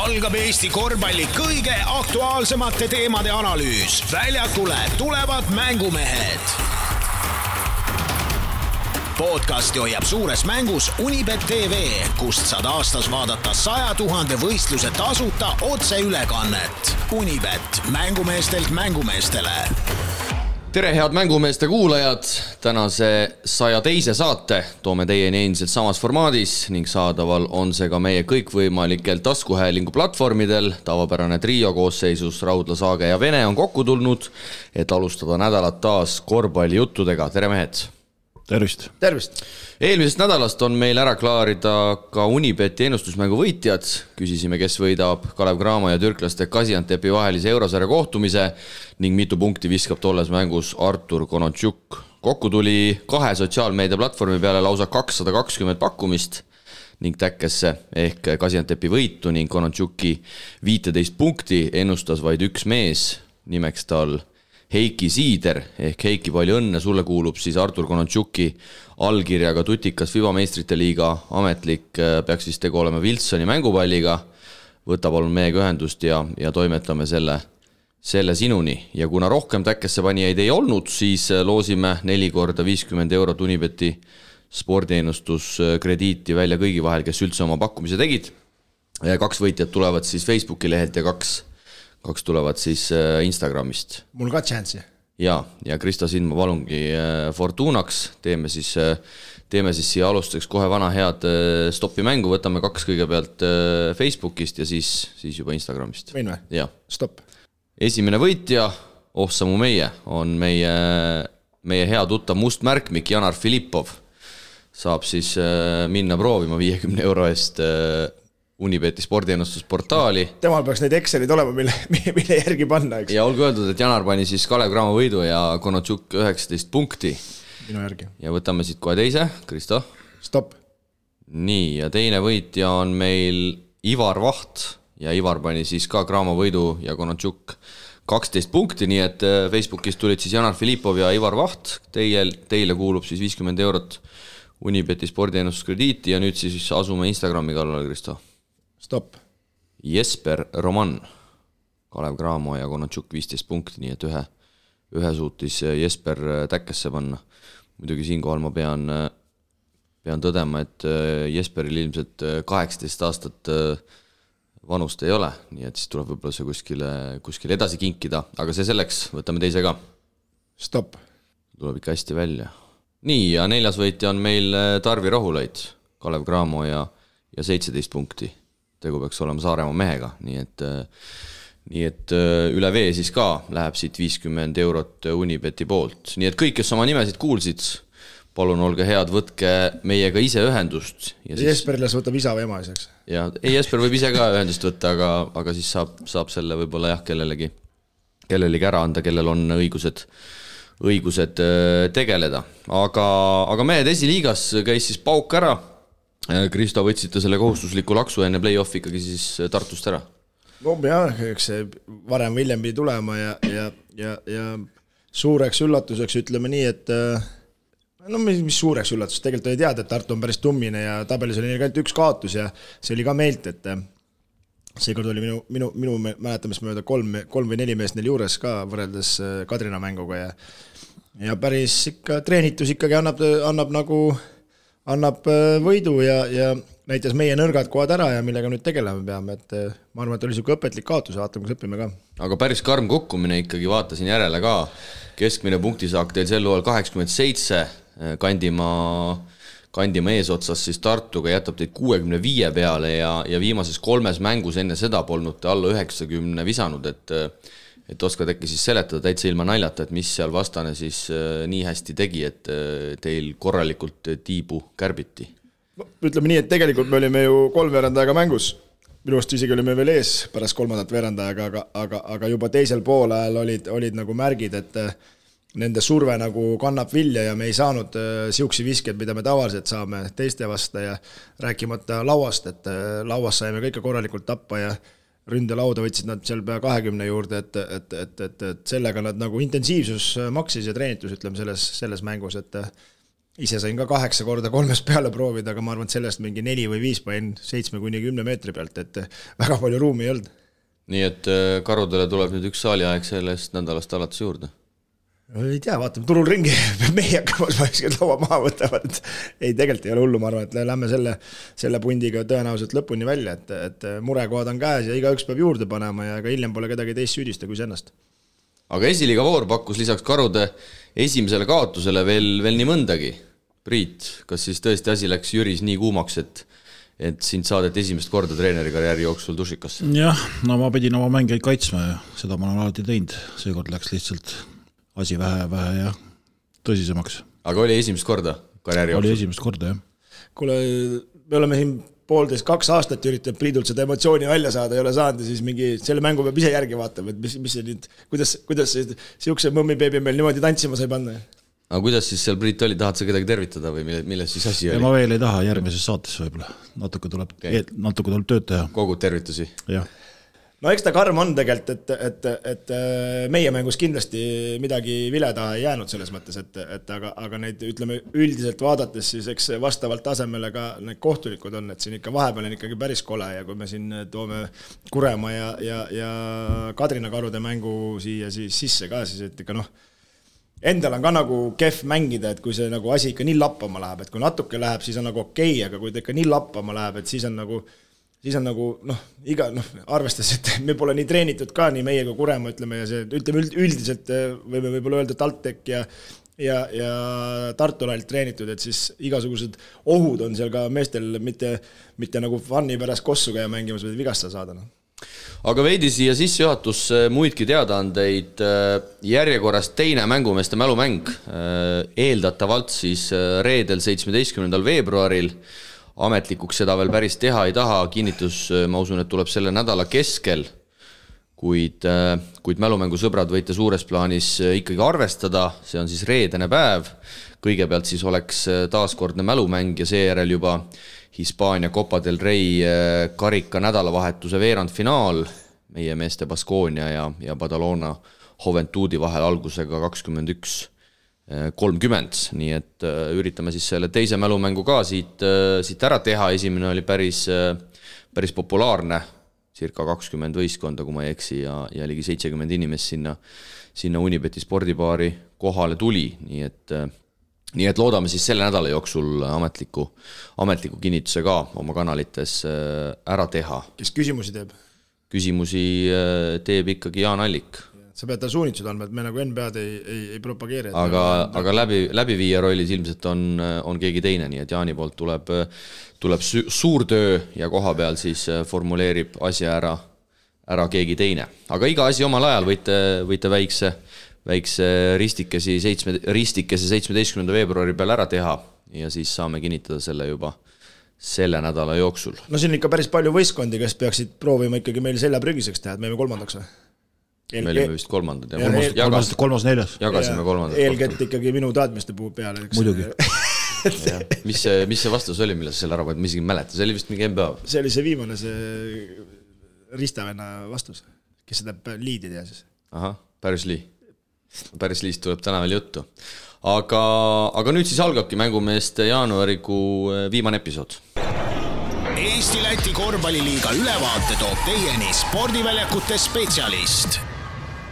algab Eesti korvpalli kõige aktuaalsemate teemade analüüs. Väljakule tulevad mängumehed. Podcasti hoiab suures mängus Unibet TV, kust saad aastas vaadata 100 000 võistluse tasuta otseülekannet. Unibet, mängumeestelt mängumeestele. Tere head mängumeeste kuulajad, tänase 102. saate toome teieni endiselt samas formaadis ning saadaval on see ka meie kõikvõimalikel taskuhäälingu platvormidel. Tavapärane trio koosseisus Raudla, Saage ja Vene on kokku tulnud, et alustada nädalat taas korvpallijuttudega. Tere mehed! Tervist! Tervist! Eelmisest nädalast on meil ära klaarida ka Unibeti ennustusmängu võitjad. Küsisime, kes võidab Kalev Cramo ja türklaste Gaziantepi vahelise eurosarja kohtumise ning mitu punkti viskab tolles mängus Artur Konontšuk. Kokku tuli 2 sotsiaalmeedia platvormi peale lausa 220 pakkumist ning täkkesse ehk Gaziantepi võitu ning Konontšuki 15 punkti ennustas vaid üks mees, nimeks tal Heiki Siider ehk Heiki, palju õnne, sulle kuulub siis Artur Konontšuki allkirjaga tutikas FIBA meistrite liiga ametlik, peaks vist tegu olema Wilsoni mängupalliga. Võta palun meiega ühendust ja toimetame selle sinuni. Ja kuna rohkem täkkesse panijaid ei olnud, siis loosime 4 korda 50 eurot Unibeti spordiennustuskrediiti välja kõigi vahel, kes üldse oma pakkumise tegid. 2 võitjad tulevad siis Facebooki lehelt ja 2 tulevad siis Instagramist. Mul ka chance'i. Ja Kristo, sind ma palungi Fortunaks. Teeme siis siia alustuseks kohe vana head stoppi mängu. Võtame 2 kõigepealt Facebookist ja siis juba Instagramist. Võin või? Ja. Stopp. Esimene võitja, Samu meie, on meie hea tuttav mustmärkmik Janar Filippov. Saab siis minna proovima 50 euro eest Unibeti spordiennustusportaali. Temal peaks neid Excelid olema, mille järgi panna, eks? Ja olgu öeldud, et Janar pani siis Kalev Cramo võidu ja Konontšuk 19 punkti. Minu järgi. Ja võtame siit kohe teise. Kristo? Stopp. Nii, ja teine võitja on meil Ivar Vaht ja Ivar pani siis ka Cramo võidu ja Konontšuk 12 punkti, nii et Facebookis tulid siis Janar Filippov ja Ivar Vaht. Teile kuulub siis 50 eurot Unibeti spordiennustuskrediiti ja nüüd siis asume Instagrami kallale, Kristo. Stopp. Jesper Roman, Kalev Cramo ja Konontšuk 15 punkti, nii et ühe suutis Jesper täkkesse panna. Muidugi siinkohal ma pean tõdema, et Jesperil ilmselt 18 aastat vanust ei ole, nii et siis tuleb võib-olla see kuskile edasi kinkida, aga see selleks, võtame teise ka. Stopp. Tuleb ikka hästi välja. Nii, ja 4. võitja on meil Tarvi Rohulait, Kalev Cramo ja 17 punkti. Tegu peaks olema Saaremaa mehega, nii et üle vee siis ka läheb siit 50 eurot Unibeti poolt. Nii et kõik, kes oma nimesid kuulsid, palun olge head, võtke meiega ise ühendust. Ja siis... Jesperile võtab isa või ema iseks. Ja, Jesper võib ise ka ühendust võtta, aga siis saab selle võib-olla kellelegi ära anda, kellel on õigused tegeleda. Aga mehed esiliigas käis siis pauk ära. Kristo, võtsite selle kohustusliku laksu enne play-off ikkagi siis Tartust ära? No jah, eks see varem hiljem pidi tulema ja suureks üllatuseks ütleme nii, et mis suureks üllatus, tegelikult oli teada, et Tartu on päris tummine ja tabelis oli neil ainult 1 kaotus ja see oli ka meilt, et seekord oli minu mäletamist mööda 3 või 4 meest neil juures ka võrreldes Kadrina mänguga ja päris ikka treenitus ikkagi annab võidu ja näitas meie nõrgad kohad ära ja millega nüüd tegelema peame, et ma arvan, et oli siuke õpetlik kaotus ja vaatame, kus õpime ka. Aga päris karm kukkumine ikkagi, vaatasin järele ka. Keskmine punktisaak teil sel luul 87, Kandimaa eesotsas siis Tartuga jätab teid 65 peale ja viimases 3 mängus enne seda polnud te alla 90 visanud, et oskad äkki siis seletada täitsa ilma naljata, et mis seal vastane siis nii hästi tegi, et teil korralikult tiibu kärbiti? Ütleme nii, et tegelikult me olime ju 3 veerandajaga mängus. Minu arust isegi olime veel ees pärast 3. veerandajaga, aga juba teisel poolajal olid nagu märgid, et nende surve nagu kannab vilja ja me ei saanud siuksi visked, mida me tavaliselt saame teiste vasta ja rääkimata lauast, et lauas saime kõike korralikult tappa ja ründelauda võtsid nad seal pea 20 juurde, et sellega nad nagu intensiivsus maksis ja treenitus, ütleme selles mängus, et ise sain ka 8 korda 3 peale proovida, aga ma arvan, et sellest mingi 4 või 5 panin 7-10 meetri pealt, et väga palju ruumi ei olnud. Nii et karudele tuleb nüüd üks saaliaeg sellest nädalast alates juurde? Ei tea, vaatame turul ringi, meie hakkama laua maha võtavad, et ei, tegelikult ei ole hullu, ma arvan, et lähme selle pundiga tõenäoliselt lõpuni välja, et murekohad on käes ja igaüks peab juurde panema ja ka hiljem pole kedagi teist süüdista kui ennast. Aga esiliiga voor pakkus lisaks karude esimesele kaotusele veel nii mõndagi. Priit, kas siis tõesti asi läks Jüris nii kuumaks, et sind saadet esimest korda treeneri karjääri jooksul dušikasse? Jah, no ma pidin oma mängijaid kaitsma ja seda ma olen alati teinud. Seekord läks lihtsalt asi vähe ja tõsisemaks. Aga oli esimest korda karjääri jooksul? Oli esimest korda, jah. Kuule, me oleme siin 1,5-2 aastat üritanud Priidult seda emotsiooni välja saada, ei ole saanud ja siis mingi selle mängu peab ise järgi vaatama, et mis see nüüd, kuidas siukse mõmmibeebi meil niimoodi tantsima sai panna. Aga kuidas siis seal Priit oli, tahad sa kedagi tervitada või milles siis asi oli? Ja ma veel ei taha järgmises saates võib-olla. Natuke tuleb tööd teha. Kogud tervitusi? Jah. No eks ta karm on tegelikult, et meie mängus kindlasti midagi vile taha ei jäänud selles mõttes, aga neid ütleme üldiselt vaadates siis eks vastavalt tasemele ka need kohtulikud on, et siin ikka vahepeal on ikkagi päris kole ja kui me siin toome Kuremaa ja Kadrina karude mängu siia siis sisse ka, siis et ikka endal on ka nagu kehv mängida, et kui see nagu asi ikka nii lappama läheb, et kui natuke läheb, siis on nagu okei, aga kui ta ikka nii lappama läheb, et siis on nagu arvestades, et me pole nii treenitud ka, nii meie kui Kuremaa, ütleme, ja see, ütleme üldiselt võime võib-olla öelda TalTech ja Tartulalt treenitud, et siis igasugused ohud on seal ka meestel mitte nagu funni pärast kossu käia mängimas, või vigastada saada. Aga veidi siia sissejuhatusse muidki teadaandeid. Järjekorras teine mängumeeste mälumäng. Eeldatavalt siis reedel 17. veebruaril. Ametlikuks seda veel päris teha ei taha. Kinnitus, ma usun, et tuleb selle nädala keskel. Kuid mälumängu sõbrad võite suures plaanis ikkagi arvestada. See on siis reedene päev. Kõigepealt siis oleks taaskordne mälumäng ja seejärel juba Hispaania Copa del Rey karika nädalavahetuse veerandfinaal meie meeste Baskonia ja Badalona Juventudi vahel algusega 21:30. Nii et üritame siis selle teise mälumängu ka siit ära teha. Esimene oli päris populaarne, circa 20 võistkonda, kui ma ei eksi, ja ligi 70 inimest sinna Unibeti spordibaari kohale tuli. Nii et loodame siis selle nädala jooksul ametliku kinnituse ka oma kanalites ära teha. Kes küsimusi teeb? Küsimusi teeb ikkagi Jaan Allik. Sa pead ta suunitsud andma, et me nagu NBA-d ei propageeri. Aga läbiviija rollis ilmselt on keegi teine, nii et Jaani poolt tuleb suur töö ja koha peal siis formuleerib asja ära keegi teine. Aga iga asi omal ajal võite väikse ristikese 17. veebruari peal ära teha ja siis saame kinnitada selle juba selle nädala jooksul. No siin on ikka päris palju võistkondi, kes peaksid proovima ikkagi meil selja prügiseks teha, et me oleme kolmandaks või? Me olime vist kolmandad. Kolmas-neljas. Jagasime kolmandad. Eelkett ikkagi minu taadmiste puhul peale. Muidugi. Mis see vastus oli, mille sa selle ära panid? Ma isegi mäleta, see oli vist mingi NBA. See oli see viimane, see Ristavenna vastus, kes seda liidi teha siis. Aha, Päris Liist tuleb täna veel juttu. Aga nüüd siis algabki mängumeeste jaanuarikuu viimane episood. Eesti-Läti korvpalliliiga ülevaate toob teieni spordiväljakute spetsialist.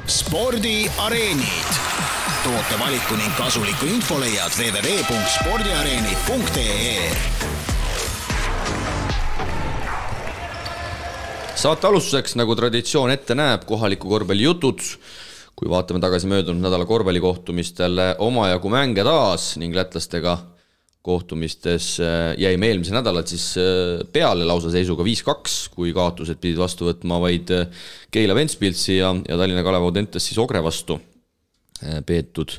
Spordiareenid. Toote valiku ning kasuliku info leiad www.spordiareenid.ee. Saate alustuseks, nagu traditsioon ette näeb, kohaliku korvpalli jutud. Kui vaatame tagasi möödunud nädala korvpallikohtumistele omajagu mänge taas ning lätlastega kohtumistes jäime eelmise nädalat siis peale lausa seisuga 5-2, kui kaotused pidid vastu võtma vaid Keila Ventspilsi ja Tallinna Kalev Audentes siis Ogre vastu peetud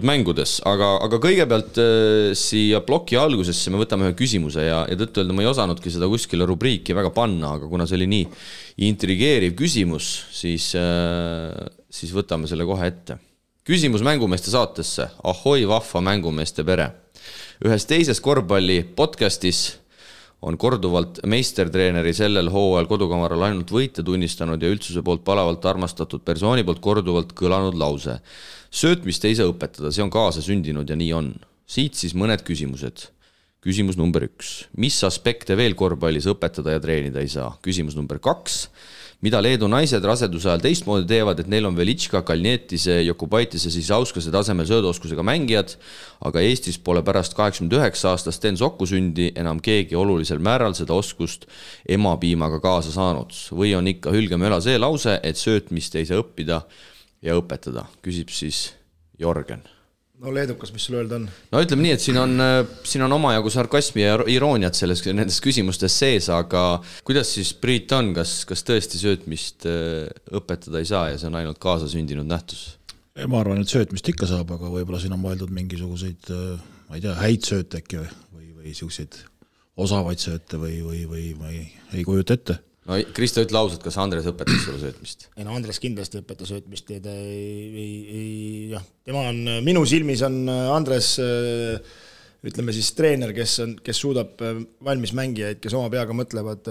mängudes. Aga kõigepealt siia ploki algusesse me võtame ühe küsimuse ja tõtt-öelda ma ei osanudki seda kuskile rubriiki väga panna, aga kuna see oli nii intrigeeriv küsimus, siis võtame selle kohe ette. Küsimus mängumeeste saatesse. Ahoi vahva mängumeeste pere. Ühes teises korvpalli podcastis on korduvalt meistertreeneri sellel hooajal kodukamaral ainult võite tunnistanud ja üldsuse poolt palavalt armastatud persooni poolt korduvalt kõlanud lause. Söötmist ei saa õpetada, see on kaasa sündinud ja nii on. siit siis mõned küsimused. Küsimus number 1. Mis aspekte veel korvpallis õpetada ja treenida ei saa? Küsimus number 2. Mida Leedu naised raseduse ajal teistmoodi teevad, et neil on Velitška, Kalnietise, Jokubaitise, Sisauskase tasemel sööduoskusega mängijad, aga Eestis pole pärast 89 aastast Sten Sokku sündi enam keegi olulisel määral seda oskust emapiimaga kaasa saanud. Või on ikka hülgemöla see lause, et söötmist ei saa õppida ja õpetada? Küsib siis Jorgen. No leedukas, mis sul öelda on? No ütleme nii, et siin on omajagu sarkasmi ja irooniat nendes küsimustes sees, aga kuidas siis Priit on, kas tõesti söötmist õpetada ei saa ja see on ainult kaasasündinud nähtus? Ma arvan, et söötmist ikka saab, aga võib-olla siin on mõeldud mingisuguseid, ma ei tea, häid sööte äkki või siukseid osavaid sööte või ei kujuta ette. No Kristo, ütle ausalt, kas Andres õpetas sulle söötmist? Ei no Andres kindlasti õpetas söötmist ja tema on, minu silmis on Andres, ütleme siis treener, kes suudab valmis mängijaid, kes oma peaga mõtlevad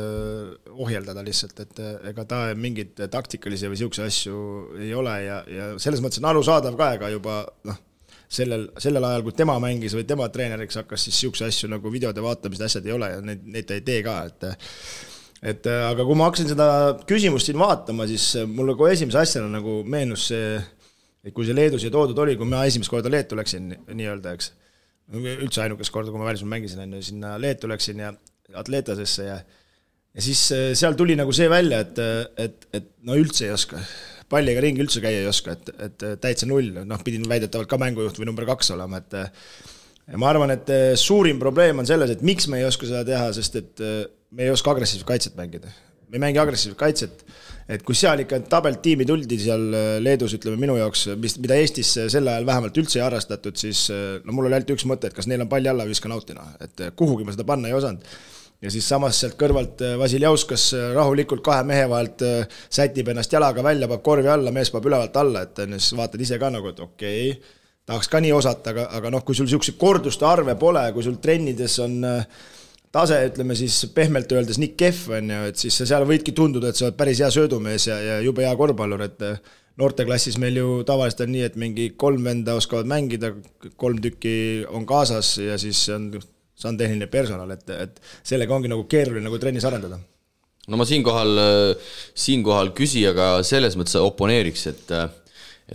ohjeldada lihtsalt, et ega ta mingid taktikalisi või siukse asju ei ole ja selles mõttes on arusaadav ka ega juba sellel ajal, kui tema mängis või tema treeneriks hakkas, siis siukse asju nagu videode vaatamist asjad ei ole ja neid ta ei tee ka, aga kui ma hakkasin seda küsimust siin vaatama, siis mulle kohe esimese asjana nagu meenus see, et kui see Leedu siia toodud oli, kui ma esimest korda Leetu läksin nii-öelda, eks, üldse ainukest korda, kui ma välismaal mängisin, sinna Leetu läksin ja Atletasesse ja siis seal tuli nagu see välja, et no üldse ei oska, palliga ringi üldse käia ei oska, et täitsa null, pidin väidetavalt ka mängujuht või number 2 olema, ja ma arvan, et suurim probleem on selles, et miks me ei oska seda teha, sest et me ei oska agressiivset kaitset mängida. Me ei mängi agressiivset kaitset, et kui seal ikka tabeltiimi tuldi seal Leedus, ütleme minu jaoks, mida Eestis sel ajal vähemalt üldse ei arrastatud, siis mul oli ainult üks mõte, et kas neil on palli alla või viska nautina, et kuhugi ma seda panna ei osanud. Ja siis samas sealt kõrvalt Vasiljauskas rahulikult 2 mehe vahelt sätib ennast jalaga välja, paneb korvi alla, mees paneb ülevalt alla, et siis vaatad ise ka nagu, et okei, tahaks ka nii osata, aga kui sul siukse korduste arve pole, kui sul trennides on tase, ütleme siis pehmelt öeldes nii kehv on ju, et siis seal võidki tunduda, et sa oled päris hea söödumees ja jube hea korvpallur, et noorteklassis meil ju tavaliselt on nii, et mingi 3 venda oskavad mängida, 3 tükki on kaasas ja siis see on tehniline personal, et sellega ongi nagu keeruline nagu trennis arendada. No ma siinkohal küsijaga selles mõttes oponeeriks, et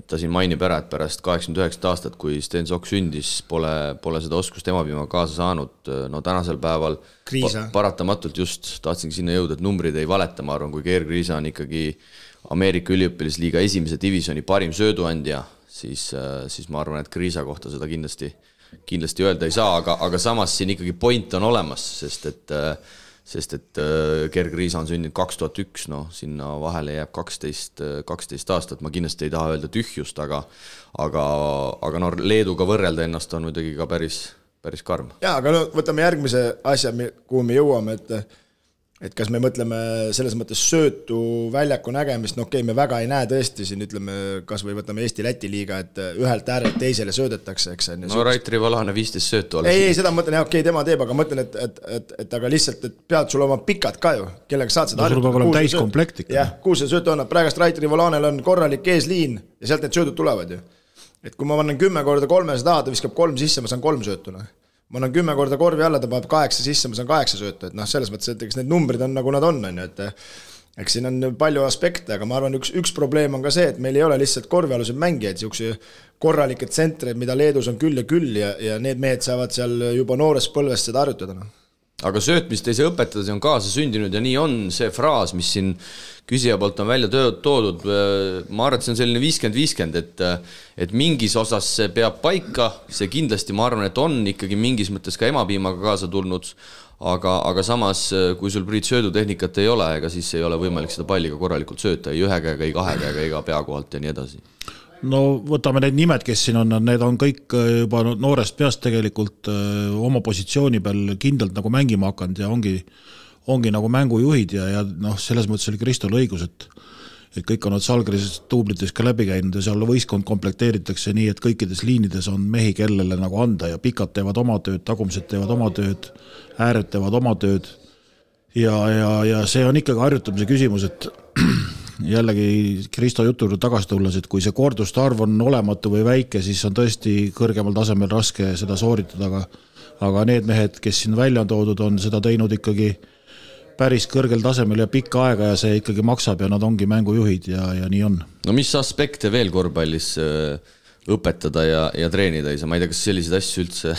ta siin mainib ära, et pärast 89 aastat, kui Sten Sokk sündis, pole seda oskust emapiima kaasa saanud. No tänasel päeval paratamatult just tahtsingi sinna jõuda, et numbrid ei valeta, ma arvan, kui Geir Kriisa on ikkagi Ameerika üliõpilasliiga 1. divisjoni parim sööduandja, siis ma arvan, et Kriisa kohta seda kindlasti öelda ei saa, aga samas siin ikkagi point on olemas, sest et Geir Kriisa on sündinud 2001, sinna vahele jääb 12 aastat, ma kindlasti ei taha öelda tühjust, aga Leeduga võrrelda ennast on muidugi ka päris karm. Jaa, aga võtame järgmise asja, kuhu me jõuame, et kas me mõtleme selles mõttes söötu väljaku nägemist, me väga ei näe tõesti siin, ütleme, kas või võtame Eesti-Läti liiga, et ühelt äärelt teisele söödetakse, eks. Raitri Valane 15 söötu alles. Ei, seda mõtlen, tema teeb, aga mõtlen, et aga lihtsalt, et pead sul oma pikad ka ju, kellega saad seda sul peab olema täiskomplekt ikka. Jah, kuhu see söötu on, praegast Raitri Valanel on korralik eesliin ja sealt need söödud tulevad ju. Et kui ma vannan 10 korda 300 taha, ta viskab 3 sisse, ma saan 3 söötuna. Ma annan 10 korda korvi alla, ta paneb 8 sisse, ma saan 8 sööta, et selles mõttes, et eks need numbrid on nagu nad on, et eks siin on palju aspekte, aga ma arvan, üks probleem on ka see, et meil ei ole lihtsalt korvialused mängijaid, siukse korralikke tsentreid, mida Leedus on küll ja need mehed saavad seal juba noores põlvest seda harjutada. Aga söötmist ei saa õpetada, see on kaasa sündinud ja nii on see fraas, mis siin küsija poolt on välja toodud. Ma arvan, et see on selline 50-50, et mingis osas see peab paika, see kindlasti ma arvan, et on ikkagi mingis mõttes ka emapiimaga kaasa tulnud, aga samas, kui sul Priit söödutehnikat ei ole, ega siis ei ole võimalik seda palliga korralikult sööta, ei 1 käega, ei 2 käega, ega pea kohalt ja nii edasi. No võtame need nimed, kes siin on, need on kõik juba noorest peast tegelikult oma positsiooni peal kindlalt nagu mängima hakanud ja ongi nagu mängujuhid ja selles mõttes oli Kristol õigus, et kõik on Salgris tuublites ka läbi käinud ja seal võistkond komplekteeritakse nii, et kõikides liinides on mehi, kellele nagu anda ja pikad teevad oma tööd, tagumised teevad oma tööd, ääred teevad oma tööd ja see on ikkagi harjutamise küsimus, et jällegi Kristo jutu juurde tagasi tulles, et kui see korduste arv on olematu või väike, siis on tõesti kõrgemal tasemel raske seda sooritada, aga need mehed, kes siin välja on toodud, on seda teinud ikkagi päris kõrgel tasemel ja pikka aega ja see ikkagi maksab ja nad ongi mängujuhid ja nii on. No mis aspekte veel korvpallis õpetada ja treenida ei saa? Ma ei tea, kas selliseid asju üldse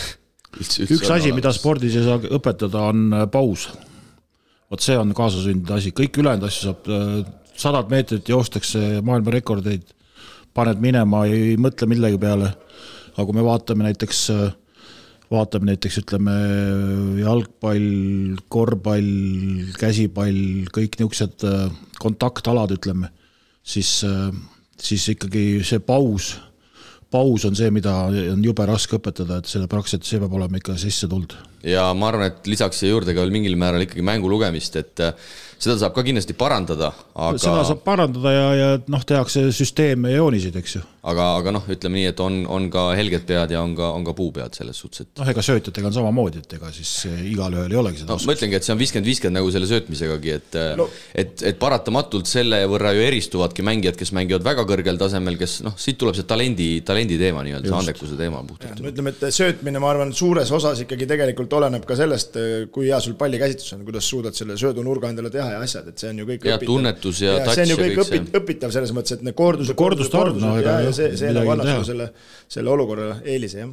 üks asi, mida spordis ei saa õpetada, on paus. Vot see on kaasasündinud asi. Kõik ülejäänud asju saab 100 meetrit joostakse maailmarekordeid, paned minema, ei mõtle millegi peale. Aga kui me vaatame näiteks ütleme jalgpall, korvpall, käsipall, kõik niisugused kontaktalad, ütleme, siis ikkagi see paus on see, mida on jube raske õpetada, et selle praktiliselt see peab olema ikka sisse tuld. Ja ma arvan, et lisaks siia juurde ka veel mingil määral ikkagi mängu lugemist, et seda saab ka kindlasti parandada. Aga... Seda saab parandada ja tehakse süsteeme ja joonisid, eks ju. Aga ütleme nii, et on ka helged pead ja on ka puupead selles suhtes. Et... ega söötjatega on samamoodi, et ega siis igal ühel ei olegi seda oskust. Ma ütlengi, et see on 50-50 nagu selle söötmisegagi, et paratamatult selle võrra ju eristuvadki mängijad, kes mängivad väga kõrgel tasemel, kes siit tuleb see talendi teema, see andekuse teema puhtalt. Ütleme, et söötmine, ma arvan, suures osas ikkagi tegelikult oleneb ka sellest, kui hea sul pallikäsitus on, kuidas suudad selle söödunurga endale teha ja asjad, et see on ju kõik õpitav. Ja tunnetus ja touch see on ju kõik õpitav selles mõttes, et need kordused ja see annab selle olukorra eelise, jah.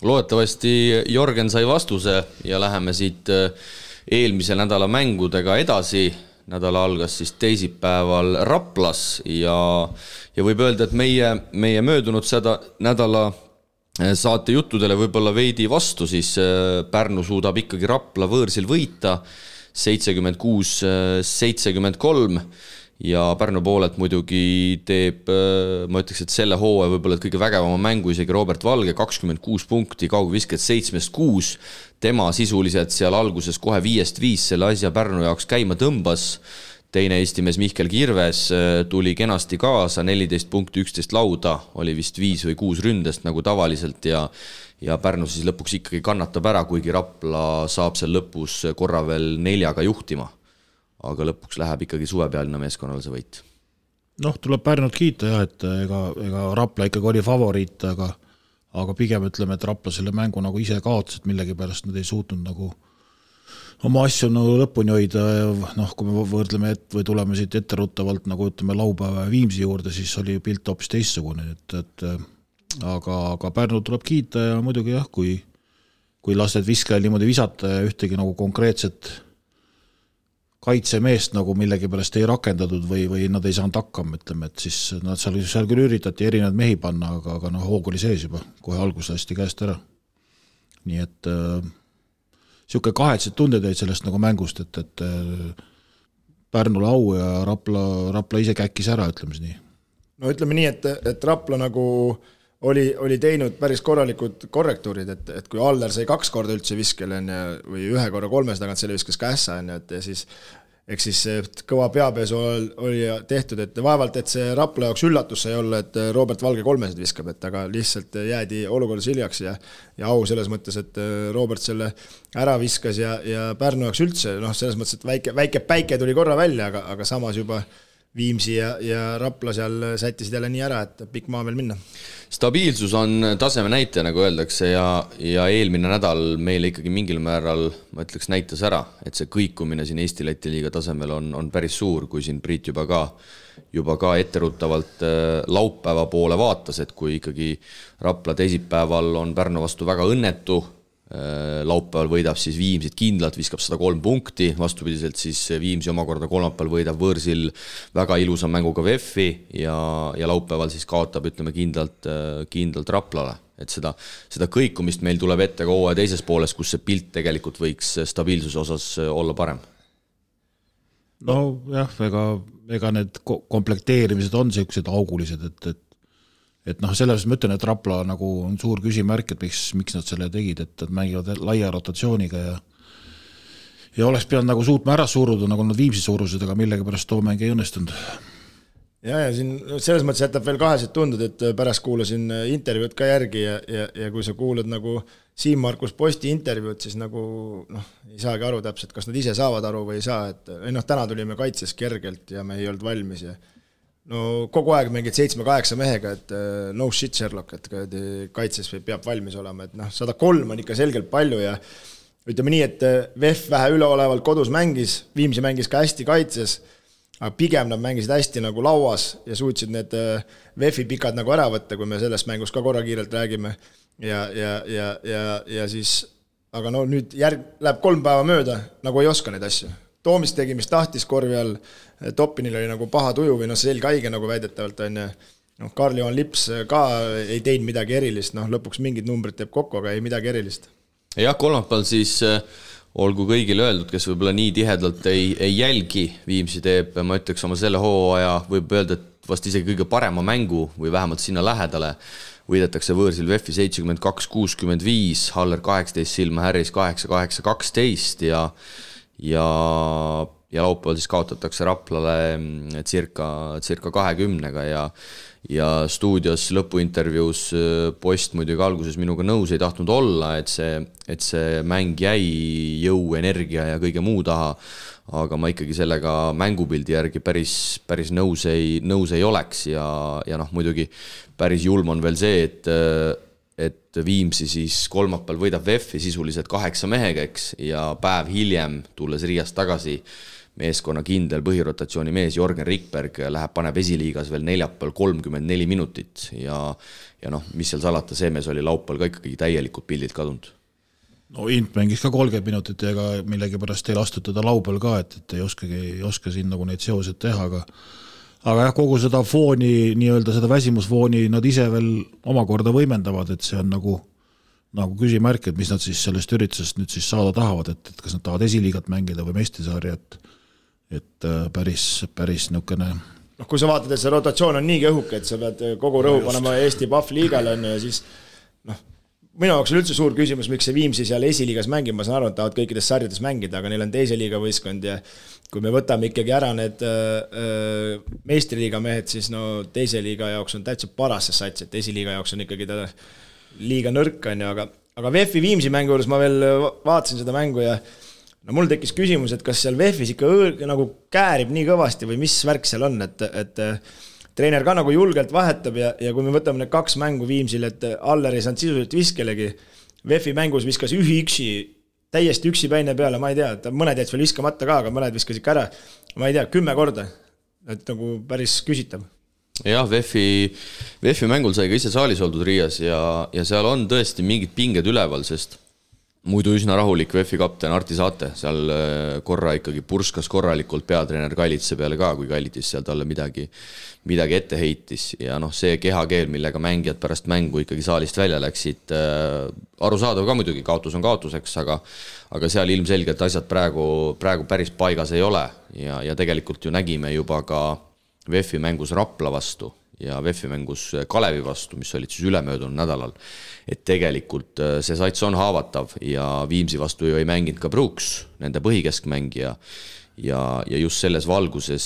Loodetavasti Jorgen sai vastuse ja läheme siit eelmise nädala mängudega edasi. Nädala algas siis teisipäeval Raplas ja võib öelda, et meie möödunud seda nädala saate juttudele võib-olla veidi vastu, siis Pärnu suudab ikkagi Rapla võõrsil võita 76-73 ja Pärnu poolelt muidugi teeb, ma ütleks, et selle hooaja võib-olla kõige vägevama mängu isegi Robert Valge, 26 punkti, kaugvisked 7-6, tema sisuliselt seal alguses kohe 5-5 selle asja Pärnu jaoks käima tõmbas. Teine Eesti mees Mihkel Kirves tuli kenasti kaasa, 14 punkti, 11 lauda, oli vist 5 või 6 ründest nagu tavaliselt ja Pärnu siis lõpuks ikkagi kannatab ära, kuigi Rapla saab seal lõpus korra veel 4 juhtima. Aga lõpuks läheb ikkagi suvepealina meeskonnal see võit. Tuleb Pärnut kiita jah, et ega Rapla ikkagi oli favoriit, aga pigem ütleme, et Rapla selle mängu nagu ise kaotas, et millegi pärast nad ei suutnud nagu oma asju nagu lõpuni hoida. Kui me võrdleme või tuleme siit etteruttavalt nagu ütleme laupäeva Viimsi juurde, siis oli pilt hoopis teistsugune, aga Pärnu tuleb kiita ja muidugi jah, kui lasted viskajal niimoodi visata ja ühtegi nagu konkreetset kaitsemeest nagu millegi pärast ei rakendatud või nad ei saanud hakkama, ütleme, et siis nad seal küll üritati erinevad mehi panna, aga hoog oli sees juba, kohe algus lasti käest ära. Nii et siuke kahetsed tunded jäid sellest nagu mängust, et Pärnule au ja Rapla ise käkkis ära, ütleme nii. No ütleme nii, et Rapla nagu oli teinud päris korralikud korrektuurid, et kui Aller sai 2 korda üldse viskel või 1 korra 3 tagant selle viskas kässa, et siis kõva peapesu oli tehtud, et vaevalt, et see Rapla jaoks üllatus sai olla, et Robert Valge 3 viskab, et aga lihtsalt jäädi olukordas hiljaks ja au selles mõttes, et Robert selle ära viskas ja Pärnu jaoks üldse, selles mõttes, et väike päike tuli korra välja, aga samas juba Viimsi ja Rapla seal sättisid jälle nii ära, et pikk maa veel minna. Stabiilsus on taseme näitaja, nagu öeldakse, ja eelmine nädal meile ikkagi mingil määral, ma ütleks, näitas ära, et see kõikumine siin Eesti-Läti liiga tasemel on päris suur, kui siin Priit juba ka etteruttavalt laupäeva poole vaatas, et kui ikkagi Rapla teisipäeval on Pärnu vastu väga õnnetu, laupäeval võidab siis Viimsit kindlalt, viskab 103 punkti, vastupidiselt siis Viimsi omakorda kolmapäeval võidab võõrsil väga ilusa mänguga VF-i ja laupäeval siis kaotab, ütleme, kindlalt Raplale. Et seda kõikumist meil tuleb ette ka hooaja teises pooles, kus see pilt tegelikult võiks stabiilsuse osas olla parem. No jah, ega need komplekteerimised on sellised augulised, et selles ma ütlen, et Rapla nagu on suur küsimärk, et miks nad selle tegid, et mängivad laia rotatsiooniga ja oleks pidanud nagu suutma ära suruda, nagu nad Viimsi suurused, aga millegi pärast too mäng ei õnnestunud. ja siin selles mõttes jätab veel kaheselt tundud, et pärast kuulasin intervjuud ka järgi ja kui sa kuulad nagu Siim-Markus Posti intervjuud, siis nagu ei saagi aru täpselt, kas nad ise saavad aru või ei saa, et täna tulime kaitses kergelt ja me ei olnud valmis ja kogu aeg mingid 7-8 mehega, et no shit Sherlock, et kaitses peab valmis olema, et 103 on ikka selgelt palju ja ütleme nii, et VEF vähe üleolevalt kodus mängis, Viimsi mängis ka hästi kaitses, aga pigem nad mängisid hästi nagu lauas ja suutsid need VEF-i pikad nagu ära võtta, kui me sellest mängus ka korra kiirelt räägime ja siis, aga nüüd läheb 3 päeva mööda, nagu ei oska neid asju. Toomist tegi, mis tahtis korvi all, Toppinil oli nagu paha tuju või selge haige nagu väidetavalt on ja Karl-Johan Lips ka ei teinud midagi erilist, lõpuks mingid numbrid teeb kokku, aga ei midagi erilist. Jah, kolmapäeval siis olgu kõigile öeldud, kes võib-olla nii tihedalt ei jälgi Viimsi teeb, ma ütleks oma selle hooaja, võib öelda, et vast isegi kõige parema mängu või vähemalt sinna lähedale võidetakse võõrsil VEF-i 72-65, Haller 18, Silma Harris 8-8-12 ja laupäeval siis kaotatakse Raplale circa 20-ga ja stuudios lõpuintervjuus Post muidugi alguses minuga nõus ei tahtnud olla, et see mäng jäi jõu, energia ja kõige muu taha, aga ma ikkagi sellega mängupildi järgi päris nõus ei oleks ja muidugi päris julm on veel see, et Viimsi siis kolmapäeval võidab VEF-i sisuliselt 8 mehega, eks, ja päev hiljem tulles Riiast tagasi meeskonna kindel põhirotatsiooni mees Jorgen Rikberg paneb esiliigas veel neljapäeval 34 minutit ja mis seal salata, see mees oli laupäeval ka ikkagi täielikult pildilt kadunud. Int mängis ka 30 minutit ja ega millegi pärast ei lastud teda laupäeval ka, et ei oska siin nagu neid seosed teha, aga kogu seda fooni, nii-öelda seda väsimusfooni nad ise veel omakorda võimendavad, et see on nagu küsimärk, et mis nad siis sellest üritusest nüüd siis saada tahavad, et kas nad tahavad esiliigat mängida või meistrusarja, et päris nukene. Kui sa vaatad, et see rotatsioon on nii õhuke, et sa pead kogu rõhu panema Eesti Pahvliigale ja siis minu jaoks on üldse suur küsimus, miks see Viimsi seal esiliigas mängib, ma saan aru, et tahavad kõikides sarjades mängida, aga neil on teise liiga võistkond ja kui me võtame ikkagi ära need meistriliiga mehed, siis teise liiga jaoks on täitsa paras see sats, et esiliiga jaoks on ikkagi ta liiga nõrk, aga VEF-i Viimsi mängu juures ma veel vaatasin seda mängu ja mul tekkis küsimus, et kas seal VEF-is ikka nagu käärib nii kõvasti või mis värk seal on, et treener ka nagu julgelt vahetab ja kui me võtame need 2 mängu Viimsil, et Aller ei saanud sisuliselt viskelegi, VEF-i mängus viskas täiesti üksipäine peale, ma ei tea, et mõned jäid veel viskamata ka, aga mõned viskas ikka ära, ma ei tea, 10 korda, et nagu päris küsitav. Jah, VEF-i mängul sai ka ise saalis oldud Riias ja seal on tõesti mingid pinged üleval, sest muidu üsna rahulik VEF-i kapten Arti Saate, seal korra ikkagi purskas korralikult peatreener Kallitse peale ka, kui Kallitis seal talle midagi ette heitis ja see kehakeel, millega mängijad pärast mängu ikkagi saalist välja läksid, arusaadav ka muidugi, kaotus on kaotuseks, aga seal ilmselgelt asjad praegu päris paigas ei ole ja tegelikult ju nägime juba ka VEF-i mängus Rapla vastu ja VEF-i mängus Kalevi vastu, mis olid siis ülemöödunud nädalal, et tegelikult see sats on haavatav ja Viimsi vastu ju ei mänginud ka Brooks, nende põhikeskmängija ja just selles valguses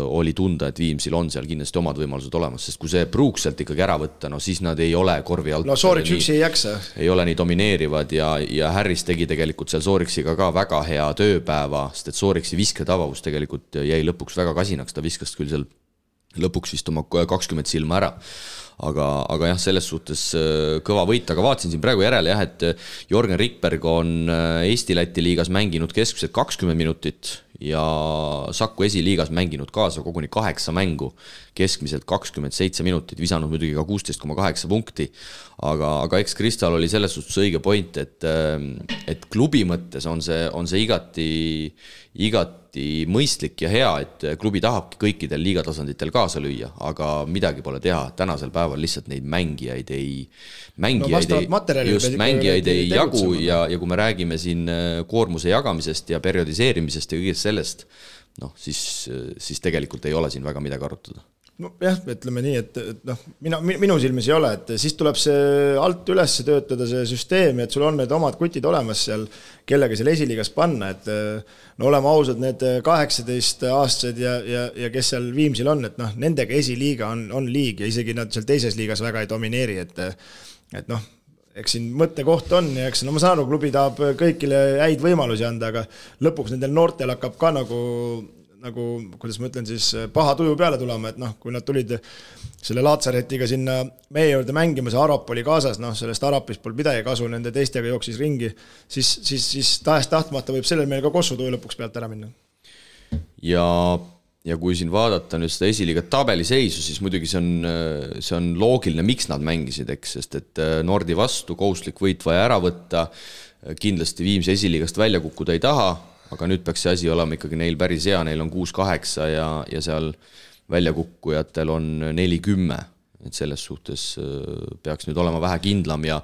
oli tunda, et Viimsil on seal kindlasti omad võimalused olemas, sest kui see Brooks sealt ikkagi ära võtta, siis nad ei ole korvi alt. Sooriks üksi ei jaksa. Ei ole nii domineerivad ja Harris tegi tegelikult seal Sooriksiga ka väga hea tööpäeva, sest et Sooriksi visketabavus tegelikult jäi lõpuks väga kasinaks, ta viskas küll seal lõpuks vist oma 20 silma ära. Aga jah, selles suhtes kõva võit, aga vaatasin siin praegu järele jah, et Jorgen Rikberg on Eesti-Läti liigas mänginud keskmiselt 20 minutit ja Saku esiliigas mänginud kaasa koguni 8 mängu, keskmiselt 27 minutit, visanud muidugi ka 16,8 punkti, aga eks Kristal oli selles suhtes õige point, et klubi mõttes on see igati mõistlik ja hea, et klubi tahabki kõikidel liigatasanditel kaasa lüüa, aga midagi pole teha, tänasel päeval lihtsalt neid mängijaid ei jagu ja kui me räägime siin koormuse jagamisest ja periodiseerimisest ja kõigest sellest, siis tegelikult ei ole siin väga midagi arutada. no jah, ütleme nii, et noh, minu silmis ei ole, et siis tuleb see alt üles töötada see süsteem, et sul on need omad kutid olemas seal, kellega seal esiliigas panna, et no oleme ausad, need 18-aastased ja kes seal Viimsil on, et noh, nendega esiliiga on liig ja isegi nad seal teises liigas väga ei domineeri, et noh, eks siin mõttekoht on ja eks no ma saan aru, klubi tahab kõigile häid võimalusi anda, aga lõpuks nendel noortel hakkab ka nagu, kuidas ma ütlen siis, paha tuju peale tulema, et noh, kui nad tulid selle Laatsaretiga sinna meie juurde mängima, see Arap oli kaasas, noh, sellest Arapist pole midagi kasu, nende teistega jooksis ringi, siis tahes tahtmata võib sellel meil ka kossutuju lõpuks pealt ära minna. Ja kui siin vaadata nüüd seda esiliiga tabeliseisu, siis muidugi see on loogiline, miks nad mängisid, eks, sest et Nordi vastu kohustuslik võit vaja ära võtta, kindlasti Viimsi esiliigast välja kukkuda ei taha, aga nüüd peaks see asi olema ikkagi neil päris hea, neil on 6-8 ja seal väljakukkujatel on 4-10, et selles suhtes peaks nüüd olema vähe kindlam ja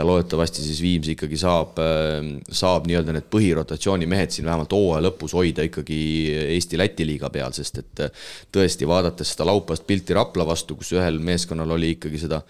loodetavasti siis Viimsi ikkagi saab nii-öelda need põhirotatsiooni mehed siin vähemalt hooaja lõpus hoida ikkagi Eesti-Läti liiga peal, sest et tõesti vaadates seda laupast pilti Rapla vastu, kus ühel meeskonnal oli ikkagi seda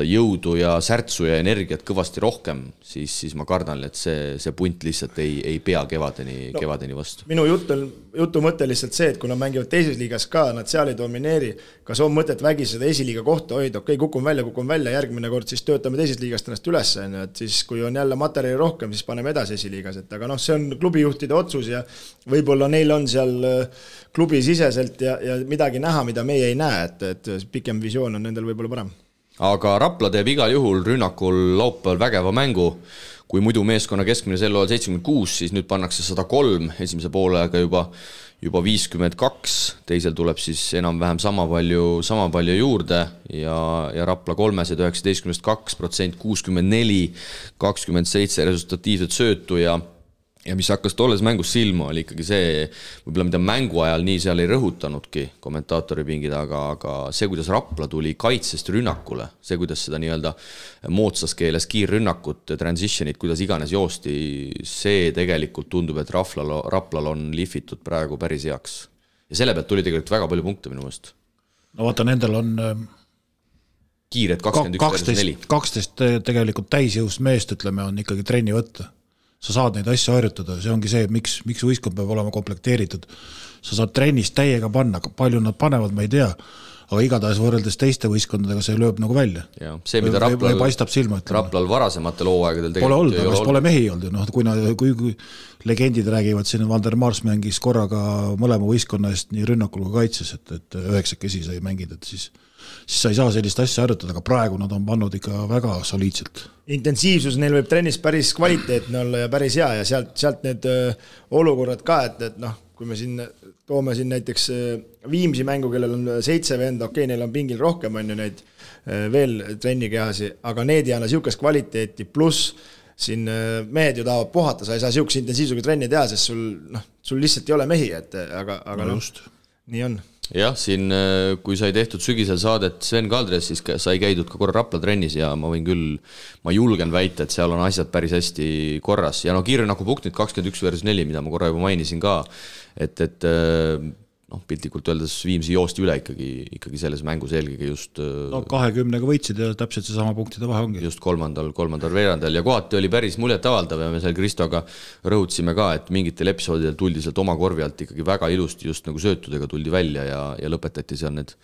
jõudu ja särtsu ja energiat kõvasti rohkem, siis ma kardan, et see punt lihtsalt ei pea kevadeni vastu. Minu jutu mõte lihtsalt see, et kui nad mängivad teises liigas ka, nad seal ei domineeri, kas on mõtet vägi seda esiliiga kohta hoida, okei, kukun välja, järgmine kord siis töötame teises liigast ennast üles, et siis kui on jälle materjali rohkem, siis paneme edasi esiliigas, et aga noh, see on klubijuhtide otsus ja võib-olla neil on seal klubi siseselt ja midagi näha, mida meie ei näe, et pikem visioon on nendel võib-olla parem. Aga Rapla teeb igal juhul rünnakul laupäeval vägeva mängu, kui muidu meeskonna keskmine sel ajal 76, siis nüüd pannakse 103, esimese poolega juba 52, teisel tuleb siis enam-vähem sama palju juurde ja Rapla 319 2%, 64, 27 resultatiivset söötu ja mis hakkas tolles mängus silma, oli ikkagi see, võib-olla mida mängu ajal nii seal ei rõhutanudki kommentaatori pingid, aga see, kuidas Rapla tuli kaitsest rünnakule, see, kuidas seda nii-öelda moodsas keeles kiirrünnakut, transitionit, kuidas iganes joosti, see tegelikult tundub, et Raplal on lihvitud praegu päris heaks. Ja selle pealt tuli tegelikult väga palju punkte minu mõist. No vaata, nendel on kiired 21-4. 12 tegelikult täisjõust meest, ütleme, on ikkagi trenni võtta. Sa saad neid asju harjutada, see ongi see, miks võistkond peab olema komplekteeritud. Sa saad trennis täiega panna, palju nad panevad, ma ei tea, aga igatahes võrreldes teiste võistkondadega see lööb nagu välja. Ja, see, mida Raplal varasematel hooaegadel pole olnud, aga pole mehi olnud. Kui legendid räägivad, siin Vander Mars mängis korraga mõlema võistkonna eest nii rünnakul kui kaitses, et 9 kesi sai mängida, et siis sa ei saa sellist asja harjutada, aga praegu nad on pannud ikka väga soliidselt. Intensiivsus neil võib trennis päris kvaliteetne olla ja päris hea ja sealt need olukorrad ka, et noh, kui me siin toome siin näiteks Viimsi mängu, kellel on 7 venda, okei, neil on pingil rohkem, on ju neid veel trennikehasi, aga need ei anna siukest kvaliteeti, pluss siin mehed ju tahavad puhata, sa ei saa siukse intensiivsusega trenni teha, sest sul lihtsalt ei ole mehi, aga no, just. Nii on. Jah, siin kui sai tehtud sügisel saadet Sven Kaldres, siis sai käidud ka korra Rapla trennis ja ma julgen väita, et seal on asjad päris hästi korras. Ja no kiirrünnaku punktid 21-4, mida ma korra juba mainisin ka, et piltlikult öeldes Viimsi joosti üle ikkagi selles mängus eelkõige just 20-ga võitsid ja täpselt see sama punktide vahe ongi. Just kolmandal veerandal ja kohati oli päris muljetavaldav ja me seal Kristoga rõhutasime ka, et mingitel episoodidel tuldi sealt oma korvi alt ikkagi väga ilusti just nagu söötudega tuldi välja ja lõpetati seal need.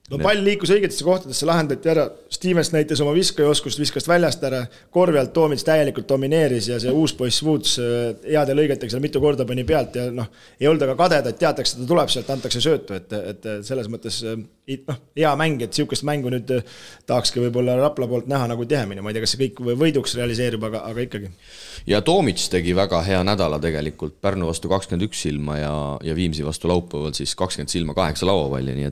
No pall liikus õigetesse kohtadesse, lahendati ära, Stevens näitas oma viskajoskust, viskas väljast ära, korvi alt Toomits täielikult domineeris ja see uus poiss Woods heade lõigetega seal mitu korda pani pealt ja ei olnud aga kadeda, et teatakse, et ta tuleb sealt, antakse söötu, et selles mõttes hea mäng, et siukest mängu nüüd tahakski võib-olla Rapla poolt näha nagu tihemini, ma ei tea, kas see kõik võiduks realiseerib, aga ikkagi. Ja Toomits tegi väga hea nädala tegelikult, Pärnu vastu 21 silma ja Viimsi vastu laupäeval siis 20 silma 8 lauapalli, nii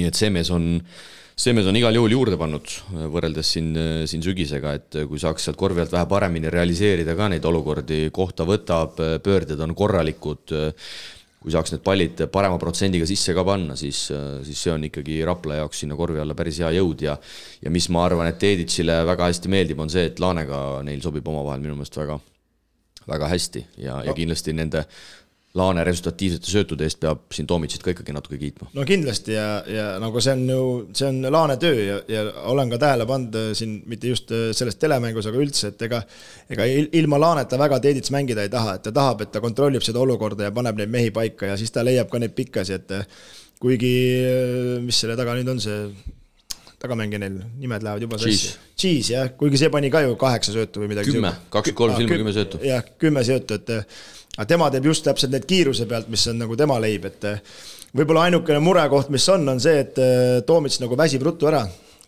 et see mees on igal juhul juurde pannud võrreldes siin sügisega, et kui saaks sealt korvi alt vähe paremini realiseerida ka neid olukordi, kohta võtab, pöörded on korralikud, kui saaks need pallid parema protsendiga sisse ka panna, siis see on ikkagi Rapla jaoks sinna korvi alla päris hea jõud ja mis ma arvan, et Teeditsile väga hästi meeldib, on see, et Laanega neil sobib omavahel minu meelest väga, väga hästi ja kindlasti nende Laane resultatiivsete söötude eest peab siin Toomicit ka ikkagi natuke kiitma. No kindlasti ja nagu see on Laane töö ja olen ka tähele pannud siin mitte just selles telemängus, aga üldse, et ega ilma Laaneta väga Teedits mängida ei taha, et ta tahab, et ta kontrollib seda olukorda ja paneb neid mehi paika ja siis ta leiab ka neid pikkasi, et kuigi, mis selle taga nüüd on see tagamängi neil, nimed lähevad juba Cheese, jah, kuigi see pani ka ju 8 söötu või midagi. 23 silma 10 söötu. Jah, 10 söötu, aga tema teeb just täpselt need kiiruse pealt, mis on nagu tema leib, et võib-olla ainukene murekoht, mis on see, et Toomits nagu väsib ruttu ära.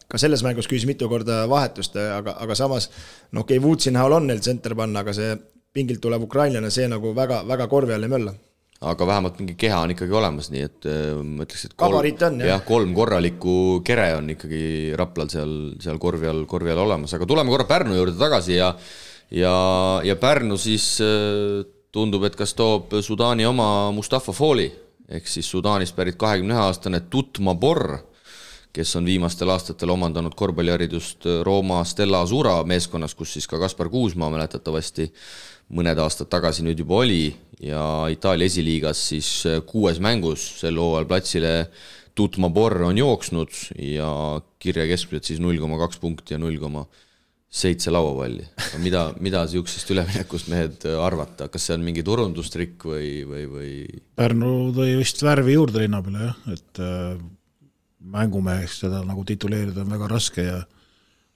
Ka selles mängus küsis mitu korda vahetust, aga samas, okei, Woodsi näol on neil tsenter panna, aga see pingilt tulev ukrainlane, see nagu väga, väga korvi all ei mölla. Aga vähemalt mingi keha on ikkagi olemas, nii et ma ütleks, et kabariit on, jah, 3 korralikku kere on ikkagi Raplal seal korvi all olemas, aga tuleme korra Pärnu juurde tagasi ja Pärnu siis tundub, et kas toob Sudaani oma Mustafa Foli, ehk siis Sudaanist pärit 21-aastane Tutma Borr, kes on viimastel aastatel omandanud korvpalliharidust Rooma Stella Azura meeskonnas, kus siis ka Kaspar Kuusmaa mäletatavasti mõned aastad tagasi nüüd juba oli ja Itaalia esiliigas siis 6 mängus sel hooajal platsile Tutma Borr on jooksnud ja kirja keskmiselt siis 0,2 punkti ja 0,7 lauapalli. Mida siuksest üleminekust mehed arvata? Kas see on mingi turundustrikk või? Pärnu tõi vist värvi juurde linna peale, jah, et mängumeheks seda nagu tituleerida on väga raske ja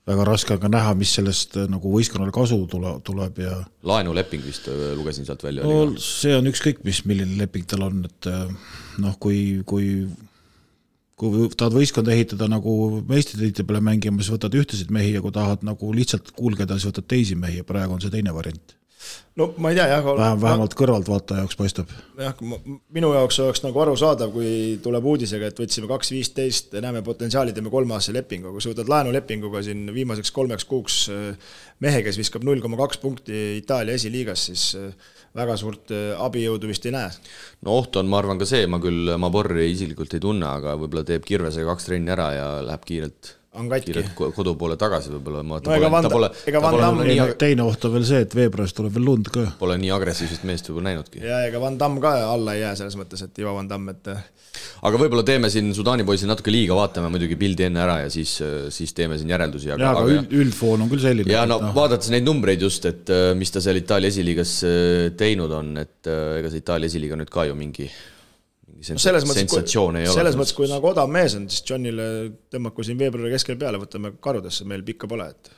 väga raske on ka näha, mis sellest nagu võistkonnale kasu tuleb ja laenuleping vist lugesin sealt välja. No, see on ükskõik, milline leping tal on, et kui tahad võistkonda ehitada nagu meistritiitli peale mängima, siis võtad ühtesid mehi ja kui tahad nagu lihtsalt kuulgeda, siis võtad teisi mehi ja praegu on see teine variant. No ma ei tea, jah. Vähemalt kõrvalt vaata jaoks paistab. Jah, minu jaoks oleks nagu aru saadav, kui tuleb uudisega, et võtsime 2.15, näeme potentsiaali, teeme 3-aastase lepingu. Kui sa võtad laenulepinguga siin viimaseks 3 kuuks mehe, kes viskab 0,2 punkti Itaalia esiliigas, siis väga suurt abijõudu vist ei näe. No oht on, ma arvan ka see, ma Borri isiklikult ei tunne, aga võib-olla teeb Kirvesega 2 trenni ära ja läheb kiirelt kodu poole tagasi võib-olla. Teine oht on veel see, et veebruaris tuleb veel lund ka. Pole nii agressiivsest meest võib-olla näinudki. Ja ega Van Damme ka alla ei jää selles mõttes, et Ivo Van Damme, et aga võib-olla teeme siin Sudaani poisil natuke liiga, vaatame muidugi pildi enne ära ja siis teeme siin järeldusi. Aga üldfoon on küll selline. Ja vaadates neid numbreid just, et mis ta seal Itaalia esiliigas teinud on, et ega see Itaalia esiliiga nüüd ka ju mingi sensatsioon ei ole. Selles mõttes, kui nagu odav mees on, siis Johnile tõmmaku siin veebruari keskel peale, võtame karudesse, meil pikka pole, et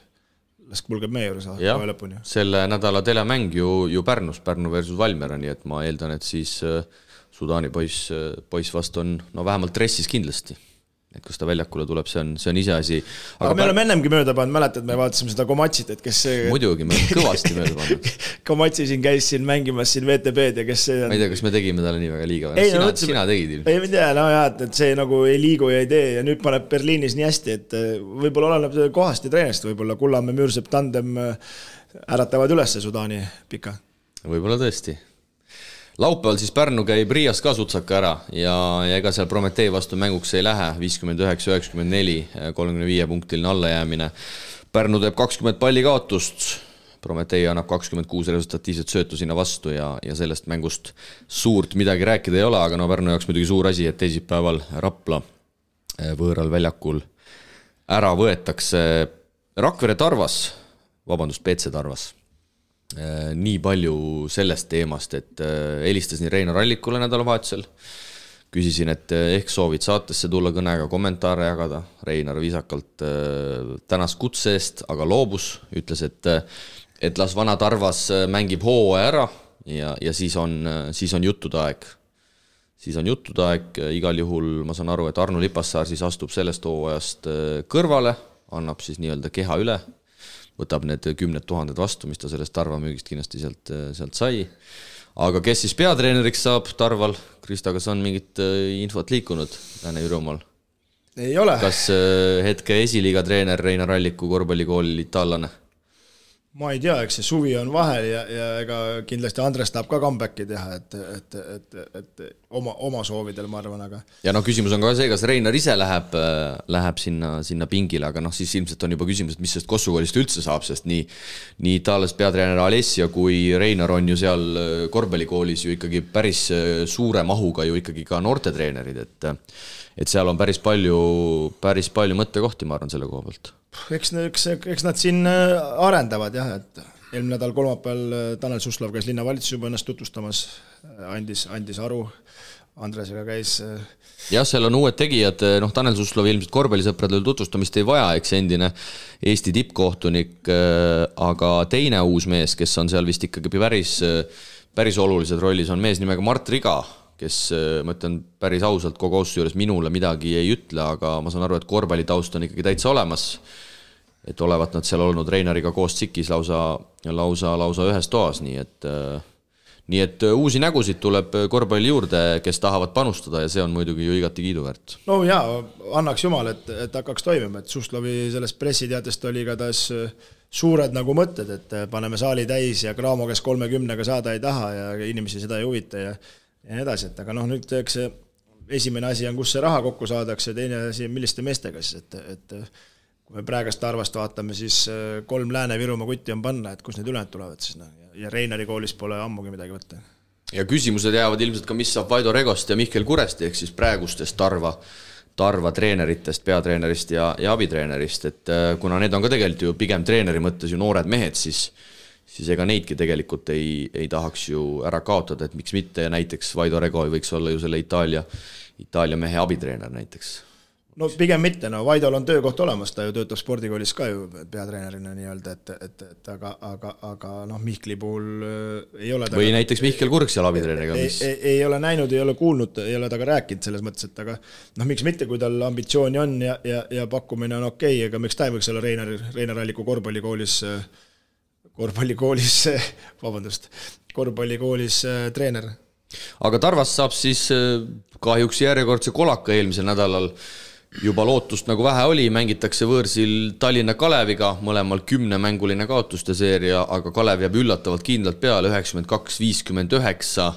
las kulgeb meie juures lõpuni. Selle nädala telemäng ju Pärnus, Pärnu versus Valmiera, nii et ma eeldan, et siis Sudaani poiss vast on vähemalt dressis kindlasti. Et kus ta väljakule tuleb, see on ise asi. Aga me oleme ennemgi mööda pannud, mäletad, me vaatasime seda Komatsit, et kes see muidugi, me oleme kõvasti mööda pannud. Komatsi siin käis siin mängimas siin VTB-d ja kes see on. Ma ei tea, kas me tegime talle nii väga liiga. Sina tegid. Ei tea, et see nagu ei liigu ja ei tee ja nüüd paneb Berliinis nii hästi, et võib-olla oleneb kohast ja treenest, võib-olla Kullamäe Müürsepp tandem äratavad üles Sudaani pika. Võib-olla tõesti. Laupäeval siis Pärnu käib Riias ka sutsaka ära ja ega seal Prometee vastu mänguks ei lähe, 59-94, 35 punktiline allajäämine. Pärnu teeb 20 palli kaotust, Prometee annab 26 resultatiivset söötu sinna vastu ja sellest mängust suurt midagi rääkida ei ole, aga Pärnu jaoks muidugi suur asi, et teisipäeval Rapla võõral väljakul ära võetakse Rakvere Tarvas, PC Tarvas. Nii palju sellest teemast, et helistasin Reinar Allikule nädalavahetusel, küsisin, et ehk soovid saatesse tulla kõnega kommentaare jagada. Reinar viisakalt tänas kutse eest, aga loobus, ütles, et las vana Tarvas mängib hooaja ära ja siis on juttude aeg. Siis on juttude aeg, igal juhul ma saan aru, et Arno Lipassaar siis astub sellest hooajast kõrvale, annab siis nii-öelda keha üle, võtab need 10 000 vastu, mis ta sellest Tarva müügist kindlasti sealt sai. Aga kes siis peatreeneriks saab Tarval? Krista, kas on mingit infot liikunud Lääne-Virumaal? Ei ole. Kas hetke esiliiga treener Reinar Alliku korvpallikoolil itaallane? Ma ei tea, eks see suvi on vahel ja ega kindlasti Andres tahab ka comebacki teha, et oma soovidel, ma arvan, aga... Ja küsimus on ka see, kas Reinar ise läheb sinna pingile, aga siis ilmselt on juba küsimus, et mis sellest Kossukoolist üldse saab, sest nii Itaalias peatreener Alessia kui Reinar on ju seal korvpallikoolis ju ikkagi päris suure mahuga ju ikkagi ka noortetreenerid, et seal on päris palju mõttekohti, ma arvan, selle koha pealt. Eks nad siin arendavad jah, et eelmine nädal kolmapäeval Tanel Suslov käis linnavalitsus juba ennast tutvustamas, andis aru, Andresega käis. Jah, seal on uued tegijad, Tanel Suslov ilmselt korvpallisõpradel tutvustamist ei vaja, eks endine Eesti tippkohtunik, aga teine uus mees, kes on seal vist ikkagi päris olulised rollis, on mees nimega Mart Riga, kes, ma ütlen päris ausalt, kogu ausse juures minule midagi ei ütle, aga ma saan aru, et korvpallitaust on ikkagi täitsa olemas, et olevat nad seal olnud Reinariga koos tsikis lausa ühes toas, nii et uusi nägusid tuleb korvpalli juurde, kes tahavad panustada ja see on muidugi ju igati kiiduväärt. No jaa, annaks jumal, et hakkaks toimima, et Suslovi sellest pressiteatest oli ka taas suured nagu mõtted, et paneme saali täis ja Graamo, kes 30-ga saada ei taha ja inimesi seda ei huvita ja nii edasi, et aga nüüd eks esimene asi on, kus see raha kokku saadakse, teine asi on, milliste meestega siis, et kui me praegast Tarvast vaatame, siis 3 Lääne-Virumaa kutti on panna, et kus need ülejäänud tulevad siis, ja Reinari koolis pole ammugi midagi võtta. Ja küsimused jäävad ilmselt ka, mis saab Vaido Regost ja Mihkel Kuresti, ehk siis praegustest Tarva treeneritest, peatreenerist ja abitreenerist, et kuna need on ka tegelikult ju pigem treeneri mõttes ju noored mehed, siis ega neidki tegelikult ei tahaks ju ära kaotada, et miks mitte ja näiteks Vaido Rego võiks olla ju selle Itaalia mehe abitreener näiteks. No pigem mitte, Vaidol on töökoht olemas, ta ju töötab spordikoolis ka ju peatreenerina nii-öelda, aga Mihkli puhul ei ole ta... Või näiteks Mihkel Kurg seal abitreeneriga, mis... Ei ole näinud, ei ole kuulnud, ei ole ta ka rääkinud selles mõttes, et aga miks mitte, kui tal ambitsiooni on ja pakkumine on okei, aga miks ta ei võiks olla Reinar Alliku korvpallikoolis treener. Aga Tarvast saab siis kahjuks järjekordse kolaka eelmisel nädalal juba lootust nagu vähe oli, mängitakse võõrsil Tallinna Kaleviga, mõlemal 10-mänguline kaotuste seeria, aga Kalev jääb üllatavalt kindlalt peale 92-59,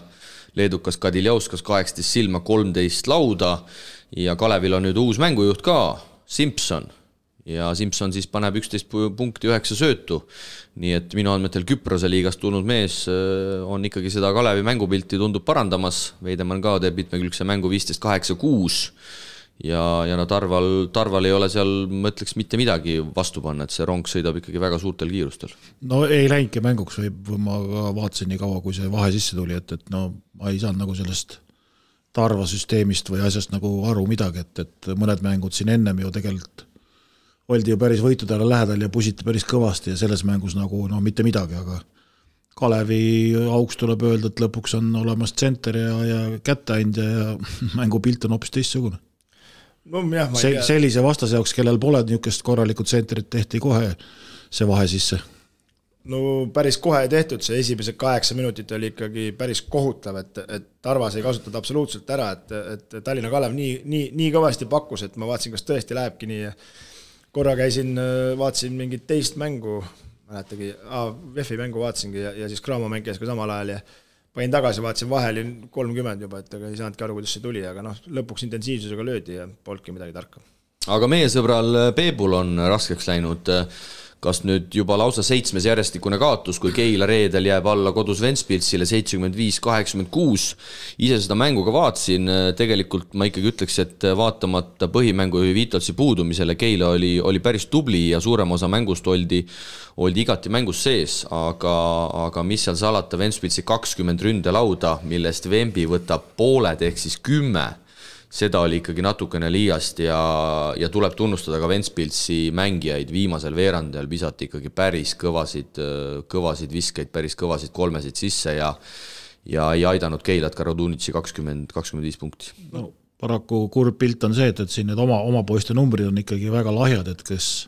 leedukas Kadiljauskas 18 silma, 13 lauda ja Kalevil on nüüd uus mängujuht ka, Simpson. Ja Simpson siis paneb 11 punkti 9 söötu, nii et minu andmetel Küprose liigast tulnud mees on ikkagi seda Kalevi mängupilti tundub parandamas, Veidemann ka teeb mitmekülgse mängu 15-8-6 ja Tarval ei ole seal, ma ütleks, mitte midagi vastu panna, et see rong sõidab ikkagi väga suurtel kiirustel. No ei läinudki mänguks, või ma vaatasin nii kaua, kui see vahe sisse tuli, et ma ei saanud nagu sellest Tarva süsteemist või asjast nagu aru midagi, et mõned mängud siin ennem ju tegelikult oldi ju päris võitudele lähedal ja pusiti päris kõvasti ja selles mängus nagu mitte midagi, aga Kalevi auks tuleb öelda, et lõpuks on olemas tsenter ja kätteandja ja mängupilt on hoopis teistsugune. No, jah, sellise vastase jaoks, kellel pole niisugust korralikud tsentrit, tehti kohe see vahe sisse. No päris kohe tehtud, see esimesed 8 minutit oli ikkagi päris kohutav, et Tarvas ei kasutada absoluutselt ära, et Tallinna Kalev nii kõvasti pakkus, et ma vaatasin, kas tõesti lähebki nii ja korra vaatasin mingit teist mängu, mäletagi, VEF-i mängu vaatasingi ja siis Graamo mäng käis ka samal ajal ja panin tagasi, vaatasin vahel 30 juba, et ei saanudki aru, kuidas see tuli, aga lõpuks intensiivsusega löödi ja polnudki midagi tarka. Aga meie sõbral Peebul on raskeks läinud, kas nüüd juba lausa 7 järjestikune kaotus, kui Keila reedel jääb alla kodus Ventspilsile 75-86. Ise seda mängu ka vaatasin, tegelikult ma ikkagi ütleks, et vaatamata põhimängu Vitolsi puudumisele Keila oli päris tubli ja suurem osa mängust oldi igati mängus sees, aga mis seal salata, Ventspilsi 20 ründelauda, millest Vembi võtab pooled ehk siis 10, seda oli ikkagi natukene liiast ja tuleb tunnustada ka Ventspilsi mängijaid, viimasel veerandel visati ikkagi päris kõvasid viskeid, päris kõvasid kolmesid sisse ja ei aidanud Keilat ka Radunitsi 20-25 punkti. No, paraku kurb pilt on see, et siin need oma poiste numbrid on ikkagi väga lahjad, et kes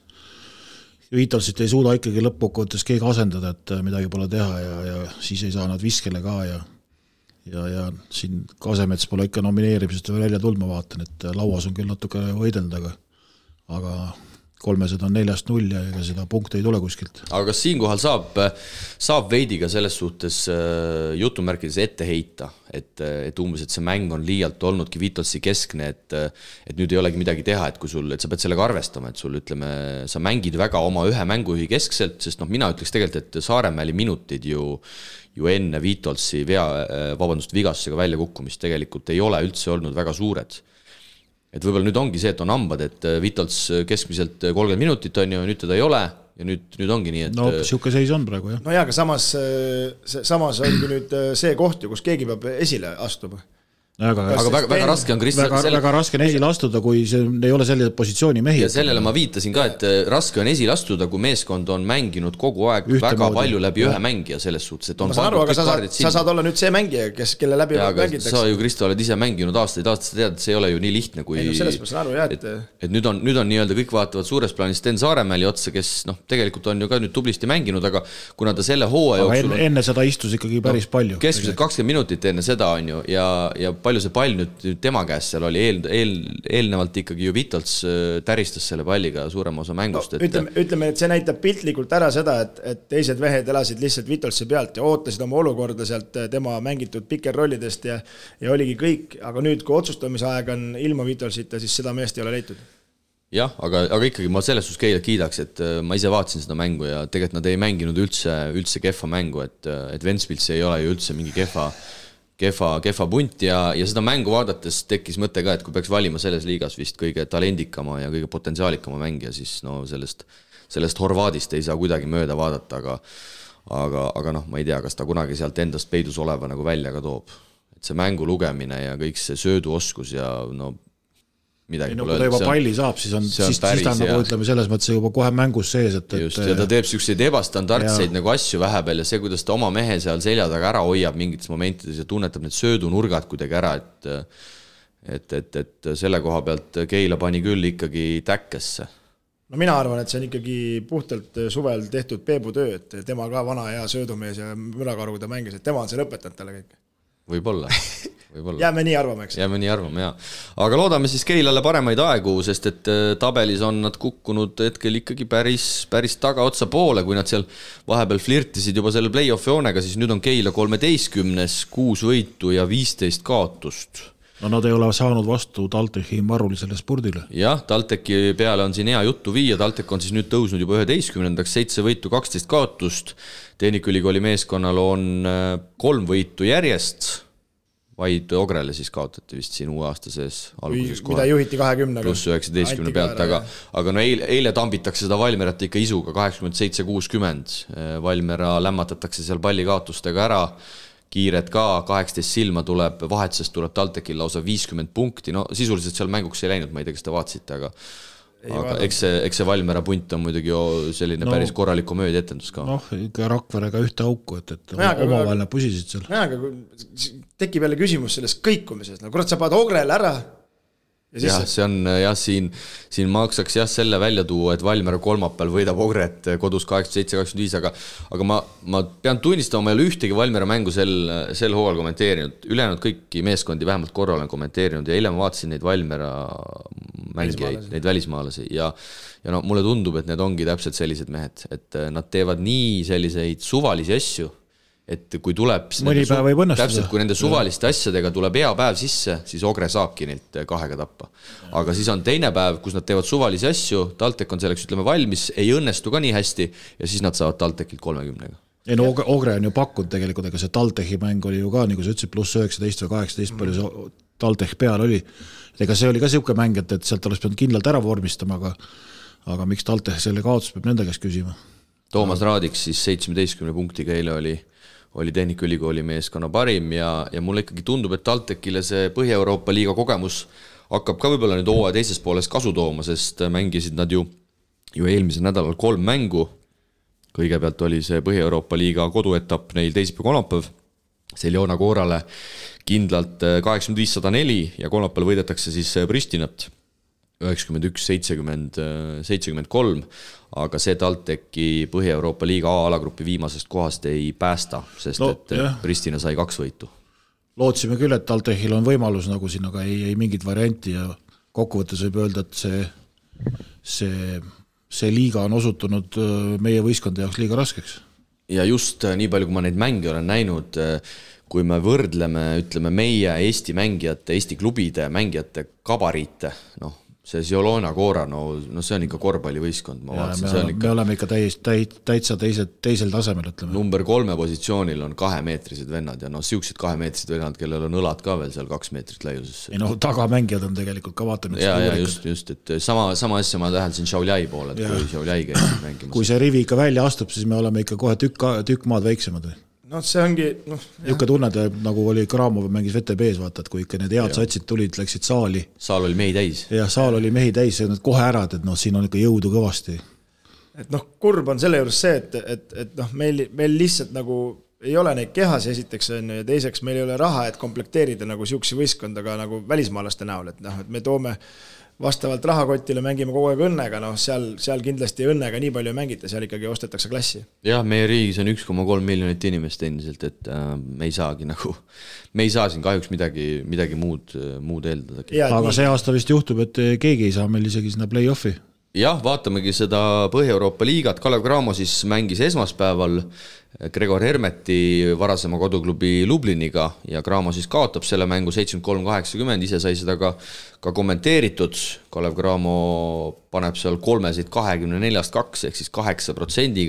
Vitolsit ei suuda ikkagi lõppkokkuvõttes keegi asendada, et midagi pole teha ja siis ei saa nad viskele ka ja siin Kasemets pole ikka nomineerimisest välja tulnud, ma vaatan, et lauas on küll natuke võidelda, aga 300 on 4-0 ja ega seda punkte ei tule kuskilt. aga kas siinkohal saab veidi ka selles suhtes jutumärkides ette heita, et umbes, et see mäng on liialt olnudki Vitolsi keskne, et nüüd ei olegi midagi teha, et kui sul, et sa pead sellega arvestama, et sul ütleme, sa mängid väga oma ühe mängujuhi keskselt, sest mina ütleks tegelikult, et Saaremäeli minutid ju enne Vitolsi vigastusega väljakukkumist tegelikult ei ole üldse olnud väga suured. Et võib-olla nüüd ongi see, et on hambad, et Vitols keskmiselt 30 minutit on ju, nüüd teda ei ole ja nüüd ongi nii, et... No siuke seis on praegu, jah. No jaa, aga samas ongi nüüd see koht ju, kus keegi peab esile astuma. Aga väga raske on väga raske on esile astuda, kui see ei ole selle positsiooni mehi. Ja sellele ma viitasin ka, et raske on esile astuda, kui meeskond on mänginud kogu aeg väga palju läbi ühe mängija selles suhtes, et on... Ma saan aru, aga sa saad olla nüüd see mängija, kelle läbi mängitakse. Sa ju, Kristo, oled ise mänginud aastaid, sa tead, et see ei ole ju nii lihtne, kui... Ei, no selles ma saan aru, jah, et nüüd on nii-öelda kõik vaatavad suures plaanis Sten Saaremäeli otsa, kes tegelikult on ju ka nüüd tublisti mänginud, aga kuna ta selle hooaja jooksul... Enne seda istus ikkagi päris palju. Keskmiselt 20 minutit enne seda on ju ja palju see pall nüüd tema käest seal oli eelnevalt ikkagi ju Vitols täristas selle palliga suurema osa mängust. Ütleme, et see näitab piltlikult ära seda, et teised vehed elasid lihtsalt Vitolsi pealt ja ootasid oma olukorda sealt tema mängitud pikerrollidest ja oligi kõik, aga nüüd, kui otsustamise aeg on ilma Vitolsita, siis seda meest ei ole leitud. Jah, aga ikkagi ma selles suhtes Keilat kiidaks, et ma ise vaatasin seda mängu ja tegelikult nad ei mänginud üldse kehva mängu, et Ventspils ei ole ju üldse mingi kehva punt ja seda mängu vaadates tekkis mõte ka, et kui peaks valima selles liigas vist kõige talendikama ja kõige potentsiaalikama mängija, siis sellest Horvaadist ei saa kuidagi mööda vaadata, aga ma ei tea, kas ta kunagi sealt endast peidus oleva nagu välja ka toob. Et see mängu lugemine ja kõik see sööduoskus ja midagi pole öelda. Kui ta juba palli saab, siis ta nagu ütleme selles mõttes juba kohe mängus sees. Just, ja ta teeb selliseid ebastandardseid nagu asju vähepeal ja see, kuidas ta oma mehe seal selja taga ära hoiab mingites momentides ja tunnetab need söödunurgad kuidagi ära, et selle koha pealt Keila pani küll ikkagi täkkesse. No mina arvan, et see on ikkagi puhtalt suvel tehtud Peebu töö, et tema ka vana hea söödumees ja mürakaru, kui ta mängis, et tema on see lõpetanud talle kõik. Võib-olla. Jääme nii arvama, eks? Jääme nii arvama, jah. Aga loodame siis Keilale paremaid aegu, sest et tabelis on nad kukkunud hetkel ikkagi päris tagaotsa poole, kui nad seal vahepeal flirtisid juba selle play-off joonega, siis nüüd on Keila 13, 6 võitu ja 15 kaotust. No nad ei ole saanud vastu Taltechi marulisele spurdile. Jah, Taltechi peale on siin hea juttu viia, Taltek on siis nüüd tõusnud juba 11, 7 võitu, 12 kaotust, Tehnikaülikooli meeskonnal on 3 võitu järjest, vaid Ogrele siis kaotati vist siin uue aasta sees alguses kohe. Mida juhiti 20. Pluss 19 pealt, aga eile tambitakse seda Valmerat ikka isuga 87-60. Valmera lämmatatakse seal pallikaotustega ära, kiired ka, 18 silma tuleb, vahetusest tuleb Taltekil lausa 50 punkti, no sisuliselt seal mänguks ei läinud, ma ei tea, kas te vaatasite, aga eks see Valmera punt on muidugi selline päris korralik komöödia etendus ka. Ikka Rakverega ühte auku, et omavaheline pusisid seal. Aga tekib jälle küsimus sellest kõikumisest, kurat sa paned Ogrele ära. Jah, see on siin maksaks selle välja tuua, et Valmera kolmapäeval võidab Ogret kodus 87-25, aga ma pean tunnistama, ma ei ole ühtegi Valmera mängu sel hooajal kommenteerinud, ülejäänud kõiki meeskondi vähemalt korra olen kommenteerinud ja eile ma vaatasin neid Valmera mängijaid, neid välismaalasi ja mulle tundub, et need ongi täpselt sellised mehed, et nad teevad nii selliseid suvalisi asju, et kui tuleb täpselt, kui nende suvaliste asjadega tuleb hea päev sisse, siis Ogre saabki neilt 2 tappa. Aga siis on teine päev, kus nad teevad suvalisi asju, Taltek on selleks valmis, ei õnnestu ka nii hästi ja siis nad saavad Taltekilt 30. Ei no Ogre on ju pakkunud tegelikult, ega see Taltechi mäng oli ju ka, nagu sa ütlesid, pluss 19 või 18 palju see Taltech peal oli. Ega see oli ka siuke mäng, et sealt oleks pidanud kindlalt ära vormistama, aga miks Taltech selle kaotus peab nende käest küsima? Toomas Raadiks siis 17 punktiga eile oli Tehnikaülikooli meeskonna parim ja mulle ikkagi tundub, et Taltekile see Põhja-Euroopa liiga kogemus hakkab ka võib-olla nüüd hooaja teises pooles kasu tooma, sest mängisid nad ju eelmisel nädalal 3 mängu. Kõigepealt oli see Põhja-Euroopa liiga koduetapp neil teisipäev-kolmapäev, Seljona Koorale kindlalt 85-104 ja kolmapäeval võidetakse siis Pristinat 91-73, aga see Talteki Põhja-Euroopa liiga A-alagrupi viimasest kohast ei päästa, sest Pristina sai 2 võitu. Lootsime küll, et Taltechil on võimalus nagu siin, aga ei mingit varianti ja kokkuvõttes võib öelda, et see see liiga on osutunud meie võistkonna jaoks liiga raskeks. Ja just nii palju, kui ma neid mänge olen näinud, kui me võrdleme, ütleme, meie Eesti mängijate, Eesti klubide mängijate gabariite, see Ziolona Koora, see on ikka korvpallivõistkond, ma vaatasin. Me oleme ikka täitsa teisel tasemel, ütleme. Number 3 positsioonil on 2-meetrised vennad ja siuksed 2-meetrised vennad, kellel on õlad ka veel seal 2 meetrit laiuses. Tagamängijad on tegelikult ka vaatanud. Ja just, et sama asja ma täheldasin Šauljai poole, et kui Šauljai käib mängimas. Kui see rivi ikka välja astub, siis me oleme ikka kohe tükk maad väiksemad. See ongi... Jukka tunned, nagu oli Kramov mängis VTB-s, vaata, et kui ikka need head satsid tulid, läksid saali. Saal oli mehi täis. Ja saal oli mehi täis ja nad kohe ärad, et siin on ikka jõudu kõvasti. Et kurb on selle juures see, et meil lihtsalt nagu ei ole neid kehasi esiteks ja teiseks meil ei ole raha, et komplekteerida nagu siuksi võistkondaga nagu välismaalaste näol, et me toome vastavalt rahakotile mängime kogu aeg õnnega, seal kindlasti õnnega nii palju mängite, seal ikkagi ostetakse klassi. Jah, meie riigis on 1,3 miljonit inimest endiselt, et me ei saagi me ei saa siin kahjuks midagi muud eeldadagi. Aga see aasta vist juhtub, et keegi ei saa meil isegi sinna play-offi. Jah, vaatamegi seda Põhja-Euroopa liigat. Kalev Cramo siis mängis esmaspäeval Gregor Hermeti varasema koduklubi Lubliniga ja Cramo siis kaotab selle mängu 73-80, ise sai seda ka kommenteeritud. Kalev Cramo paneb seal 3-24-2 ehk siis 8%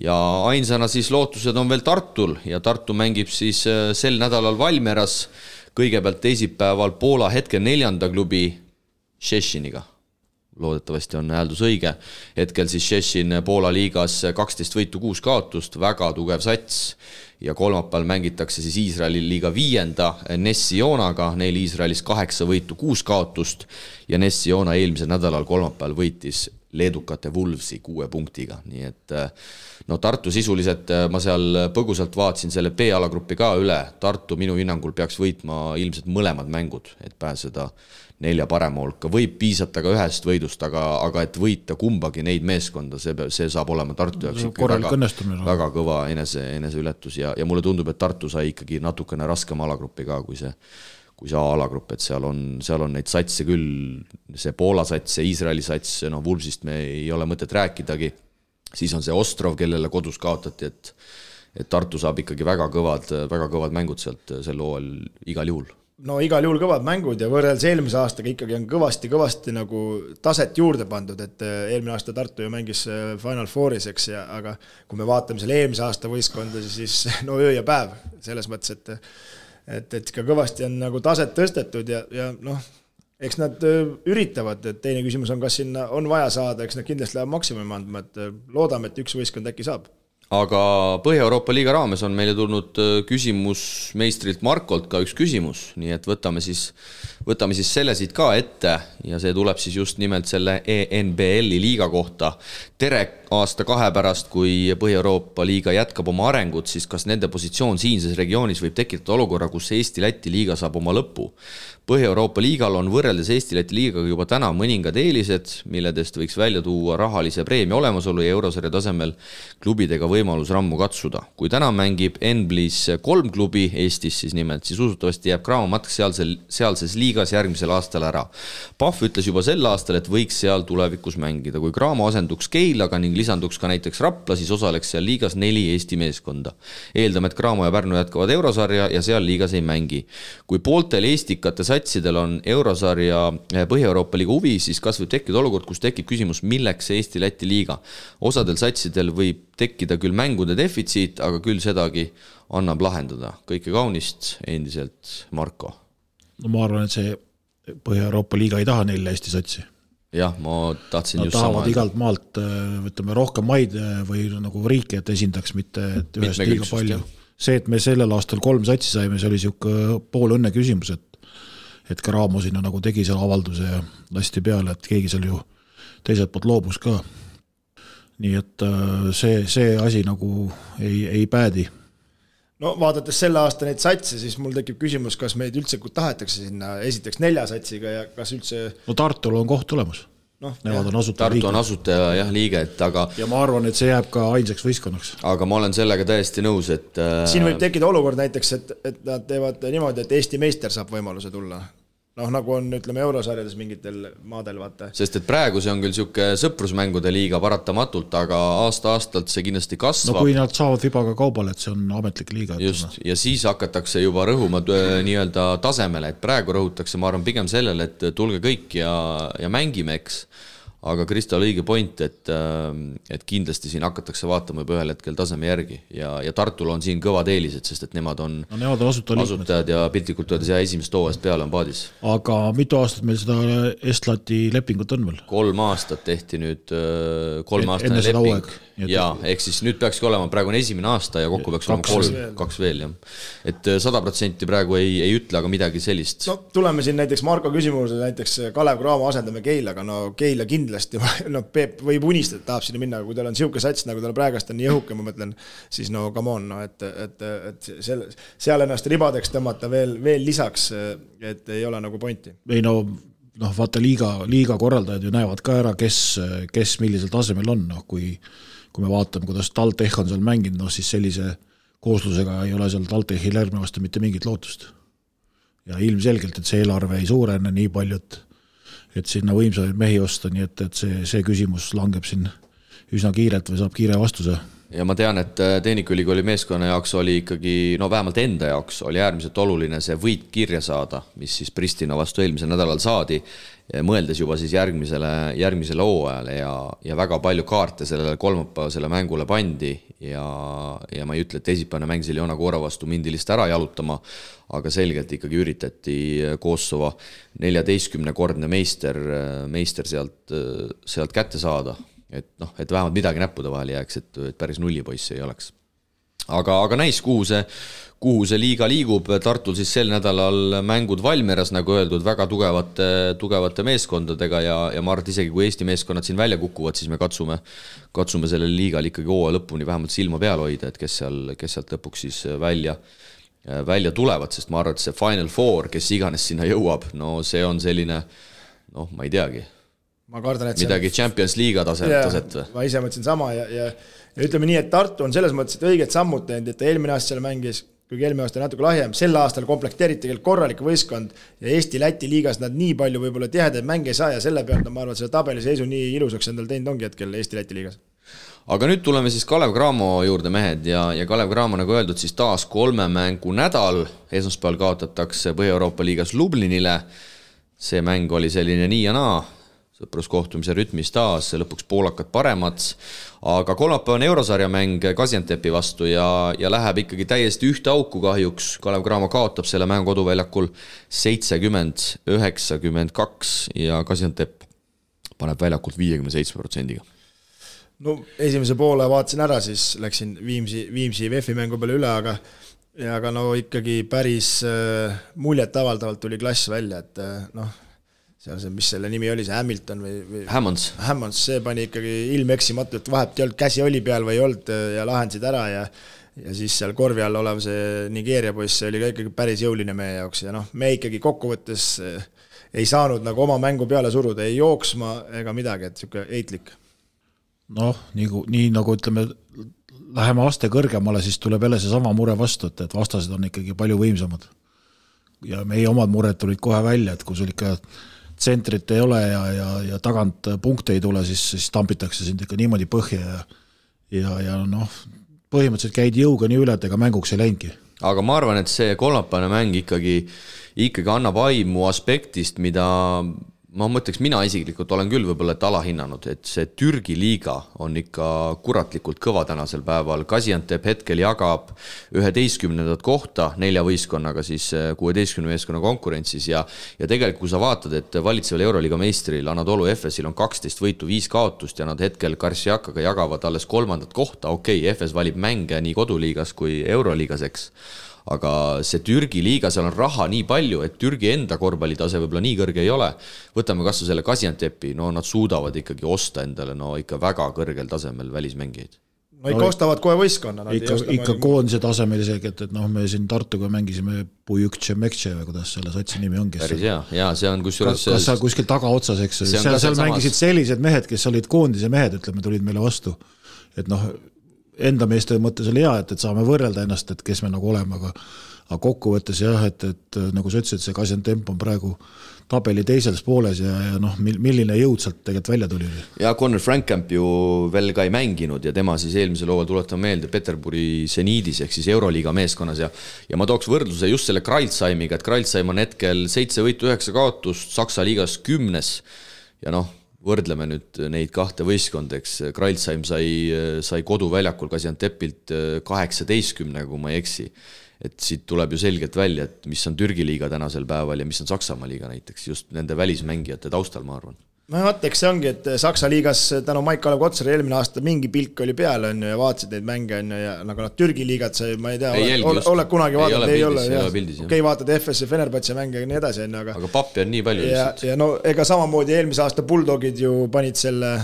ja ainsana siis lootused on veel Tartul ja Tartu mängib siis sel nädalal Valmieras kõigepealt teisipäeval Poola hetke 4. klubi Šešiniga. Loodetavasti on hääldus õige. Hetkel siis Šešin Poola liigas 12 võitu 6 kaotust, väga tugev sats ja kolmapäeval mängitakse siis Iisraeli liiga 5. Ness-Sionaga, neil Iisraelis 8 võitu 6 kaotust ja Ness-Siona eelmisel nädalal kolmapäeval võitis leedukate Wolvesi 6 punktiga, nii et Tartu sisuliselt, ma seal põgusalt vaatsin selle B-alagrupi ka üle, Tartu minu hinnangul peaks võitma ilmselt mõlemad mängud, et pääseda 4 parema hulka, võib piisata ka ühest võidust, aga et võita kumbagi neid meeskonda, see saab olema Tartu jaoks väga kõva eneseületus ja mulle tundub, et Tartu sai ikkagi natukene raskem alagrupi ka, kui see A-alagrupp, et seal on neid satse küll, see Poola sats, see Iisraeli sats, Vulfsist me ei ole mõtet rääkidagi, siis on see Ostrov, kellele kodus kaotati, et Tartu saab ikkagi väga kõvad mängud sealt sel hooajal igal juhul. Igal juhul kõvad mängud ja võrreldes eelmise aastaga ikkagi on kõvasti nagu taset juurde pandud, et eelmine aasta Tartu ju mängis Final Fouris, eks, aga kui me vaatame selle eelmise aasta võistkonda, siis öö ja päev selles mõttes, et ka kõvasti on nagu taset tõstetud ja eks nad üritavad, et teine küsimus on, kas sinna on vaja saada, eks nad kindlasti läheb maksimumi andma, et loodame, et üks võistkond äkki saab. Aga Põhja-Euroopa liiga raames on meile tulnud küsimus meistrilt Markolt ka üks küsimus, nii et võtame siis selle siit ka ette ja see tuleb siis just nimelt selle ENBL-i liiga kohta. Tere aasta 2 pärast, kui Põhja-Euroopa liiga jätkab oma arengut, siis kas nende positsioon siinses regioonis võib tekitada olukorra, kus Eesti-Läti liiga saab oma lõpu? Põhja-Euroopa liigal on võrreldes Eesti-Läti liigaga juba täna mõningad eelised, milledest võiks välja tuua rahalise preemia olemasolu ja eurosarja tasemel klubidega võimalus rammu katsuda. Kui täna mängib Enblis 3 klubi Eestis siis nimelt, siis usutavasti jääb Cramo matk sealses liigas järgmisel aastal ära. Pahv ütles juba sel aastal, et võiks seal tulevikus mängida. Kui Cramo asenduks Keilaga ning lisanduks ka näiteks Rapla, siis osaleks seal liigas 4 Eesti meeskonda. Eeldame, et Cramo ja Pärnu jätkavad eurosarja ja seal liigas ei mängi. Kui pooltel eestikate satsidel on eurosarja Põhja-Euroopa liiga huvi, siis kas võib tekkida olukord, kus tekib küsimus, milleks Eesti-Läti liiga. Osadel satsidel võib tekkida küll mängude defitsiit, aga küll sedagi annab lahendada. Kõike kaunist, endiselt Marko. Ma arvan, et see Põhja-Euroopa liiga ei taha 4 Eesti satsi. Jah, ma tahtsin just sama. Nad tahavad igalt maalt rohkem maid või nagu riike, et esindaks mitte et ühest liiga palju. See, et me sellel aastal 3 satsi saime, see oli siuke pool õnne küsimus, et Cramo sinna nagu tegi seal avalduse ja lasti peale, et keegi seal ju teiselt poolt loobus ka. Nii et see asi nagu ei päädi. Vaadates selle aasta neid satse, siis mul tekib küsimus, kas meid üldse tahetakse sinna esiteks 4 satsiga ja kas üldse... Tartul on koht tulemas. Tartu on asutaja liige, aga... Ja ma arvan, et see jääb ka ainsaks võistkonnaks. Aga ma olen sellega täiesti nõus, et... Siin võib tekkida olukord näiteks, et nad teevad niimoodi, et Eesti meister saab võimaluse tulla. noh, nagu on, ütleme, eurosarjades mingitel maadel, vaata. Sest et praegu see on küll siuke sõprusmängude liiga paratamatult, aga aasta-aastalt see kindlasti kasvab. No kui nad saavad vibaga kaubale, et see on ametlik liiga. Just, ja siis hakatakse juba rõhuma nii-öelda tasemele, et praegu rõhutakse, ma arvan, pigem sellele, et tulge kõik ja mängime, eks. Aga Kristal õige point, et kindlasti siin hakatakse vaatama juba ühel hetkel taseme järgi ja Tartul on siin kõvad eelised, sest et nemad on asutajad ja piltlikult öeldes ja esimest hooajast peale on paadis. Aga mitu aastat meil seda Estlati lepingut on veel? 3 aastat tehti nüüd 3 aastane leping. Ja, ehk siis nüüd peakski olema, praegu on esimene aasta ja kokku peaks olema 2 veel. Et 100% praegu ei ütle, aga midagi sellist. No tuleme siin näiteks Marko küsimuse, näiteks Kalev Cramo asendame Keilaga, no Keila kindlasti, no Peep võib unistada, tahab sinna minna, aga kui tal on siuke sats, nagu tal praegast on nii õhuke, ma mõtlen, siis no come on, no, et seal ennast ribadeks tõmmata veel lisaks, et ei ole nagu pointi. Ei no, vaata liiga korraldajad ju näevad ka ära, kes millisel tasemel on, no, kui me vaatame, kuidas TalTech on seal mänginud, no siis sellise kooslusega ei ole seal TalTechil järgnevast mitte mingit lootust. Ja ilmselgelt, et see eelarve ei suurene nii palju, et sinna võimsaid mehi osta, nii et see küsimus langeb siin üsna kiirelt või saab kiire vastuse. Ja ma tean, et Tehnikaülikooli meeskonna jaoks oli ikkagi, no vähemalt enda jaoks oli äärmiselt oluline see võit kirja saada, mis siis Pristina vastu eelmisel nädalal saadi, mõeldes juba siis järgmisele hooajale ja väga palju kaarte sellele kolmapäevasele mängule pandi ja ma ei ütle, et teisipäevane mäng seal Joona Koora vastu mindilist ära jalutama, aga selgelt ikkagi üritati Kosovo 14-kordne meister sealt kätte saada. Et vähemalt midagi näppude vahel jääks, et päris nullipoissi ei oleks. Aga näis, kuhu see liiga liigub. Tartul siis sel nädalal mängud Valmieras, nagu öeldud, väga tugevate meeskondadega ja ma arvan, isegi kui Eesti meeskonnad siin välja kukuvad, siis me katsume selle liigal ikkagi hooaja lõpuni vähemalt silma peal hoida, et kes sealt lõpuks siis välja tulevad, sest ma arvan, et see Final Four, kes iganes sinna jõuab, no see on selline, ma ei teagi, ma kardan, et midagi Champions Liiga taset või? Ma ise mõtlesin sama ja ütleme nii, et Tartu on selles mõttes, et õiged sammud teinud, et eelmine aasta seal mängis, kuigi eelmine aasta natuke lahjem, sel aastal komplekteeriti korralik võistkond ja Eesti-Läti liigas nad nii palju võib-olla tihedaid mänge ei saa ja selle pealt ma arvan, et selle tabeliseisu nii ilusaks endal teinud ongi hetkel Eesti-Läti liigas. Aga nüüd tuleme siis Kalev Cramo juurde mehed ja Kalev Cramo, nagu öeldud, siis taas 3 mängu nädal, esmaspäeval kaotatakse Põhja-Euroopa liigas Lublinile, see mäng oli selline nii ja naa, sõpruskohtumise rütmis taas, lõpuks poolakad paremad, aga kolmapäevane eurosarja mäng Gaziantepi vastu ja läheb ikkagi täiesti ühte auku kahjuks. Kalev Cramo kaotab selle mängu koduväljakul 70-92 ja Gaziantep paneb väljakult 57%. No esimese poole vaatasin ära, siis läksin Viimsi VF-i mängu peale üle, aga no ikkagi päris muljet avaldavalt tuli klass välja, et seal see, mis selle nimi oli, see Hamilton või Hammonds, see pani ikkagi ilmeksimatult, vahepealt ei olnud, käsi oli peal või ei olnud ja lahendasid ära ja siis seal korvi all olev see Nigeeria poiss, see oli ka ikkagi päris jõuline meie jaoks ja me ikkagi kokkuvõttes ei saanud nagu oma mängu peale suruda, ei jooksma ega midagi, et siuke eitlik. Nii nagu ütleme, läheme aste kõrgemale, siis tuleb jälle see sama mure vastu, et vastased on ikkagi palju võimsamad. Ja meie omad mured tulid kohe välja, et kui sul ikka tsentrit ei ole ja tagant punkte ei tule, siis tampitakse sind ikka niimoodi põhja ja põhimõtteliselt käid jõuga nii üle, et ega mänguks ei läingi. Aga ma arvan, et see kolmapäevane mäng ikkagi annab aimu aspektist, mida ma mõtleks, mina isiklikult olen küll võib-olla alahinnanud, et see Türgi liiga on ikka kuratlikult kõva tänasel päeval. Gaziantep hetkel jagab 11. kohta 4 võistkonnaga siis 16 meeskonna konkurentsis ja tegelikult kui sa vaatad, et valitseval Euroliiga meistril Anadolu Efesil on 12 võitu, 5 kaotust ja nad hetkel Karsiakaga jagavad alles 3. kohta. Okei, Efes valib mänge nii koduliigas kui Euroliigas, eks. Aga see Türgi liiga, seal on raha nii palju, et Türgi enda korvpallitase võib-olla nii kõrge ei ole. Võtame kas selle Gaziantepi, nad suudavad ikkagi osta endale ikka väga kõrgel tasemel välismängijaid. Ikka ostavad kohe võistkonna. Ikka koondise tasemel isegi, et me siin Tartuga mängisime Pujukče Mekče või kuidas selle satsi nimi ongi. Päris hea, see on kusjuures... Kas seal kuskil tagaotsas, eks? Seal mängisid sellised mehed, kes olid koondise mehed, ütleme, tulid meile vastu. Et enda meeste mõttes oli hea, et saame võrrelda ennast, et kes me nagu oleme, aga kokkuvõttes jah, et nagu sa ütlesid, see Gaziantep on praegu tabeli teises pooles ja noh, milline jõud sealt tegelikult välja tuli. Ja Connor Frankamp ju veel ka ei mänginud ja tema siis eelmisel hooajal tuletame meelde Peterburi Seniidis ehk siis Euroliiga meeskonnas ja ma tooks võrdluse just selle Kreilsheimiga, et Kreilsheim on hetkel 7 võitu 9 kaotust, Saksa liigas 10 ja noh, võrdleme nüüd neid kahte võistkondeks, Kreilsheim sai koduväljakul Gaziantepilt 18, kui ma ei eksi. Et siit tuleb ju selgelt välja, et mis on Türgi liiga tänasel päeval ja mis on Saksamaa liiga näiteks, just nende välismängijate taustal, ma arvan. No vaateks see ongi, et Saksa liigas tänu Maik-Kalev Kotsari eelmine aasta mingi pilk oli peal on ja vaatasid neid mänge on ja nagu nad Türgi liigat sai, ma ei tea, oled kunagi vaadanud, ei ole, okei, vaatad FS ja Fenerbahce mänge ja nii edasi, aga pappi on nii palju lihtsalt. Ja no ega samamoodi eelmise aasta Bulldogid ju panid selle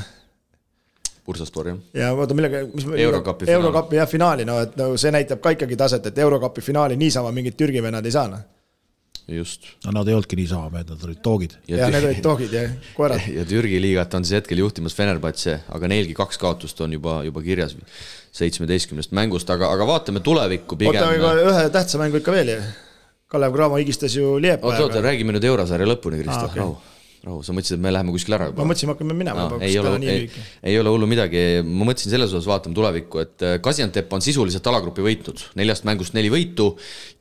Bursaspor, jah. Ja vaata millega, Eurokapi finaali, no et no, see näitab ka ikkagi taset, et Eurokapi finaali niisama mingid Türgi vennad ei saa. Just. No nad ei olnudki niisama, nad olid toogid. Ja need olid toogid ja koerad. Ja Türgi liigat on siis hetkel juhtimas Fenerbahce, aga neilgi 2 kaotust on juba kirjas 17 mängust, aga vaatame tulevikku pigem. Oota, ühe tähtsa mängu ikka veel. Kalev Cramo higistas ju Liepa. Oota, räägime nüüd Eurosarja lõpuni, Kristof, rahu, sa mõtlesid, et me läheme kuskil ära juba. Ma mõtlesin, hakkame minema. Ei ole hullu midagi. Ma mõtlesin selles osas vaatame tulevikku, et Gaziantep on sisuliselt alagrupi võitnud. 4 mängust 4 võitu.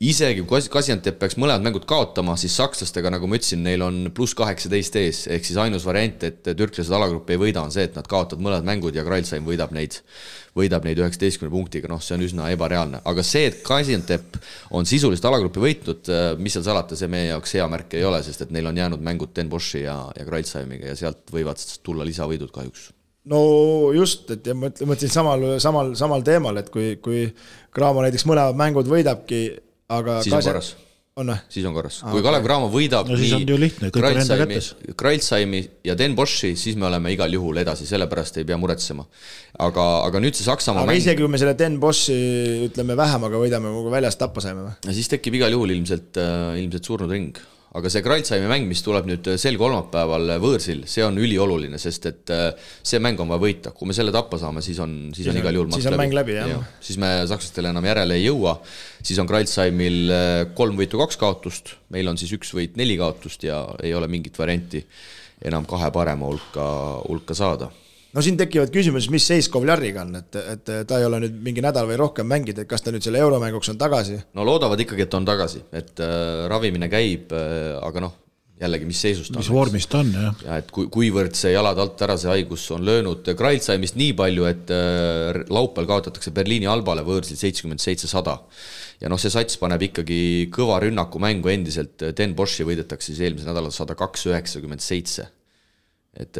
Isegi kui Gaziantep peaks mõlemad mängud kaotama, siis sakslastega, nagu ma ütlesin, neil on +18 ees. Ehk siis ainus variant, et türklased alagrupi ei võida, on see, et nad kaotavad mõlemad mängud ja Kreilsheim võidab neid 19 punktiga, noh, see on üsna ebareaalne. Aga see, et Gaziantep on sisuliselt alagrupi võitnud, mis seal salata, see meie jaoks hea märk ei ole, sest et neil on jäänud mängud Den Boši ja Kreilsheimiga ja sealt võivad tulla lisavõidud kahjuks. No just, et ma mõtlesin samal teemal, et kui Cramo näiteks mõlemad mängud võidabki, aga siis on korras. Siis on korras. Kui Kalev Cramo võidab Kreilsheimi ja Den Boši, siis me oleme igal juhul edasi, sellepärast ei pea muretsema. Aga nüüd see Saksamaa mäng... isegi kui me selle Den Boši, ütleme, vähemaga võidame, kui väljast tappa saime. Ja siis tekib igal juhul ilmselt surnud ring. Aga see Kreilsheimi mäng, mis tuleb nüüd sel kolmapäeval võõrsil, see on ülioluline, sest et see mäng on vaja võita. Kui me selle tappa saame, siis on igal juhul siis on mäng läbi, jah. Siis me sakslastele enam järele ei jõua. Siis on Kreilsheimil 3 võitu 2 kaotust, meil on siis 1 võit 4 kaotust ja ei ole mingit varianti enam 2 parema hulka saada. No siin tekivad küsimus, mis seis Kovljariga on, et ta ei ole nüüd mingi nädal või rohkem mängid, et kas ta nüüd selle euromänguks on tagasi? No loodavad ikkagi, et on tagasi, et ravimine käib, aga noh, jällegi, mis seisust on. Mis vormist on, jah. Ja et kuivõrd see jalad alt ära see haigus on löönud Kreilsheimist nii palju, et laupäeval kaotatakse Berliini Albale võõrsil 77-100. Ja noh, see sats paneb ikkagi kõva rünnaku mängu endiselt, Den Boši võidetakse siis eelmise nädala 102-97. Et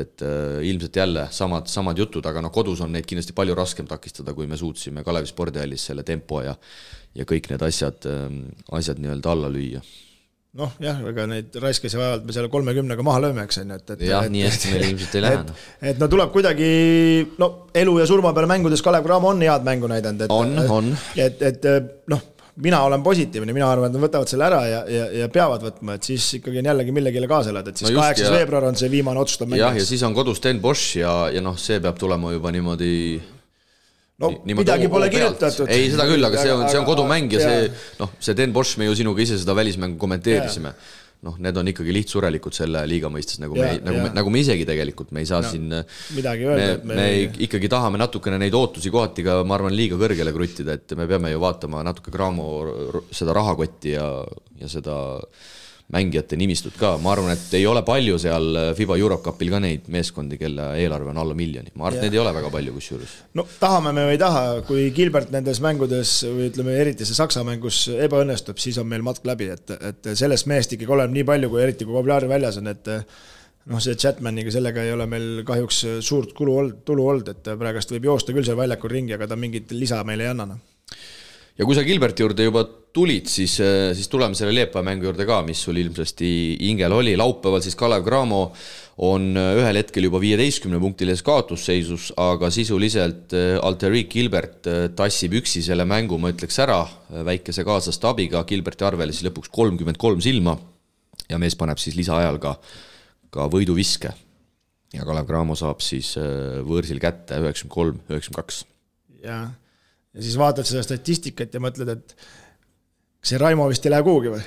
ilmselt jälle samad jutud, aga noh, kodus on neid kindlasti palju raskem takistada, kui me suutsime Kalevi spordihallis selle tempo ja kõik need asjad nii-öelda alla lüüa. Noh, jah, ega neid raiskasi vajavad me selle 30-ga maha lööme, eks on. Jah, nii hästi meil ilmselt ei lähe. Et no tuleb kuidagi, no elu ja surma peale mängudes Kalev Cramo on head mängu näidanud. On. Et noh, mina olen positiivne, mina arvan, et nad võtavad selle ära ja peavad võtma, et siis ikkagi on jällegi millegile kaasa elada, et siis 8. veebruar on see viimane otsustav mäng. Ja siis on kodus Den Bosch ja noh, see peab tulema juba niimoodi... No midagi pole kirjutatud. Ei, seda küll, aga see on kodumäng ja see Den Bosch, me ju sinuga ise seda välismängu kommenteerisime. Noh, need on ikkagi lihtsurelikult selle liiga mõistes, nagu me isegi tegelikult, me ei saa siin midagi öelda. Me ikkagi tahame natukene neid ootusi kohati ka, ma arvan, liiga kõrgele kruttida, et me peame ju vaatama natuke Cramo seda rahakotti ja seda mängijate nimistut ka. Ma arvan, et ei ole palju seal FIBA Eurocupil ka neid meeskondi, kelle eelarve on alla 1 miljoni. Ma arvan, et neid ei ole väga palju kusjuures. No tahame me või ei taha, kui Gilbert nendes mängudes või ütleme eriti see Saksa mängus ebaõnnestub, siis on meil matk läbi, et sellest meest ikkagi oleb nii palju, kui eriti kui Kovljari väljas on, et noh, see Chatmaniga sellega ei ole meil kahjuks suurt tulu olnud, et praegast võib joosta küll seal väljakul ringi, aga ta mingit lisa meile ei annana. Ja kui sa Gilberti juurde juba tulid, siis tuleme selle Liepa mängu juurde ka, mis sul ilmsesti ingel oli. Laupäeval siis Kalev Cramo on ühel hetkel juba 15-punktiles kaotusseisus, aga sisuliselt Alterik Gilbert tassib üksi selle mängu, ma ütleks ära, väikese kaaslaste abiga, Gilberti arvele siis lõpuks 33 silma ja mees paneb siis lisaajal ka võiduviske. Ja Kalev Cramo saab siis võõrsil kätte 93-92. Jah. ja siis vaatad seda statistikat ja mõtled, et see Raimo vist ei lähe kuhugi või?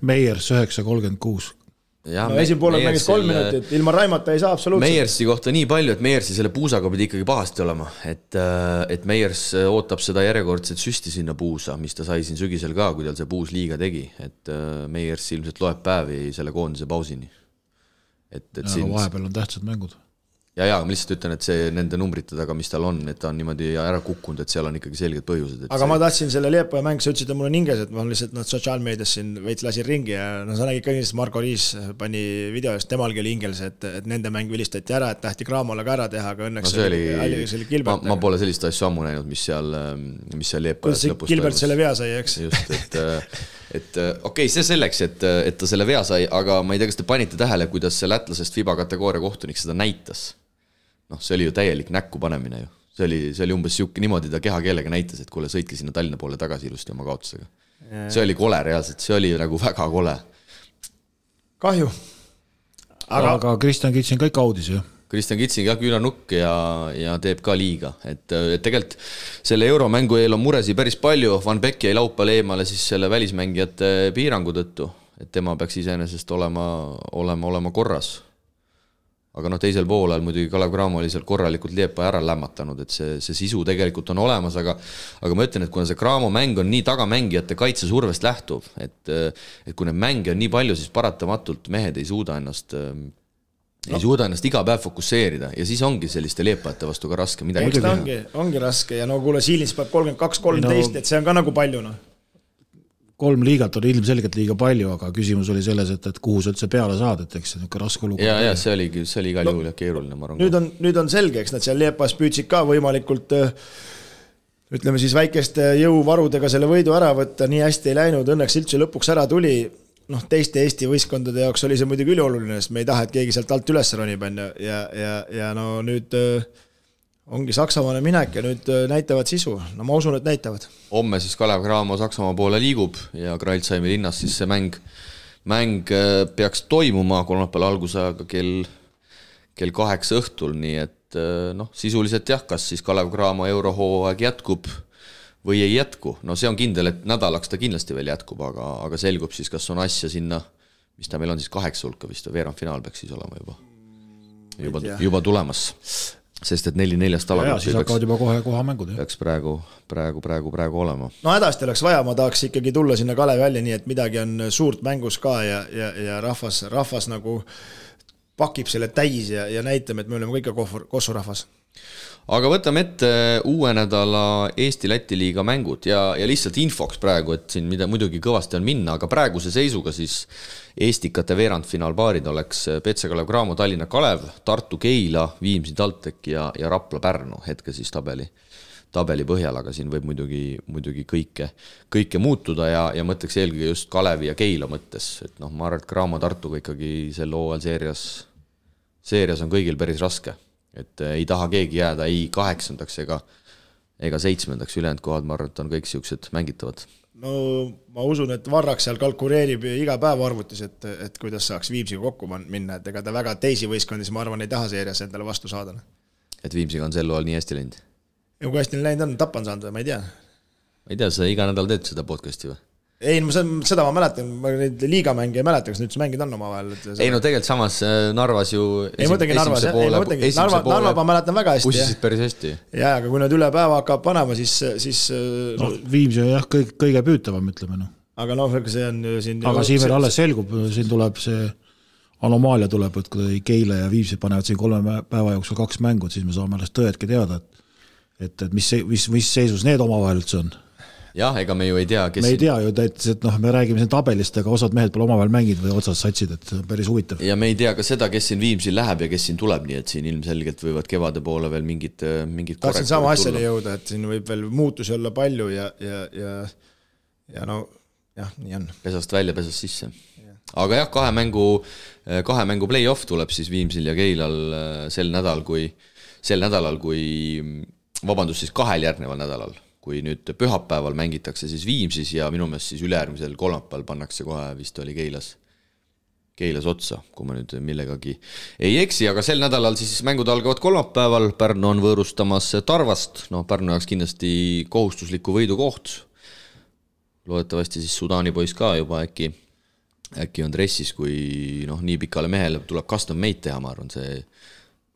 Meiers 9.36. No esimpoolel mängis 3 minutit, ilma Raimata ei saa absoluutselt. Meiersi kohta nii palju, et Meiersi selle puusaga pidi ikkagi pahasti olema, et Meiers ootab seda järjekordset süsti sinna puusa, mis ta sai siin sügisel ka, kui tal see puus liiga tegi, et Meiers ilmselt loeb päevi selle koondise pausini. Siin... vahepeal on tähtsad mängud. Ja ma lihtsalt ütlen, et see nende numbrite taga, mis tal on, et ta on niimoodi ära kukkunud, et seal on ikkagi selged põhjused. Aga ma tahtsin selle Liepaja mäng, sa ütlesid, et mul on hinges, et ma lihtsalt sotsiaalmeedias siin veits lasin ringi ja sa nägid ka kindlasti, Marko Riis pani videost, temalgi oli hingels, et nende mäng vilistati ära, et tahti Graamole ka ära teha, aga õnneks oli Gilbert. Ma pole sellist asju ammu näinud, mis seal Liepajas lõpus Gilbert selle vea sai, eks? Just, et okei, see selleks, et ta selle vea sai, aga ma ei tea, kas te panite tähele, kuidas see lätlasest FIBA kategooria kohtunik seda näitas. See oli ju täielik näkku panemine ju. See oli umbes siuke, niimoodi ta kehakeelega näitas, et kuule, sõitke sinna Tallinna poole tagasi ilusti oma kaotusega. See oli kole reaalselt, see oli nagu väga kole. Kahju. Aga Kristjan Kitsin kõik audis ju. Kristjan Kitsin ka küünanukk ja teeb ka liiga. Et tegelikult selle euromängu eel on muresi päris palju. Van Beck jäi laupäeval eemale siis selle välismängijate piirangu tõttu, et tema peaks iseenesest olema korras. Aga teisel poolel muidugi Kalev Cramo oli seal korralikult Liepa ära lämmatanud, et see sisu tegelikult on olemas, aga ma ütlen, et kuna see Cramo mäng on nii tagamängijate kaitsesurvest lähtuv, et kui need mänge on nii palju, siis paratamatult mehed ei suuda ennast iga päev fokusseerida ja siis ongi selliste Liepajate vastu ka raske midagi teha. Ongi raske ja kuule, Siilins peab 32-13, et see on ka nagu palju. 3 liigat on ilmselgelt liiga palju, aga küsimus oli selles, et kuhu sa üldse peale saad, et eks see on raske olukord. Ja see oli igal juhul keeruline, ma arvan. Nüüd on selge, eks nad seal Liepas püüdsid ka võimalikult, ütleme siis väikeste jõuvarudega selle võidu ära võtta, nii hästi ei läinud, õnneks üldse lõpuks ära tuli. Teiste Eesti võistkondade jaoks oli see muidugi ülioluline, sest me ei taha, et keegi sealt alt üles ronib ja nüüd ongi Saksamaale minek ja nüüd näitavad sisu. Ma usun, et näitavad. Homme siis Kalev Cramo Saksamaa poole liigub ja Kreilsheimi linnas siis see mäng peaks toimuma kolmapäeval algusajaga kell 8 õhtul, nii et sisuliselt jah, kas siis Kalev Cramo eurohooaeg jätkub või ei jätku. See on kindel, et nädalaks ta kindlasti veel jätkub, aga selgub siis, kas on asja sinna, mis ta meil on siis 8 hulka vist või veerandfinaal peaks siis olema juba tulemas. Sest et 4-4 alagruppi siis hakkavad juba kohe mängud. Peaks praegu olema. Hädasti oleks vaja, ma tahaks ikkagi tulla sinna Kalevi välja, nii et midagi on suurt mängus ka ja rahvas nagu pakib selle täis ja näitame, et me oleme kõik Kossu rahvas. Aga võtame ette uue nädala Eesti-Läti liiga mängud ja lihtsalt infoks praegu, et siin mida muidugi kõvasti on minna, aga praeguse seisuga siis Eestikate veerandfinaalpaarid oleks PC Kalev Cramo, Tallinna Kalev, Tartu Keila, Viimsi TalTech ja Rapla Pärnu hetke siis tabeli põhjal, aga siin võib muidugi kõike muutuda ja mõtleks eelkõige just Kalevi ja Keila mõttes, et ma arvan, et Cramo Tartuga ikkagi selle hooajal seerias on kõigil päris raske. Et ei taha keegi jääda ei 8. ega 7. ülejäänud kohad, ma arvan, et on kõik siuksed mängitavad. Ma usun, et Varrak seal kalkuleerib iga päev arvutis, et kuidas saaks Viimsiga kokku minna, et ega ta väga teisi võistkondis, ma arvan, ei taha seerias endale vastu saada. Et Viimsiga on sel loal nii hästi läinud? Ja kui hästi läinud on, Tapa on saanud või, ma ei tea. Ma ei tea, sa iga nädal teed seda podcasti või? Ei, seda ma mäletan, ma neid liigamänge ei mäleta, kas nüüd mängid on oma vahel. Ei, tegelikult samas Narvas ju Narva ma mäletan väga hästi. Pussisid päris hästi. Ja, aga kui nad üle päeva hakkab panema, siis Viimsi on jah kõige püütavam, ütleme. Aga see on siin... Aga siin veel alles selgub, siin tuleb see anomaalia tuleb, et kui Keila ja Viimsi panevad siin 3 päeva jooksul 2 mängud, siis me saame alles tõedki teada, et mis seisus need omavahel üldse on. Jah, ega me ju ei tea, kes... Me ei tea ju, et me räägime siin tabelist, aga osad mehed pole omavahel mängid või otsas satsid, et päris huvitav. Ja me ei tea ka seda, kes siin Viimsil läheb ja kes siin tuleb, nii et siin ilmselgelt võivad kevade poole veel mingid tahtsin sama asjale jõuda, et siin võib veel muutusi olla palju ja nii on. Pesast välja, pesast sisse. Aga jah, 2 mängu play-off tuleb siis Viimsil ja Keilal sel nädalal, kui vabandust siis 2 järgneval nädalal. Kui nüüd pühapäeval mängitakse siis Viimsis ja minu meelest siis ülejärgmisel kolmapäeval pannakse kohe vist oli Keilas otsa, kui ma nüüd millegagi ei eksi, aga sel nädalal siis mängud algavad kolmapäeval, Pärnu on võõrustamas Tarvast, Pärnu jaoks kindlasti kohustusliku võidu koht, loodetavasti siis Sudaani poiss ka juba äkki on dressis, kui nii pikale mehele tuleb custom made teha, ma arvan, see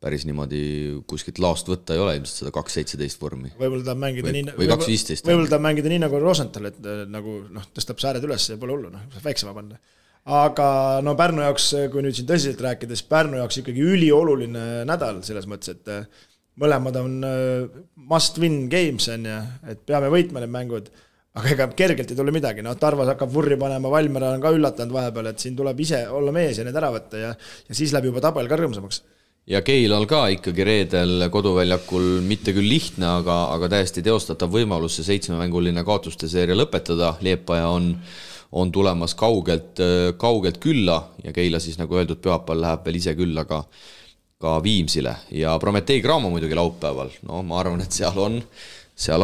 päris niimoodi kuskilt laost võtta ei ole ilmselt seda 2.17 vormi. Võib-olla tahab mängida või 2.15. Võib-olla tahab mängida nii nagu Rosenthal, et nagu tõstab sääred üles ja pole hullu, väiksema panna. Aga Pärnu jaoks, kui nüüd siin tõsiselt rääkides, Pärnu jaoks ikkagi ülioluline nädal selles mõttes, et mõlemad on must win games, et peame võitma need mängud, aga ega kergelt ei tule midagi. Tarvas hakkab vurri panema, Valmera on ka üllatanud vahepeal, et siin tuleb ise olla mees ja need ära võtta ja siis läheb juba tabel ka rõõmsamaks. Ja Keilal ka ikkagi reedel koduväljakul mitte küll lihtne, aga täiesti teostatav võimalus see 7-mänguline kaotuste seeria lõpetada. Liepaja on tulemas kaugelt külla ja Keila siis nagu öeldud pühapäeval läheb veel ise külla ka Viimsile. Ja Prometei Graamo muidugi laupäeval. Ma arvan, et seal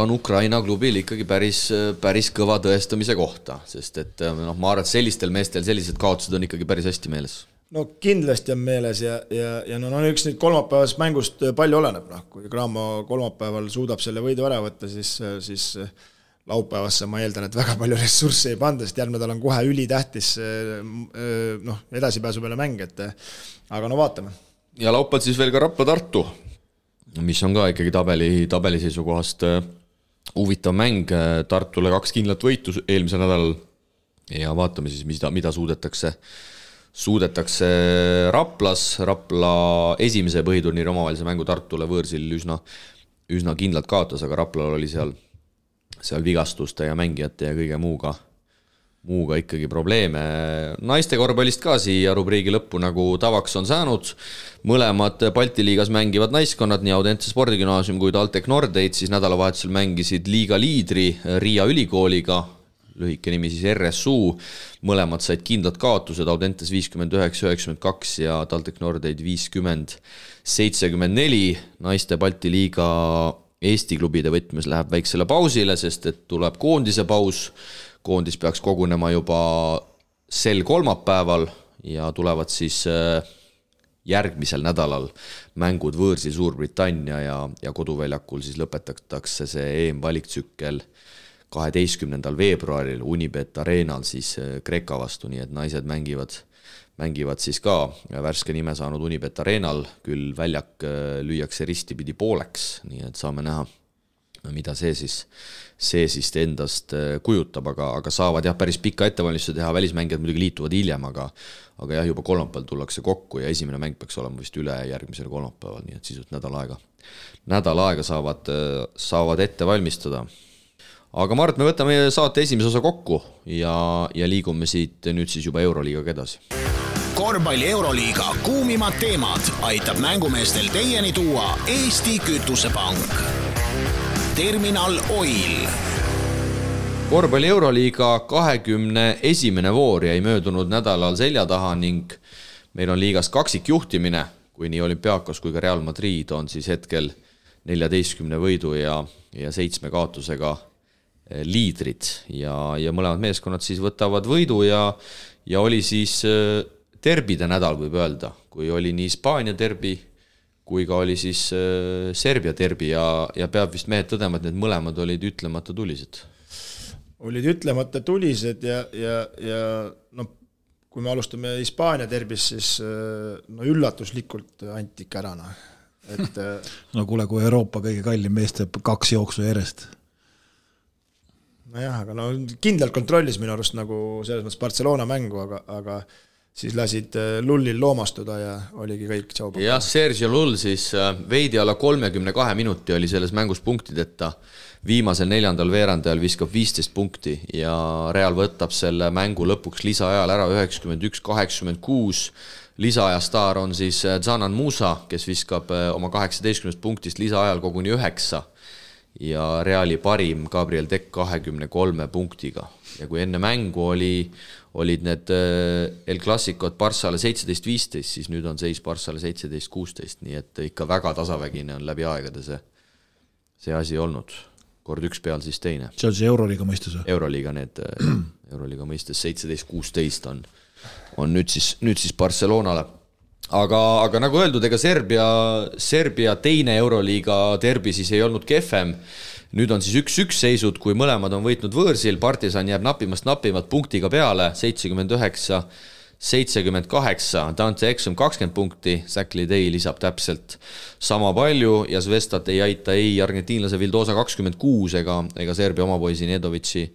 on Ukraina klubil ikkagi päris kõva tõestamise kohta, sest et ma arvan, et sellistel meestel sellised kaotused on ikkagi päris hästi meeles. Kindlasti on meeles ja üks nüüd kolmapäevast mängust palju oleneb. Kui Graamo kolmapäeval suudab selle võidu ära võtta, siis laupäevasse ma eeldan, et väga palju ressurssi ei panda, sest järgmine nädal on kohe ülitähtis edasipääsu peale mäng, aga vaatame. Ja laupäeval siis veel ka Rapla-Tartu, mis on ka ikkagi tabeli seisukohast huvitav mäng. Tartule 2 kindlat võitu eelmisel nädalal ja vaatame siis, mida suudetakse Raplas. Rapla esimese põhiturniiri omavahelise mängu Tartule võõrsil üsna kindlalt kaotas, aga Raplal oli seal vigastuste ja mängijate ja kõige muuga ikkagi probleeme. Naiste korvpallist ka siia rubriigi lõppu nagu tavaks on saanud. Mõlemad Balti liigas mängivad naiskonnad, nii Audense spordigümnaasium kui TalTech Nordeid, siis nädalavahetusel mängisid liiga liidri Riia ülikooliga, lühike nimi siis RSU, mõlemad said kindlad kaotused, Audentes 59-92 ja TalTech Nordeid 50-74. Naiste Balti liiga Eesti klubide võtmes läheb väiksele pausile, sest et tuleb koondise paus. Koondis peaks kogunema juba sel kolmapäeval ja tulevad siis järgmisel nädalal mängud võõrsil Suurbritannia ja koduväljakul siis lõpetatakse see EM-valiktsükkel 12. veebruaril Unibet Arenal siis Kreeka vastu, nii et naised mängivad siis ka värske nime saanud Unibet Arenal, küll väljak lüüakse ristipidi pooleks, nii et saame näha, mida see siis endast kujutab, aga saavad päris pikka ettevalmistuse teha, välismängijad muidugi liituvad hiljem, aga juba kolmapäeval tullakse kokku ja esimene mäng peaks olema vist üle järgmisel kolmapäeval, nii et sisult nädal aega saavad ette valmistada. Aga Mart, me võtame saate esimese osa kokku ja liigume siit nüüd siis juba Euroliigaga edasi. Korvpalli Euroliiga kuumimad teemad aitab mängumeestel teieni tuua Eesti Kütusepank. Terminal Oil. Korvpalli Euroliiga 21. voor jäi möödunud nädalal selja taha ning meil on liigas kaksikjuhtimine, kui nii Olümpiakos kui ka Real Madrid on siis hetkel 14 võidu ja 7 kaotusega liidrid ja mõlemad meeskonnad siis võtavad võidu ja oli siis derbide nädal, võib öelda, kui oli nii Hispaania derbi kui ka oli siis Serbia derbi ja peab vist mehed tõdema, et need mõlemad olid ütlemata tulised. Olid ütlemata tulised ja kui me alustame Hispaania derbis, siis üllatuslikult antik ära. Kuule, kui Euroopa kõige kallim mees teeb 2 jooksu järjest. Aga kindlalt kontrollis minu arust nagu selles mõttes Barcelona mängu, aga siis lasid Lullil loomastuda ja oligi kõik tšaupa. Ja Sergio Lull siis veidi alla 32 minuti oli selles mängus punktideta. Viimasel 4. veerandajal viskab 15 punkti ja Real võtab selle mängu lõpuks lisaajal ära 91-86. Lisaaja staar on siis Zanan Musa, kes viskab oma 18 punktist lisaajal koguni 9. Ja Reali parim Gabriel Deck 23 punktiga. Ja kui enne mängu olid need El Clasicod Barssale 17-15, siis nüüd on seis Barssale 17-16, nii et ikka väga tasavägine on läbi aegade see asi olnud. Kord üks peal, siis teine. See on see Euroliiga mõistes? Euroliiga mõistes 17-16 on nüüd siis Barcelonale. Aga nagu öeldud, ega Serbia teine Euroliiga derbi siis ei olnud kehvem. Nüüd on siis 1-1 seisud, kui mõlemad on võitnud võõrsil, Partisan jääb napimalt punktiga peale, 79-78, Dante Exum 20 punkti, Zach Lidey lisab täpselt sama palju ja Zvestat ei aita ei argentiinlase Vildosa 26 ega Serbia omapoisi Nedovitši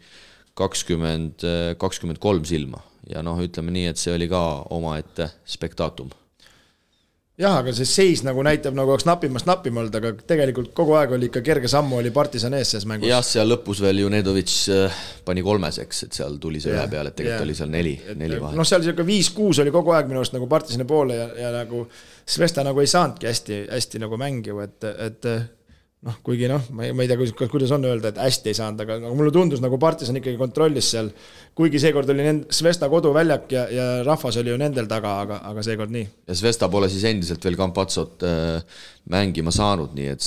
23 silma. Ja ütleme nii, et see oli ka omaette spektaatum. Jah, aga see seis nagu näitab, nagu oleks napimalt, aga tegelikult kogu aeg oli ikka kerge sammu, oli Partisan ees selles mängus. Jah, seal lõpus veel ju Nedovitš pani 3, et seal tuli see üle peale, et tegelikult oli seal 4 vahe. Seal 5-6 oli kogu aeg minu arust nagu Partisani poole ja nagu Svesta nagu ei saanudki hästi nagu mängiv, et kuigi ma ei tea, kuidas on öelda, et hästi ei saanud, aga mulle tundus nagu Partisan ikkagi kontrollis seal, kuigi seekord oli Svesta koduväljak ja rahvas oli ju nendel taga, aga seekord nii. Ja Svesta pole siis endiselt veel Campazzot mängima saanud, nii et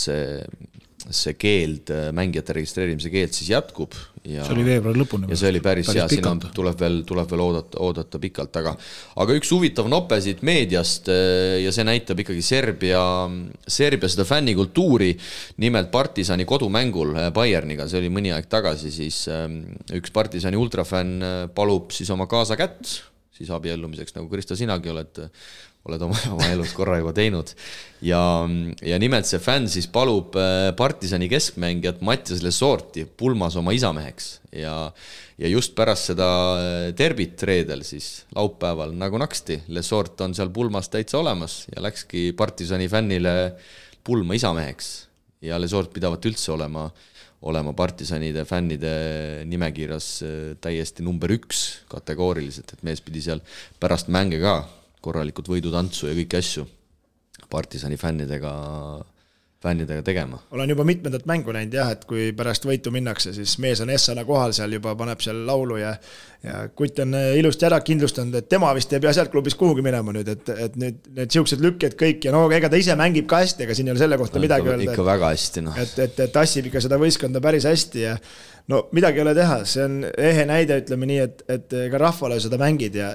see keeld, mängijate registreerimise keeld siis jätkub. Ja, see oli veebruari lõpuni. Ja see oli päris hea, siin tuleb veel oodata pikalt, aga üks huvitav nope siit meediast ja see näitab ikkagi Serbia seda fännikultuuri, nimelt Partisani kodumängul Bayerniga, see oli mõni aeg tagasi, siis üks Partisani ultrafänn palub siis oma kaasa kätt, siis abiellumiseks, nagu Kristo sinagi oled oma elus korra juba teinud ja nimelt see fänn siis palub Partisani keskmängijat Mattias Lesorti pulmas oma isameheks ja just pärast seda derbit reedel siis laupäeval nagu naksti Lesort on seal pulmas täitsa olemas ja läkski Partisani fännile pulma isameheks ja Lesort pidavat üldse olema Partisanide fännide nimekirjas täiesti number 1 kategooriliselt, et mees pidi seal pärast mänge ka korralikud võidutantsu ja kõiki asju Partisani fännidega tegema. Olen juba mitmendat mängu näinud jah, et kui pärast võitu minnakse, siis mees on Essana kohal seal juba, paneb seal laulu ja Kutt on ilusti ära kindlustanud, et tema vist ei pea sealt klubis kuhugi minema nüüd, et nüüd need siuksed lükked kõik ja ega ta ise mängib ka hästi, ega siin ei ole selle kohta midagi öelda. Ikka väga hästi. Et tassib ikka seda võistkonda päris hästi ja midagi ei ole teha, see on ehe näide, ütleme nii, et ka rahvale seda mängid ja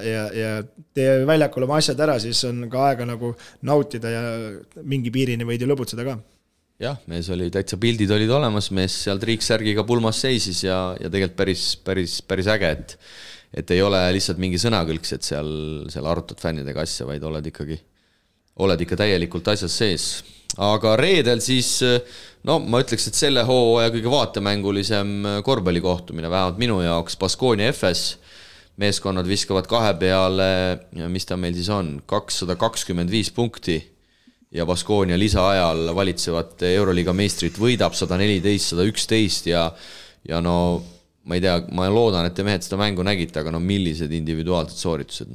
tee väljakul oma asjad ära, siis on ka aega nagu nautida ja mingi piirini võid ju lõbutseda ka. Jah, mees oli täitsa pildid olid olemas, mees seal triiksärgiga pulmas seisis ja tegelikult päris äge, et ei ole lihtsalt mingi sõnakõlks, et seal arutad fännidega asja, vaid oled ikka täielikult asjas sees. Aga reedel siis, ma ütleks, et selle hooaja kõige vaatemängulisem korvpallikohtumine, vähemalt minu jaoks, Baskonia FS, meeskonnad viskavad 2 peale, mis ta meil siis on, 225 punkti ja Baskonia lisaajal valitsevat Euroliiga meistrit võidab 114-111 ja ma ei tea, ma loodan, et te mehed seda mängu nägite, aga millised individuaalsed sooritused,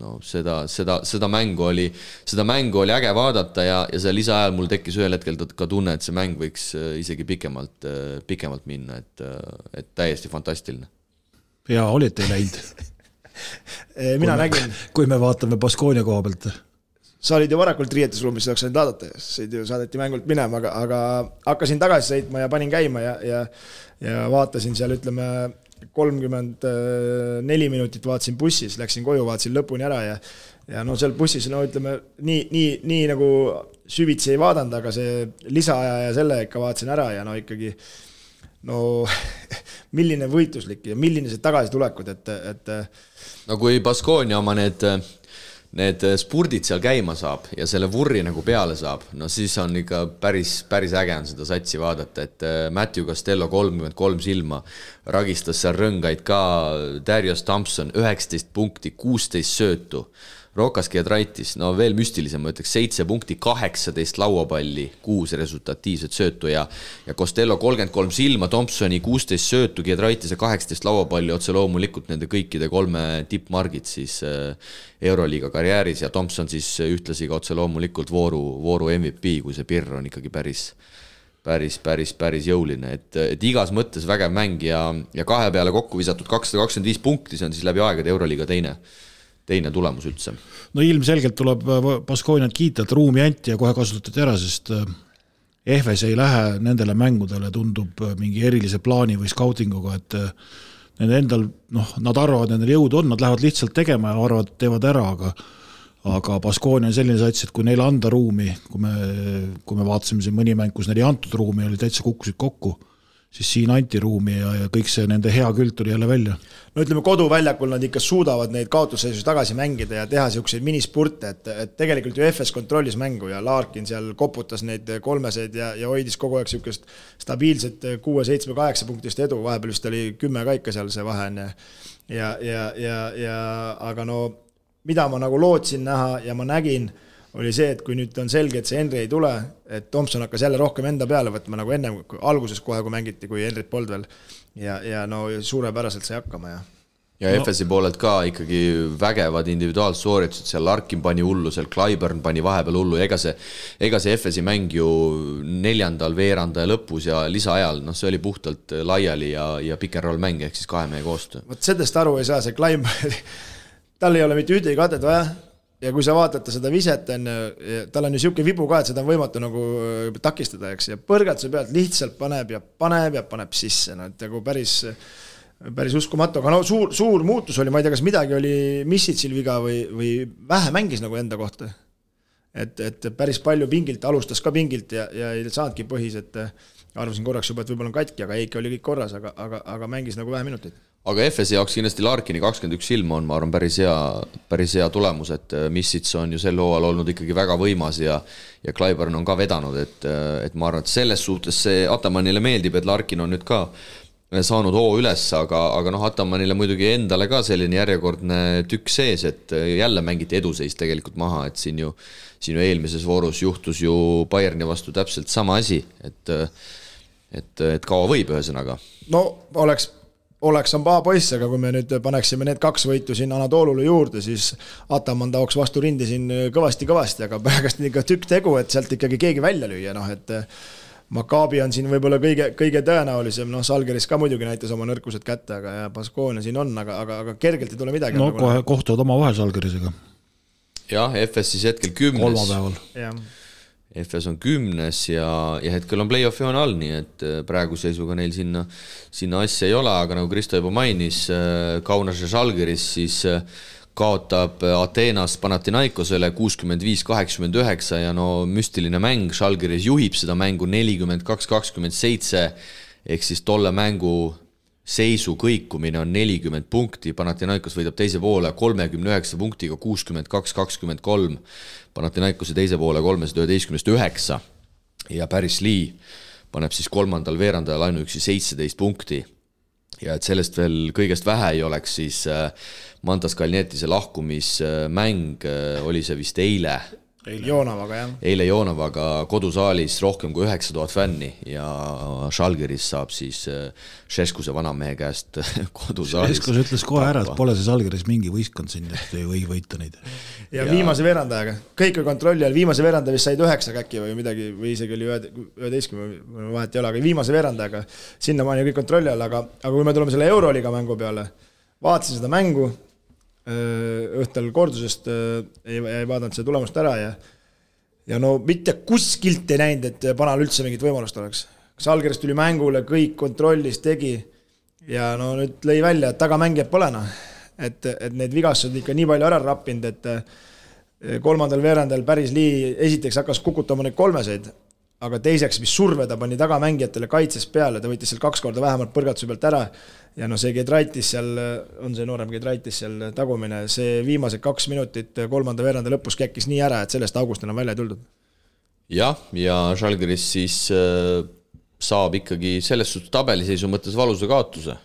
seda mängu oli äge vaadata ja see lisaajal mul tekkis ühel hetkel ka tunne, et see mäng võiks isegi pikemalt minna, et täiesti fantastiline. Ja olite läinud? Mina nägin. Kui me vaatame Baskonia koha pealt. Sa olid ju varakult riietusruumis, saaks ainult vaadata, saadeti mängult minema, aga hakkasin tagasi sõitma ja panin käima ja vaatasin seal, ütleme, 34 minutit vaatasin bussis, läksin koju, vaatasin lõpuni ära ja seal bussis, ütleme, nii nagu süvitsi ei vaadanud, aga see lisaaja ja selle ikka vaatasin ära ja ikkagi milline võitluslik ja milline see tagasi tulekud, et kui Baskonia oma need spurdid seal käima saab ja selle vurri nagu peale saab, siis on ikka päris äge on seda satsi vaadata, et Matthew Costello 33 silma, ragistas seal rõngaid ka, Darius Thompson 19 punkti, 16 söötu, Rokas Giedraitis, veel müstilisem, ma ütleks 7 punkti, 18 lauapalli, 6 resultatiivset söötu ja Costello 33 silma, Thompsoni 16 söötu, Giedraitise 18 lauapalli, otse loomulikult nende kõikide 3 tippmargid siis Euroliiga karjääris ja Thompson siis ühtlasi ka otse loomulikult vooru MVP, kui see pirr on ikkagi päris jõuline, et igas mõttes vägev mäng ja 2 peale kokku visatud 225 punkti, see on siis läbi aegade Euroliiga teine tulemus üldse. Ilmselgelt tuleb Baskoniat kiita, et ruumi anti ja kohe kasutati ära, sest EFS ei lähe nendele mängudele, tundub mingi erilise plaani või skautinguga, et nende endal, nad arvavad, nendel jõud on, nad lähevad lihtsalt tegema ja arvavad, teevad ära, aga Baskonia on selline sats, et kui neile anda ruumi, kui me vaatasime siin mõni mäng, kus neil ei antud ruumi, oli täitsa kukkusid kokku, siis siin anti ruumi ja kõik see nende hea küll tuli jälle välja. No ütleme, koduväljakul nad ikka suudavad neid kaotusseisus tagasi mängida ja teha selliseid minispurte, et tegelikult ju FS kontrollis mängu ja Larkin seal koputas neid kolmeseid ja hoidis kogu aeg sellist stabiilset 6, 7, 8 punktist edu, vahepeal vist oli 10 kaika seal see vahe on aga no mida ma nagu lootsin näha ja ma nägin, oli see, et kui nüüd on selge, et see Henry ei tule, et Thompson hakkas jälle rohkem enda peale võtma nagu enne alguses kohe, kui mängiti, kui Henryt polnud veel ja no suurepäraselt sai hakkama ja FS-i poolelt ka ikkagi vägevad individuaalsooritused, seal Larkin pani hullu, seal Clyburn pani vahepeal hullu, ega see FS-i mäng ju 4. veeranda ja lõpus ja lisaajal, see oli puhtalt laiali ja pick and roll mäng, ehk siis 2 mehe koostöö. Vot sellest aru ei saa, see Clyburn tal ei ole mitte ühtegi katet vaja ja kui sa vaatate seda viset, tal on ju siuke vibu ka, et seda on võimatu nagu takistada, eks, ja põrgatuse pealt lihtsalt paneb sisse, et nagu päris uskumatu, aga suur muutus oli, ma ei tea, kas midagi oli Missitsil viga või vähe mängis nagu enda kohta, et päris palju pingilt, alustas ka pingilt ja ei saanudki põhis, et arvasin korraks juba, et võib-olla on katki, aga Eiki oli kõik korras, aga mängis nagu vähe minuteid. Aga FS jaoks kindlasti Larkini 21 ilma on, ma arvan, päris hea tulemus, et Missits on ju sel hooajal olnud ikkagi väga võimas ja Clyburn on ka vedanud, et ma arvan, et selles suhtes see Atamanile meeldib, et Larkin on nüüd ka saanud hoo üles, aga Atamanile muidugi endale ka selline järjekordne tükk sees, et jälle mängiti eduseis tegelikult maha, et siin ju eelmises voorus juhtus ju Bayerni vastu täpselt sama asi, et kaua võib ühesõnaga. No oleks on paha poiss, aga kui me nüüd paneksime need 2 võitu siin Anatoolule juurde, siis Ataman taoks vastu rindi siin kõvasti, aga pärast ikka tükk tegu, et sealt ikkagi keegi välja lüüa, et Maccabi on siin võib-olla kõige tõenäolisem, Salgeris ka muidugi näitas oma nõrkused kätte, aga ja Baskonia siin on, aga kergelt ei tule midagi. No kohe kohtuvad oma vahel Salgerisega. Jah, FS siis hetkel 10. Kolmapäeval. Jah. FS on 10 ja hetkel on play-offi on all, nii et praegu seisuga neil sinna asja ei ole, aga nagu Kristo juba mainis, Kaunas ja Žalgiris siis kaotab Ateenas Panathinaikosele 65-89 ja müstiline mäng, Žalgiris juhib seda mängu 42-27, ehk siis tolle mängu seisu kõikumine on 40 punkti, Panathinaikos võidab teise poole 39 punktiga 62-23, Panathinaikose teise poole 311-9 ja Paris Lee paneb siis 3. veerandajal ainuüksi 17 punkti ja et sellest veel kõigest vähe ei oleks, siis Mantas Kalnietise lahkumismäng oli see vist eile Joonavaga kodusaalis rohkem kui 9000 fänni ja Žalgiris saab siis Šeskuse vanamehe käest kodusaalis. Šeskus ütles kohe ära, et pole see Žalgiris mingi võistkond siin, et ei või võita neid. Ja viimase veerandajaga, kõik on kontrolli all, viimase veerandaja vist said 9 käkki või midagi, või isegi oli 11, vahet ei ole, aga viimase veerandajaga sinna maani kõik kontrolli all, aga kui me tuleme selle Euroliiga mängu peale, vaatasin seda mängu, õhtul kordusest ei vaadanud seda tulemust ära ja mitte kuskilt ei näinud, et Panal üldse mingit võimalust oleks. Žalgiris tuli mängule, kõik kontrollis tegi ja nüüd lõi välja, et tagamängijad pole et need vigastused ikka nii palju ära rappinud, et 3. veerandal Paris Lee esiteks hakkas kukutama neid kolmeseid, aga teiseks, mis surve ta pani tagamängijatele kaitses peale, ta võttis seal 2 korda vähemalt põrgatuse pealt ära ja see Gedraitis seal, on see noorem Gedraitis seal tagumine, see viimased 2 minutit 3. veeranda lõpus käkkis nii ära, et sellest august enam välja ei tuldud. Ja Žalgiris siis saab ikkagi selles suhtes tabeliseisu mõttes valusa kaotuse,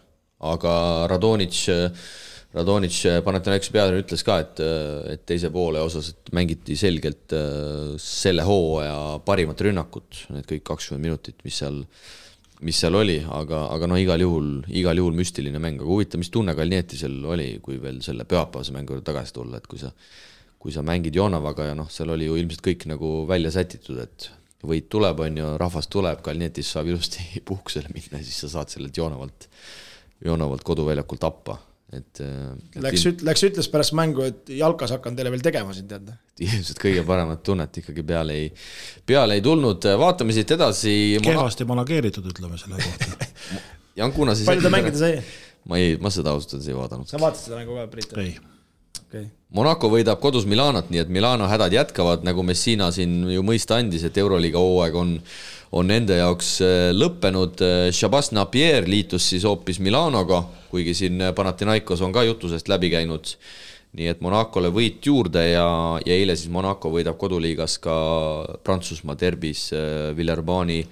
aga Radonic Panathinaikose peatreener ütles ka, et teise poole osas et mängiti selgelt selle hooaja parimat rünnakut, need kõik 20 minutit, mis seal oli, aga igal juhul müstiline mäng, aga huvitav, mis tunne Kalnietisel oli, kui veel selle pühapäevase mängu tagasi tulla, et kui sa mängid Joonavaga ja seal oli ju ilmselt kõik nagu välja sätitud, et võit tuleb, on ju, rahvas tuleb, Kalnietis saab ilusti puhkusele minna, siis sa saad sellelt Joonavalt koduväljakult tappa. Läks ütles pärast mängu, et jalkas hakkan teile veel tegema siin, teada. Ilmselt kõige paremat tunnet ikkagi peale ei tulnud. Vaatame siit edasi. Kehvasti manageeritud, ütleme selle kohta. Jankuna siis... Palju ta mängida sai? ma seda ausalt ei vaadanud. Sa vaatasid seda mängu ka, Priit? ei. Okay. Monaco võidab kodus Milanot, nii et Milano hädad jätkavad, nagu Messina siin ju mõista andis, et Euroliiga hooaeg on nende jaoks lõppenud. Shabazz Napier liitus siis hoopis Milanoga, kuigi siin Panathinaikos on ka jutusest läbi käinud. Nii et Monacole võit juurde ja eile siis Monaco võidab koduliigas ka Prantsusmaa derbis Villeurbanne'i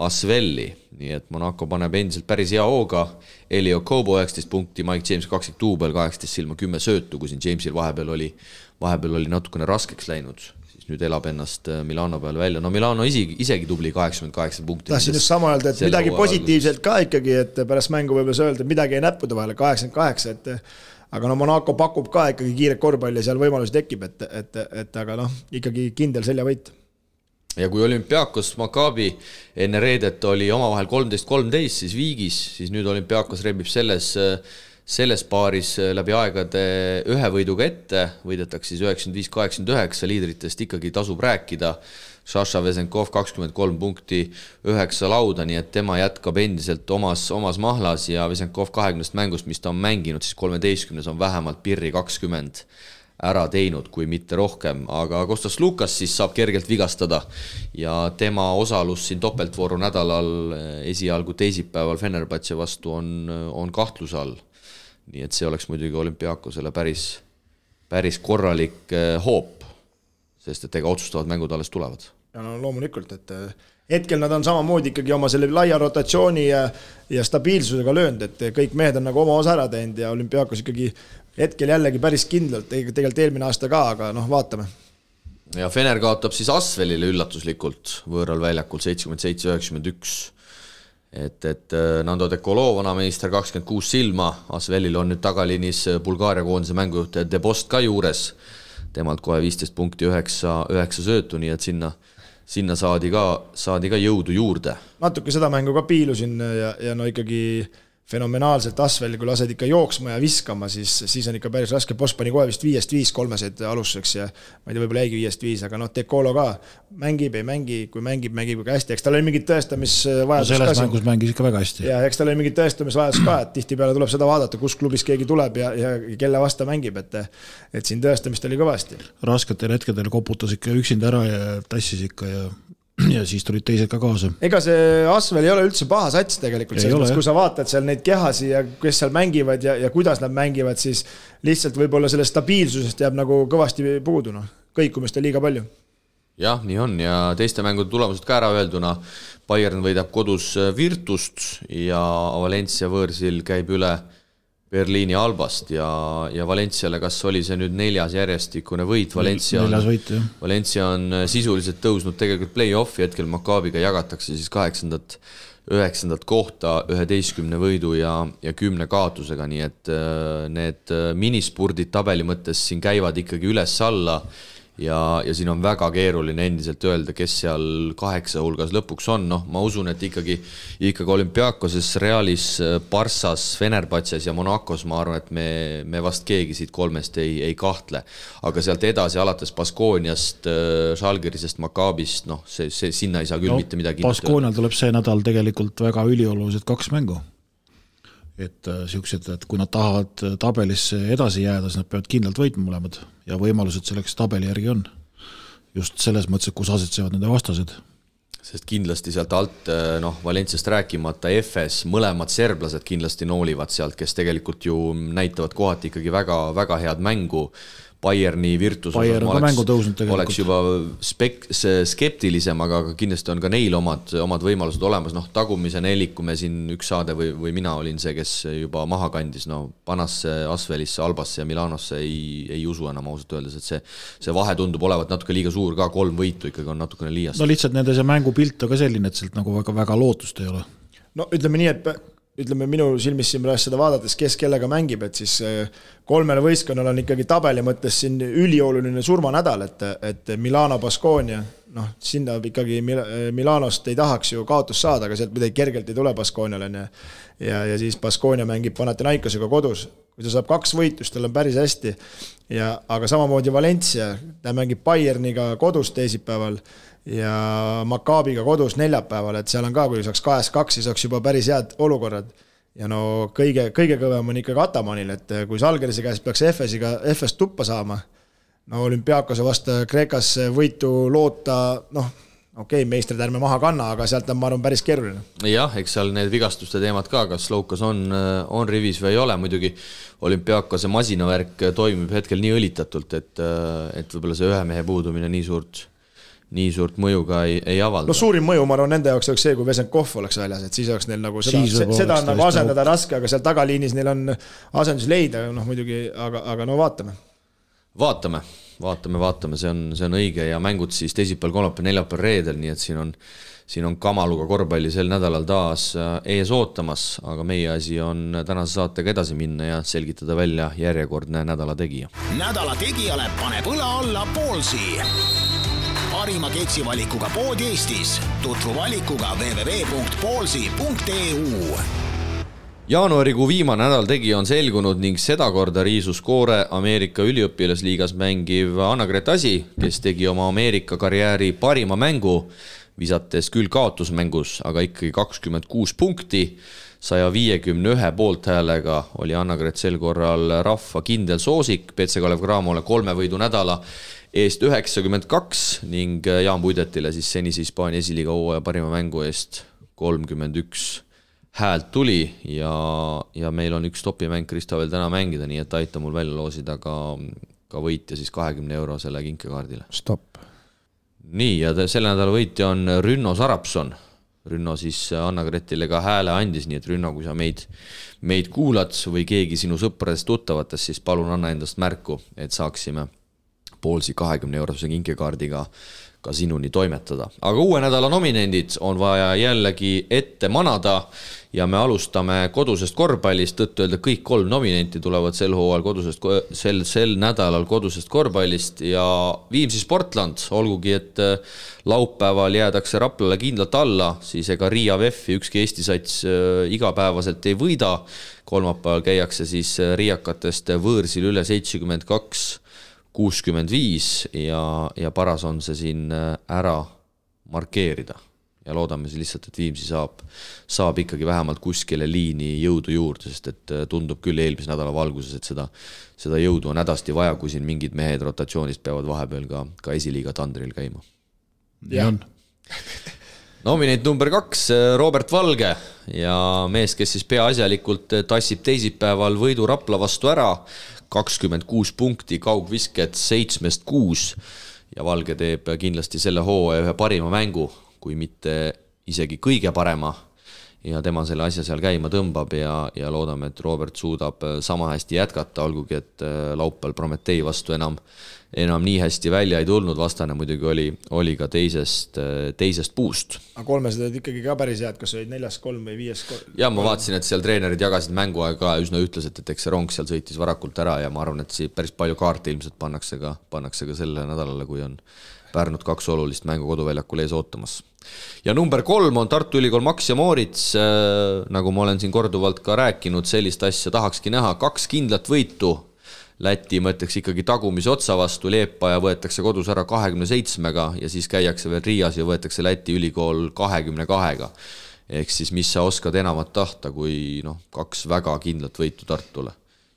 Asvelli, nii et Monaco paneb endiselt päris hea hooga. Elio Kobo 19 punkti, Mike James 20 duubel, 18 silma, 10 söötu, kui siin Jamesil vahepeal oli natukene raskeks läinud, siis nüüd elab ennast Milano peal välja. No Milano isegi tubli 88 punkti. Tahtsin just sama öelda, et midagi positiivselt ka ikkagi, et pärast mängu võib öelda, et midagi ei näppuda vahele, 88, aga no Monaco pakub ka ikkagi kiiret korvpalli ja seal võimalusi tekib, et aga ikkagi kindel seljavõit. Ja kui Olympiakos Maccabi enne reedet oli omavahel 13-13, siis viigis, siis nüüd Olympiakos rebib selles paaris läbi aegade ühe võiduga ette, võidetakse siis 95-89, liidritest ikkagi tasub rääkida. Sasha Vesenkov 23 punkti, 9 lauda, nii et tema jätkab endiselt omas mahlas ja Vesenkov 20 mängust, mis ta on mänginud, siis 13 on vähemalt pirri 20 ära teinud, kui mitte rohkem, aga Kostas Lukas siis saab kergelt vigastada ja tema osalus siin topeltvooru nädalal esialgu teisipäeval Fenerbahce vastu on kahtluse all. Nii et see oleks muidugi Olympiakosele päris korralik hoop, sest et ega otsustavad mängud alles tulevad. Ja no loomulikult, et hetkel nad on samamoodi ikkagi oma selle laia rotatsiooni ja stabiilsusega löönud, et kõik mehed on nagu oma osa ära teinud ja Olympiakos ikkagi hetkel jällegi päris kindlalt, tegelikult eelmine aasta ka, aga vaatame. Ja Fener kaotab siis Asvelile üllatuslikult võõral väljakul 77-91. Et Nando Dekolov, vanameister 26 silma, Asvelil on nüüd tagalinis Bulgaaria koondise mängujuht Debost ka juures, temalt kohe 15 punkti 9 söötu, nii et sinna saadi ka jõudu juurde. Natuke seda mängu ka piilusin ja no ikkagi fenomenaalselt Asvel, kui lased ikka jooksma ja viskama, siis on ikka päris raske. Boss pani kohe vist 5-5 kolmeseid alustuseks ja ma ei tea, võib-olla jäigi 5-5, aga Dekolo ka mängib, ei mängi, kui mängib ka hästi. Eks tal oli mingid tõestamisvajadus ka. Selles mängus mängis ikka väga hästi. Ja eks tal oli mingid tõestamisvajadus ka, et tihti peale tuleb seda vaadata, kus klubis keegi tuleb ja kelle vasta mängib, et siin tõestamist oli kõvasti. Rasketel hetkedel koputas ikka üksinda ära ja tassis ikka ja siis tulid teised ka kaasa. Ega see Asvel ei ole üldse paha sats tegelikult, kui sa vaatad seal neid kehasi ja kes seal mängivad ja kuidas nad mängivad, siis lihtsalt võib-olla selle stabiilsusest jääb nagu kõvasti puudu, kõikumist on liiga palju. Jah, nii on ja teiste mängude tulemused ka ära öelduna. Bayern võidab kodus Virtust ja Valencia võõrsil käib üle Berliini Albast ja Valenciale, kas oli see nüüd 4. järjestikune võit? Valencia on sisuliselt tõusnud tegelikult play-offi, hetkel Maccabiga jagatakse siis 8. 9. kohta 11 võidu ja 10 kaotusega, nii et need minispurdid tabeli mõttes siin käivad ikkagi üles-alla ja siin on väga keeruline endiselt öelda, kes seal 8 hulgas lõpuks on. Ma usun, et ikkagi Olympiakoses, Realis, Barssas, Fenerbahces ja Monacos, ma arvan, et me vast keegi siit kolmest ei kahtle. Aga sealt edasi alates Baskooniast, Žalgirisest, Maccabist, see sinna ei saa küll mitte midagi. Baskoonial tuleb see nädal tegelikult väga üliolulised 2 mängu. Et kui nad tahavad tabelisse edasi jääda, siis nad peavad kindlalt võitma mõlemad ja võimalused selleks tabeli järgi on. Just selles mõttes, et kus asetsevad nende vastased. Sest kindlasti sealt alt, Valenciast rääkimata, FS, mõlemad serblased kindlasti noolivad sealt, kes tegelikult ju näitavad kohati ikkagi väga, väga head mängu. Bayerni Virtus oleks juba skeptilisem, aga kindlasti on ka neil omad võimalused olemas. Tagumise nelik, kui me siin üks saade või mina olin see, kes juba maha kandis, Panasse, Asvelisse, Albasse ja Milanosse ei usu enam ausalt öeldes, et see vahe tundub olevat natuke liiga suur ka, 3 võitu ikkagi on natukene liiast. Lihtsalt nende see mängupilt on ka selline, et sealt nagu väga lootust ei ole. Ütleme nii, et minu silmis siin pärast seda vaadates, kes kellega mängib, et siis 3 võistkonnal on ikkagi tabeli mõttes siin ülioluline surmanädal, et Milano, Baskonia, sinna ikkagi Milanost ei tahaks ju kaotus saada, aga sealt midagi kergelt ei tule Baskoniale ja siis Baskonia mängib Panathinaikosega kodus. Kui ta saab 2 võitust, tal on päris hästi, aga samamoodi Valencia, ta mängib Bayerniga kodus teisipäeval ja Maccabiga kodus neljapäeval, et seal on ka, kui saaks 2-2, siis saaks juba päris head olukorrad ja no kõige kõvem on ikkagi Atamanil, et kui Žalgirise käest peaks FS tuppa saama, no Olümpiakose vastu Kreekas võitu loota, meistrid ärme maha kanna, aga sealt on, ma arvan, päris keeruline. Jah, eks seal need vigastuste teemad ka, kas Loukas on rivis või ei ole, muidugi Olümpiakose masinavärk toimib hetkel nii õlitatult, et võib-olla see ühe mehe puudumine nii suurt mõju ka ei avalda. No suurim mõju, ma arvan, nende jaoks oleks see, kui Vesenkov oleks väljas, et siis oleks neil nagu seda on nagu asendada raske, aga seal tagaliinis neil on asendus leida, muidugi, aga no vaatame. Vaatame, see on õige ja mängud siis teisipäeval, kolmapäeval, neljapäeval, reedel, nii et siin on kamaluga korvpalli sel nädalal taas ees ootamas, aga meie asi on tänase saatega edasi minna ja selgitada välja järjekordne nädala tegija. Nädala tegijale paneb õla alla Ballsi. Parima ketsivalikuga pood Eestis. Tutvu valikuga www.ballsi.eu. Jaanuarikuu viimane nädal tegija on selgunud ning sedakorda riisus koore Ameerika üliõpilasliigas mängiv Anna-Grete Asi, kes tegi oma Ameerika karjääri parima mängu, visates küll kaotusmängus, aga ikkagi 26 punkti. 151 poolthäälega oli Anna-Grete sel korral rahva kindel soosik, PC Kalev Cramole 3 võidu nädala eest 92 ning Jaan Puidetile siis senise Hispaania esiliiga hooaja parima mängu eest 31 häält tuli ja meil on üks topimäng Kristo veel täna mängida, nii et aita mul välja loosida ka võitja siis 20 eurosele kinkekaardile. Stopp. Nii, ja selle nädala võitja on Rünno Sarapson. Rünno siis Anna-Gretile ka hääle andis, nii et Rünno, kui sa meid kuulad või keegi sinu sõpradest tuttavatest, siis palun anna endast märku, et saaksime Ballsi 20 eurose kinkekaardiga ka sinuni toimetada. Aga uue nädala nominendid on vaja jällegi ette manada ja me alustame kodusest korvpallist, tõttu öelda kõik 3 nominenti tulevad sel nädalal kodusest korvpallist ja Viimsi Sportland, olgugi et laupäeval jäädakse Raplale kindlalt alla, siis ega Riia VEF-i ükski Eesti sats igapäevaselt ei võida. Kolmapäeval käiakse siis riiakatest võõrsil üle 72-65 ja paras on see siin ära markeerida ja loodame siis lihtsalt, et Viimsi saab ikkagi vähemalt kuskile liini jõudu juurde, sest et tundub küll eelmise nädala valguses, et seda jõudu on hädasti vaja, kui siin mingid mehed rotatsioonist peavad vahepeal ka esiliiga tandril käima. Ja. Nominent number 2, Robert Valge ja mees, kes siis peaasjalikult tassib teisipäeval võidu Rapla vastu ära, 26 punkti, kaugvisket 7-6 ja Valge teeb kindlasti selle hooaja ühe parima mängu, kui mitte isegi kõige parema ja tema selle asja seal käima tõmbab ja loodame, et Robert suudab sama hästi jätkata, olgugi et laupäeval Prometei vastu enam nii hästi välja ei tulnud, vastane muidugi oli ka teisest puust. Aga 300 olid ikkagi ka päris head, kas olid 4-3 või 5-3? Ja ma vaatasin, et seal treenerid jagasid mänguaega üsna ütleselt, et eks see rong seal sõitis varakult ära ja ma arvan, et päris palju kaarte ilmselt pannakse ka selle nädalale, kui on Pärnut 2 olulist mängu koduväljakul ees ootamas. Ja number 3 on Tartu Ülikool Max ja Moorits, nagu ma olen siin korduvalt ka rääkinud, sellist asja tahakski näha, 2 kindlat võitu. Läti mõtleks ikkagi tagumise otsa vastu, Leepaja võetakse kodus ära 27-ga ja siis käiakse veel Riias ja võetakse Läti ülikool 22-ga. Ehk siis mis sa oskad enamat tahta, kui 2 väga kindlat võitu Tartule.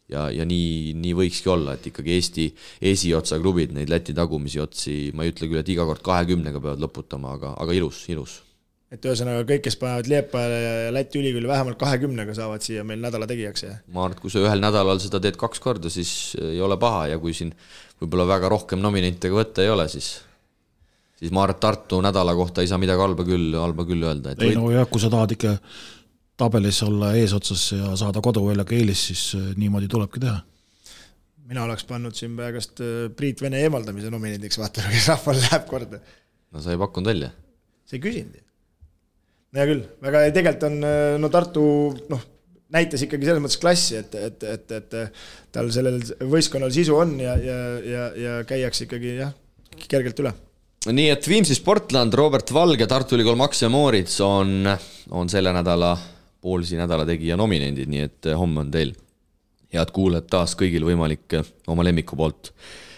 Ja nii võikski olla, et ikkagi Eesti esiotsa klubid, neid Läti tagumisi otsi, ma ei ütle küll, et iga kord 20-ga peavad lõputama, aga ilus. Et ühesõnaga kõik, kes panevad Leepajale ja Läti ülikooli vähemalt 20-ga saavad siia meil nädala tegijaks. Ma arvan, et kui sa ühel nädalal seda teed 2 korda, siis ei ole paha ja kui siin võib-olla väga rohkem nominentidega võtta ei ole, siis ma arvan, et Tartu nädala kohta ei saa midagi halba küll öelda. Ei no jah, kui sa tahad ikka tabelis olla eesotsas ja saada koduväljaga eelis, siis niimoodi tulebki teha. Mina oleks pannud siin praegast Priit Vene eemaldamise nominendiks, vaatame, kes rahval läheb korda. No sa ei pakkunud välja. See ei küsinud. No ja küll, väga tegelikult on Tartu näitas ikkagi selles mõttes klassi, et tal sellel võistkonnal sisu on ja käiaks ikkagi kergelt üle. Nii et Viimsi Sportland, Robert Valge, Tartu Ülikool Max ja Moorits on selle nädala Ballsi nädala tegija nominendid, nii et homme on teil head kuulajad taas kõigil võimalik oma lemmiku poolt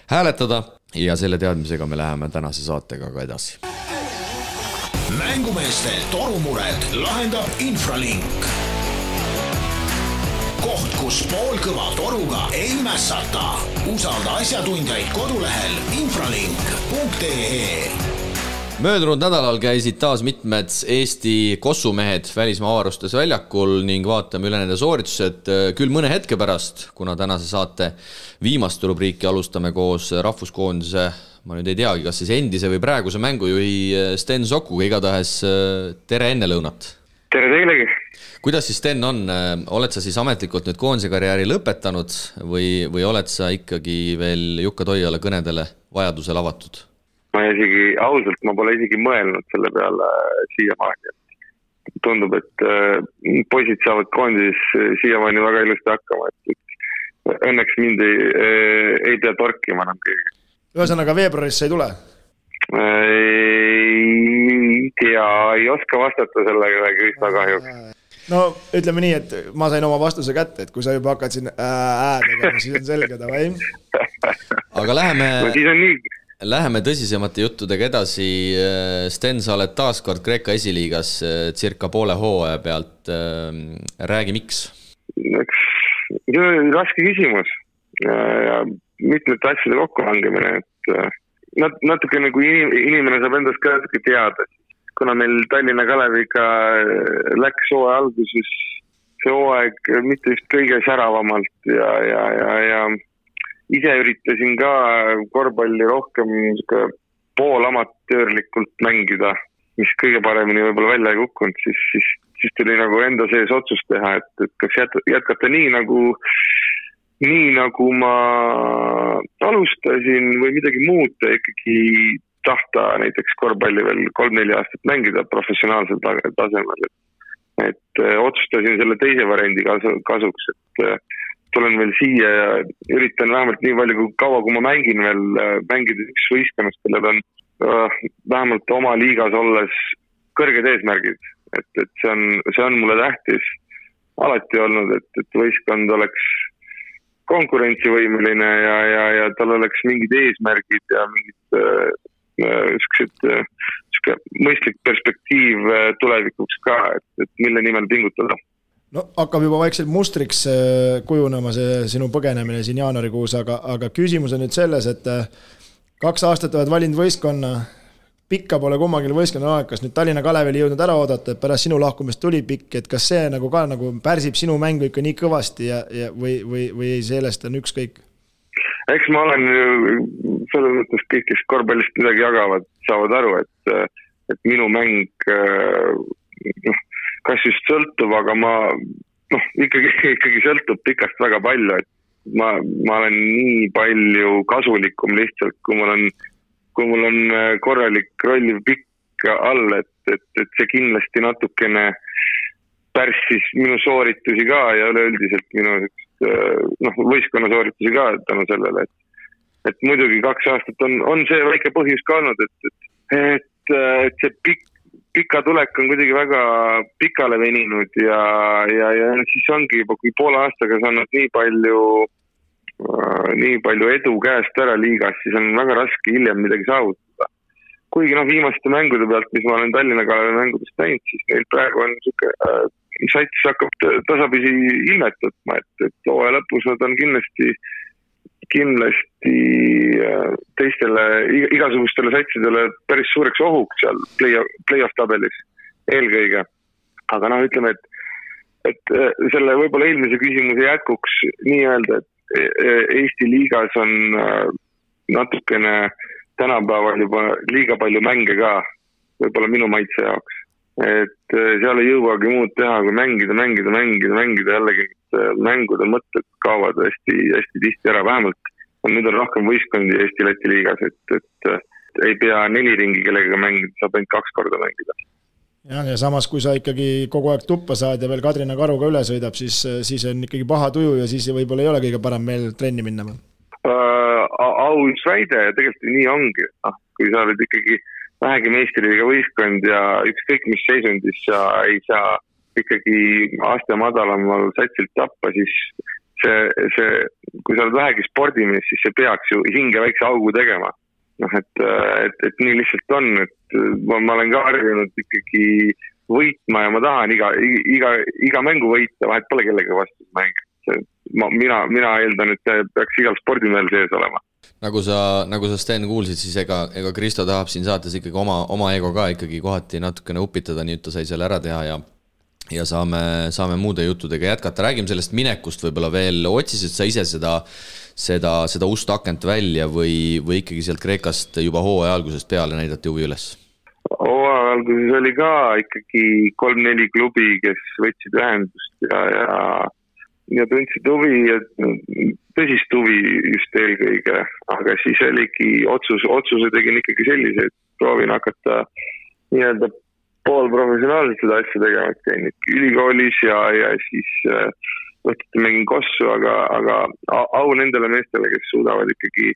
hääletada ja selle teadmisega me läheme tänase saatega ka edasi. Mängumeeste torumured lahendab Infralink. koht, kus poolkõva toruga ei mässata. Usalda asjatundjaid kodulehel infralink.ee. Möödunud nädalal käisid taas mitmed Eesti kossumehed välismaa avarustes väljakul ning vaatame üle nende sooritused küll mõne hetke pärast, kuna tänase saate viimast rubriiki alustame koos rahvuskoondise, ma nüüd ei teagi, kas siis endise või praeguse mängujuhi Sten Sokuga, igatahes tere enne lõunat. Tere teilegi. Kuidas siis Sten on, oled sa siis ametlikult nüüd koondise karjääri lõpetanud või oled sa ikkagi veel Jukka Toiala kõnedele vajadusel avatud? Ma pole isegi mõelnud selle peale siiamaani. Tundub, et poisid saavad koondis siiamaani väga ilusti hakkama, et õnneks mind ei pea torkima enam keegi. Ühesõnaga veebruaris see ei tule? Ei tea, ei oska vastata sellega Krista kahjuks. No ütleme nii, et ma sain oma vastuse kätte, et kui sa juba hakkad siin tegema, siis on selge, või? Aga No, läheme tõsisemate juttudega edasi. Sten, sa oled taaskord Kreeka esiliigas circa poole hooaja pealt. Räägi, miks? Raske küsimus. Ja mitmete asjade kokkulangemine. Natuke nagu inimene saab endast ka natuke teada. Kuna meil Tallinna Kaleviga läks hooaja alguses see hooaeg mitte just kõige säravamalt ja ise üritasin ka korvpalli rohkem poolamatöörlikult mängida, mis kõige paremini võib-olla välja ei kukkunud, siis tuli nagu enda sees otsus teha, et kas jätkata nii nagu ma alustasin või midagi muuta, ikkagi tahta näiteks korvpalli veel 3-4 aastat mängida professionaalsel tasemel. Et otsustasin selle teise variandi kasuks, et tulen veel siia ja üritan vähemalt nii palju kaua, kui ma mängin veel mängida üks võistkonnast, kellel on vähemalt oma liigas olles kõrged eesmärgid. Et see on mulle tähtis alati olnud, et võistkond oleks konkurentsivõimeline ja tal oleks mingid eesmärgid ja mingid mõistlik perspektiiv tulevikuks ka, et mille nimel pingutada. No hakkab juba vaikselt mustriks kujunema see sinu põgenemine siin jaanuarikuus, aga küsimus on nüüd selles, et 2 aastat oled valinud võistkonna, pikka pole kummagil võistkonna aeg, kas nüüd Tallinna Kalevil jõudnud ära oodata, et pärast sinu lahkumist tuli pikk, et kas see nagu ka nagu pärsib sinu mängu ikka nii kõvasti või sellest on ükskõik? Eks ma olen selles mõttes kõik, kes korvpallist midagi jagavad, saavad aru, et minu mäng kas just sõltub, aga ma ikkagi sõltub pikast väga palju, et ma olen nii palju kasulikum lihtsalt, kui mul on korralik rolliv pikk all, et see kindlasti natukene pärssis minu sooritusi ka ja üleüldiselt minu võistkonna sooritusi ka tänu sellele, et muidugi 2 aastat on see väike põhjus ka olnud, et see pika tulek on kuidagi väga pikale veninud ja siis ongi juba, kui poole aastaga saanud nii palju edu käest ära liigas, siis on väga raske hiljem midagi saavutada. Kuigi viimaste mängude pealt, mis ma olen Tallinna Kalevi mängudest näinud, siis neil praegu on sats hakkab tasapisi ilmet võtma, et hooaja lõpus nad on kindlasti teistele igasugustele satsidele päris suureks ohuks seal play-off tabelis eelkõige. Aga ütleme, et selle võib-olla eelmise küsimuse jätkuks nii öelda, et Eesti liigas on natukene tänapäeval juba liiga palju mänge ka, võib-olla minu maitse jaoks. Et seal ei jõuagi muud teha, kui mängida jällegi mängude mõtted kaovad hästi tihti ära, vähemalt nüüd on rohkem võistkondi Eesti-Läti liigas, et ei pea 4 ringi kellega mängida, saab ainult 2 korda mängida. Ja samas, kui sa ikkagi kogu aeg tuppa saad ja veel Kadrina Karuga üle sõidab, siis on ikkagi paha tuju ja siis võib-olla ei ole kõige parem meil trenni minna. Aus väide ja tegelikult nii ongi, kui sa oled ikkagi vähegi meistriliiga võistkond ja ükskõik mis seisundis sa ei saa ikkagi aste madalamal satsilt tappa, siis kui sa oled vähegi spordimees, siis see peaks ju hinge väikse augu tegema. Et nii lihtsalt on, et ma olen ka harjunud ikkagi võitma ja ma tahan iga mängu võita, vahet pole kellega vastu mängida. mina eeldan, et see peaks igal spordimehel sees olema. Nagu sa Sten kuulsid, siis ega Kristo tahab siin saates ikkagi oma ego ka ikkagi kohati natukene upitada, nii et ta sai selle ära teha ja saame muude juttudega jätkata. Räägime sellest minekust võib-olla veel. Otsisid sa ise seda ust akent välja või ikkagi sealt Kreekast juba hooaja algusest peale näidati huvi üles? Hooaja alguses oli ka ikkagi 3-4 klubi, kes võtsid ühendust ja tundsid huvi ja tõsist huvi just eelkõige, aga siis oligi otsuse tegin ikkagi sellise, et proovin hakata nii-öelda poolprofessionaalselt seda asja tegema, et käin ülikoolis ja siis võtete mängin kossu, aga au nendele meestele, kes suudavad ikkagi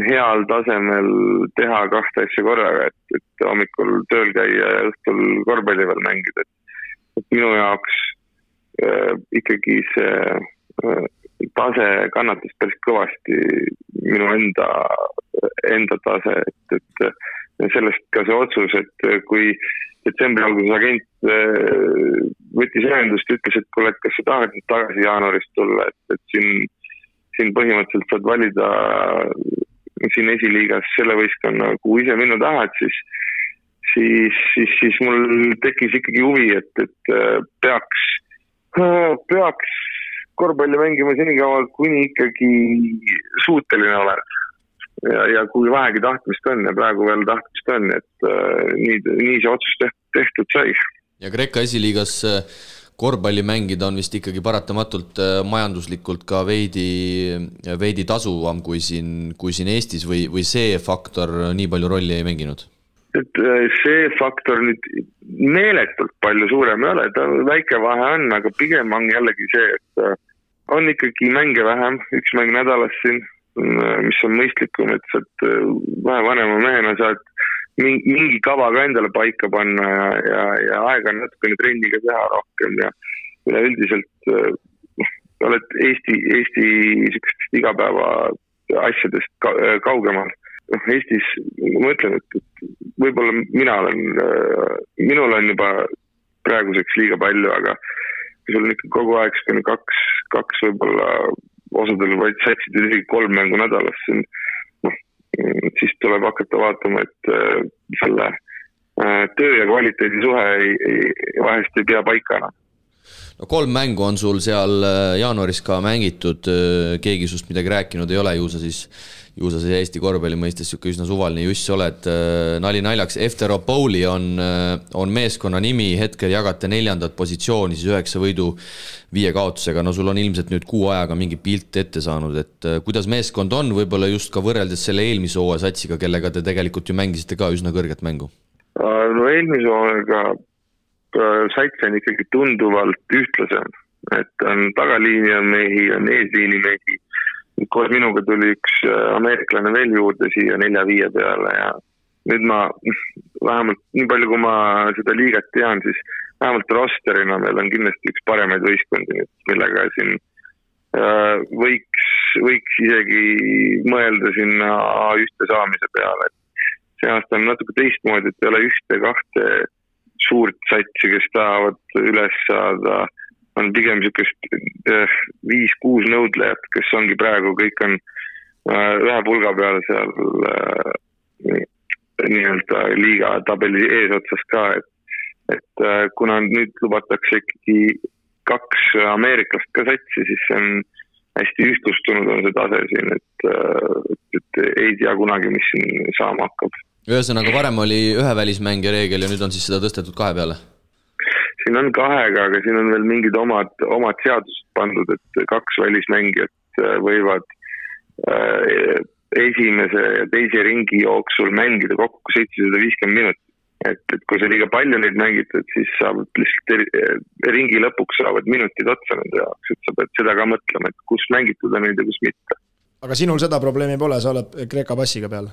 heal tasemel teha kahte asja korraga, et hommikul tööl käia ja õhtul korvpalli veel mängida. Et minu jaoks ikkagi see tase kannatas päris kõvasti minu enda tase, et sellest ka see otsus, et kui detsembri alguses agent võttis ühendust, ütles, et kuule, et kas sa tahad tagasi jaanuarist tulla, et siin põhimõtteliselt saad valida siin esiliigas selle võistkonna, kuhu ise minna tahad, siis mul tekkis ikkagi huvi, et peaks korvpalli mängima senikaua, kuni ikkagi suuteline oled. Ja kui vähegi tahtmist on ja praegu veel tahtmist on, et nii see otsus tehtud sai. Ja Kreeka esiliigas korvpalli mängida on vist ikkagi paratamatult majanduslikult ka veidi tasuvam kui siin Eestis või see faktor nii palju rolli ei mänginud? Et see faktor nüüd meeletult palju suurem ei ole, ta väike vahe on, aga pigem on jällegi see, et on ikkagi mänge vähem, üks mäng nädalas siin, mis on mõistlikum, et saad vähe vanema mehena saad mingi kava ka endale paika panna ja aega on natukene trenniga teha rohkem ja üldiselt oled Eesti igapäeva asjadest kaugemal. Eestis ma mõtlen, et võib-olla minul on juba praeguseks liiga palju, aga kui sul on ikka kogu aeg kaks võib-olla osadel vaid satsid isegi 3 mängu nädalas, siis tuleb hakata vaatama, et selle töö ja kvaliteedi suhe vahest ei pea paikana. No 3 mängu on sul seal jaanuaris ka mängitud, keegi sust midagi rääkinud ei ole, ju sa siis Eesti korvpalli mõistes üsna suvaline juss oled. Nali naljaks, Efteropoli on meeskonna nimi, hetkel jagate 4. positsiooni, siis 9 võidu 5 kaotusega. No sul on ilmselt nüüd 6 ajaga mingi pilt ette saanud, et kuidas meeskond on võib-olla just ka võrreldes selle eelmise hooaja satsiga, kellega te tegelikult ju mängisite ka üsna kõrget mängu? No eelmise hooajaga sats on ikkagi tunduvalt ühtlasem, et on tagaliini on mehi, on eesliini mehi. Koos minuga tuli üks ameeriklane veel juurde siia 4-5 peale ja nüüd ma vähemalt nii palju, kui ma seda liigat tean, siis vähemalt rosterina meil on kindlasti üks paremaid võistkondi, millega siin võiks isegi mõelda sinna A1 saamise peale. See aasta on natuke teistmoodi, et ei ole 1-2 suurt satsi, kes tahavad üles saada, on pigem niisugust 5-6 nõudlejat, kes ongi praegu, kõik on ühe pulga peal seal nii-öelda liiga tabeli eesotsas ka, et kuna nüüd lubatakse ikkagi 2 ameeriklast ka satsi, siis see on hästi ühtlustunud on see tase siin, et ei tea kunagi, mis siin saama hakkab. Ühesõnaga varem oli 1 välismängija reegel ja nüüd on siis seda tõstetud 2 peale? Siin on 2, aga siin on veel mingid omad seadused pandud, et 2 välismängijat võivad esimese ja teise ringi jooksul mängida kokku 750 minutit. Et kui see liiga palju neid mängitad, siis saavad lihtsalt ringi lõpuks saavad minutid otsa nende jaoks, et sa pead seda ka mõtlema, et kus mängitud on neid ja kus mitte. Aga sinul seda probleemi pole, sa oled Kreeka passiga peal?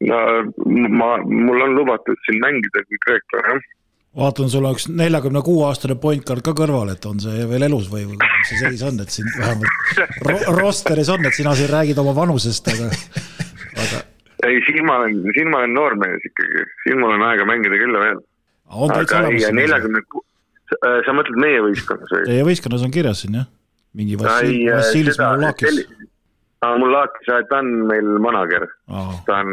No, mul on lubatud siin mängida kui Kreeka, Vaatan, sul on üks 46-aastane pointcard ka kõrval, et on see veel elus või see seis on, et siin vähemalt rosteris on, et sina siin räägid oma vanusest, aga... Ei, siin ma olen noormees ikkagi, siin mul on aega mängida küll veel. On täitsa olemas? sa mõtled meie võistkonnas või? Teie võistkonnas on kirjas siin, jah? Mingi Vassilis Mulakis. Mulakis, ta on meil manager. Ta on,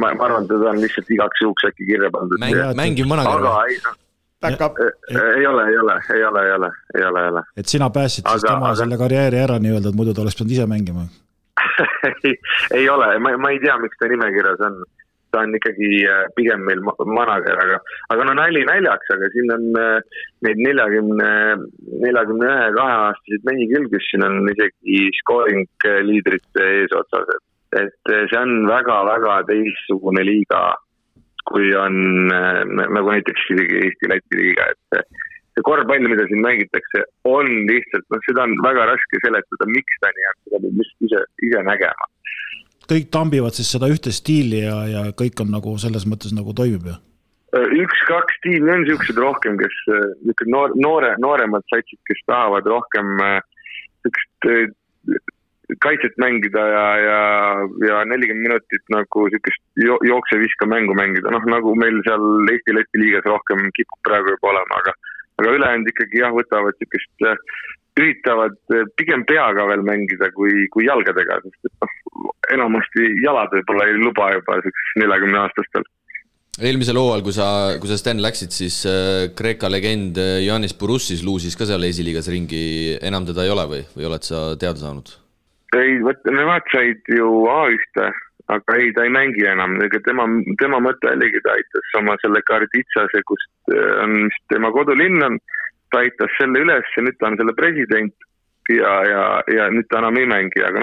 ma arvan, ta on lihtsalt igaks juhuks äkki kirja pandud. Mängiv manager. Aga ei ole. Et sina pääsid siis tema selle karjääri ära nii-öelda, et muidu ta oleks pidanud ise mängima? ei ole, ma ei tea, miks ta nimekirjas on. Ta on ikkagi pigem meil manager, aga no nali naljaks, aga siin on neid 41-2-aastasid mehi küll, kes siin on isegi scoring liidrite ees otsas, et see on väga-väga teistsugune liiga, kui on nagu näiteks Eesti-Läti liiga, et see korvpall, mida siin mängitakse, on lihtsalt, seda on väga raske seletada, miks ta nii on, seda peab ise nägema. Kõik tambivad siis seda ühte stiili ja kõik on nagu selles mõttes nagu toimib, jah? 1-2 tiimi on niisugused rohkem, kes nooremad satsid, kes tahavad rohkem kaitset mängida ja 40 minutit nagu niisugust jookse-viska mängu mängida. Nagu meil seal Eesti-Läti liigas rohkem kipub praegu juba olema, aga ülejäänud ikkagi võtavad niisugust üritavad pigem peaga veel mängida kui jalgadega, sest enamasti jalad võib-olla ei luba juba 40 aastastel. Eelmisel hooajal, kui sa Sten läksid, siis Kreeka legend Yannis Bourussis luusis ka seal esiliigas ringi, enam teda ei ole või oled sa teada saanud? Ei, nemad said ju A1, aga ei, ta ei mängi enam. Tema mõte oligi, ta aitas oma selle Karditsase, kust on tema kodulinn on, ta aitas selle üles ja nüüd ta on selle president ja nüüd ta enam ei mängi, aga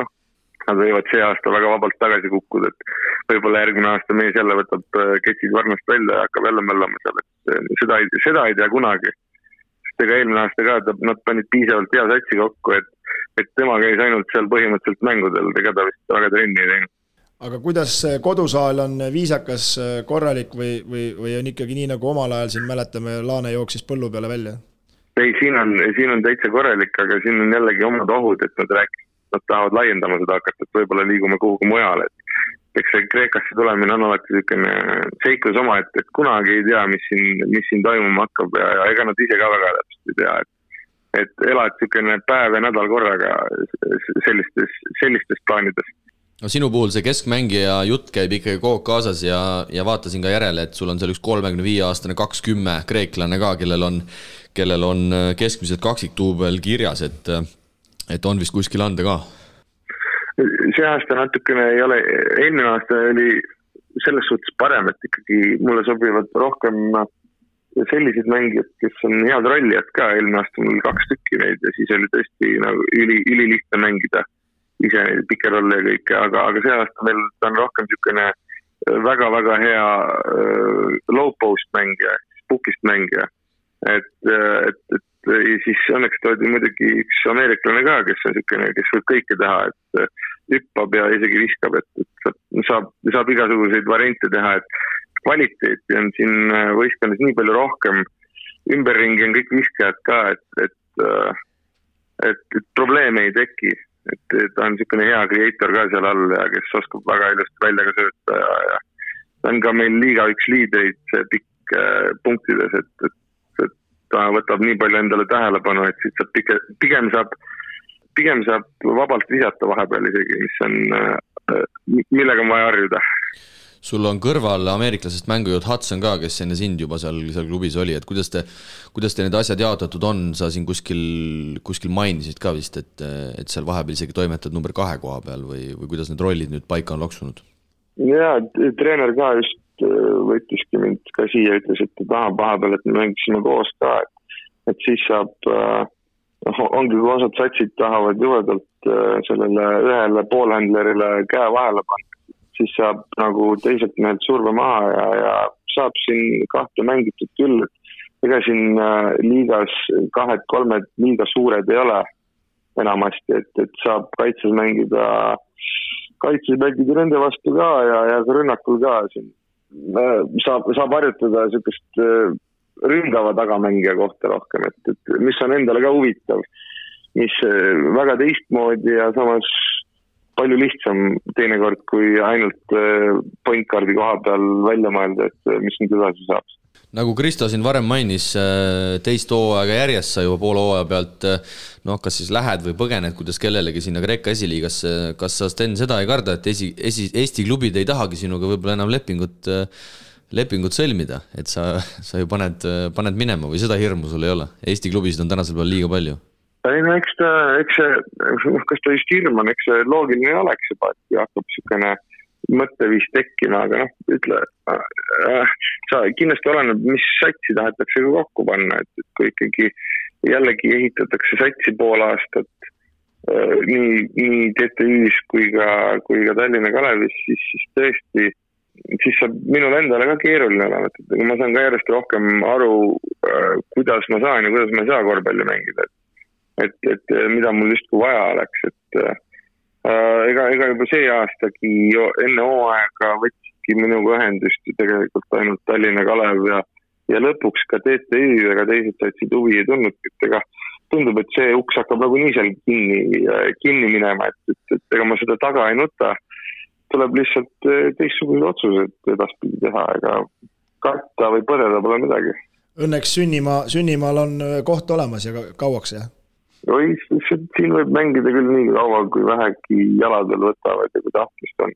nad võivad see aasta väga vabalt tagasi kukkuda, et võib-olla järgmine aasta mees jälle võtab ketsid varnast välja ja hakkab jälle möllama seal, et seda ei tea kunagi. Sest ega eelmine aasta ka, nad panid piisavalt hea satsi kokku, et tema käis ainult seal põhimõtteliselt mängudel, ega ta vist väga trenni ei teinud. Aga kuidas kodusaal on viisakas, korralik või on ikkagi nii, nagu omal ajal siin mäletame, Laane jooksis põllu peale välja? Ei, siin on täitsa korralik, aga siin on jällegi omad ohud, et nad tahavad laiendama seda hakata, et võib-olla liigume kuhugi mujale. Eks see Kreekasse tulemine on alati selline seiklus oma, et kunagi ei tea, mis siin toimuma hakkab ja ega nad ise ka väga täpselt ei tea, et elad selline päev ja nädal korraga sellistes plaanides. No sinu puhul see keskmängija jutt käib ikkagi kogu kaasas ja vaatasin ka järele, et sul on seal üks 35-aastane 20 kreeklane ka, kellel on keskmised kaksiktuubel kirjas, et on vist kuskil anda ka? See aasta natukene ei ole, eelmine aasta oli selles suhtes parem, et ikkagi mulle sobivad rohkem sellised mängijad, kes on head rollijad ka, eelmine aasta mul 2 tükki neid ja siis oli tõesti nagu ülilihtne mängida ise pikke rolle ja kõike, aga see aasta meil on rohkem niisugune väga-väga hea low post mängija, pukist mängija, et siis õnneks toodi muidugi üks ameeriklane ka, kes on niisugune, kes võib kõike teha, et hüppab ja isegi viskab, et saab igasuguseid variante teha, et kvaliteeti on siin võistkonnas nii palju rohkem, ümberringi on kõik viskajad ka, et probleeme ei teki, et ta on niisugune hea creator ka seal all ja kes oskab väga ilusti välja ka sööta ja ta on ka meil liiga üks liidreid pikk punktides, et ta võtab nii palju endale tähelepanu, et siit saab pigem saab vabalt visata vahepeal isegi, millega on vaja harjuda. Sul on kõrval ameeriklasest mängujõud Hudson ka, kes enne sind juba seal klubis oli, et kuidas te need asjad jaotatud on, sa siin kuskil mainisid ka vist, et seal vahepeal isegi toimetad number 2 koha peal või kuidas need rollid nüüd paika on loksunud? Jaa, treener ka just võttiski mind ka siia, ütles, et ta tahab vahepeal, et me mängisime koos ka, et siis saab, ongi kui osad satsid tahavad juhedalt sellele ühele poolhändlerile käe vahele panna, siis saab nagu teiselt mehelt surve maha ja saab siin 2 mängitud küll, et ega siin liigas 2-3 liiga suured ei ole enamasti, et saab kaitses mängida nende vastu ka ja rünnakul ka siin. Saab harjutada niisugust ründava tagamängija kohta rohkem, et mis on endale ka huvitav, mis väga teistmoodi ja samas palju lihtsam teinekord, kui ainult point guardi koha peal välja mõelda, et mis nüüd edasi saab. nagu Kristo siin varem mainis, teist hooaega järjest sa juba poole hooaja pealt kas siis lähed või põgened, kuidas kellelegi sinna Kreeka esiliigasse. Kas sa, Sten, seda ei karda, et Eesti klubid ei tahagi sinuga võib-olla enam lepingut sõlmida, et sa ju paned minema või seda hirmu sul ei ole? Eesti klubisid on tänasel peal liiga palju. Ei, no eks kas ta just hirm on, eks see loogiline oleks juba, et hakkab sükene mõtteviis tekkima, aga ütle, sa kindlasti oleneb, mis satsi tahetakse kokku panna, et kui ikkagi jällegi ehitatakse satsi pool aastat nii TTÜ-s kui ka Tallinna Kalevis, siis tõesti, siis saab minul endale ka keeruline olema, et ma saan ka järjest rohkem aru, kuidas ma saan ja kuidas ma ei saa korvpalli mängida, et mida mul justkui vaja oleks, et ega juba see aastagi enne hooaega võtsidki minuga ühendust tegelikult ainult Tallinna Kalev ja lõpuks ka TTÜ, ega teised satsid huvi ei tulnud, et ega tundub, et see uks hakkab nagu nii seal kinni minema, et ega ma seda taga ei nuta, tuleb lihtsalt teistsugused otsused edaspidi teha, ega karta või põdeda pole midagi. Õnneks sünnimaal on koht olemas ja kauaks, jah? Oi, siin võib mängida küll nii kaua, kui vähegi jaladel võtavad ja kui tahtmist on.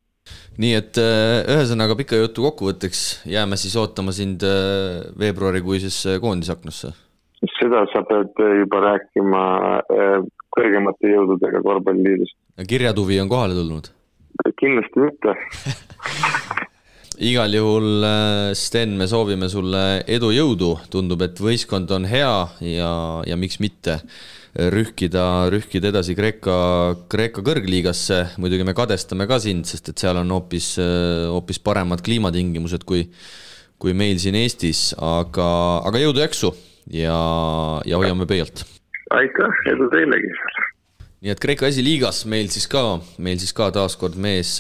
Nii et ühesõnaga pika jutu kokkuvõtteks jääme siis ootama sind veebruarikuises koondisaknasse. Seda sa pead juba rääkima kõrgemate jõududega korvpalliliidust. Kirjatuvi on kohale tulnud? Kindlasti mitte. Igal juhul, Sten, me soovime sulle edu jõudu. Tundub, et võistkond on hea ja miks mitte rühkida edasi Kreeka kõrgliigasse. Muidugi me kadestame ka sind, sest et seal on hoopis paremad kliimatingimused kui meil siin Eestis, aga jõudu jaksu ja hoiame pöialt. Aitäh, edu teilegi. Nii et Kreeka esiliigas meil siis ka taaskord mees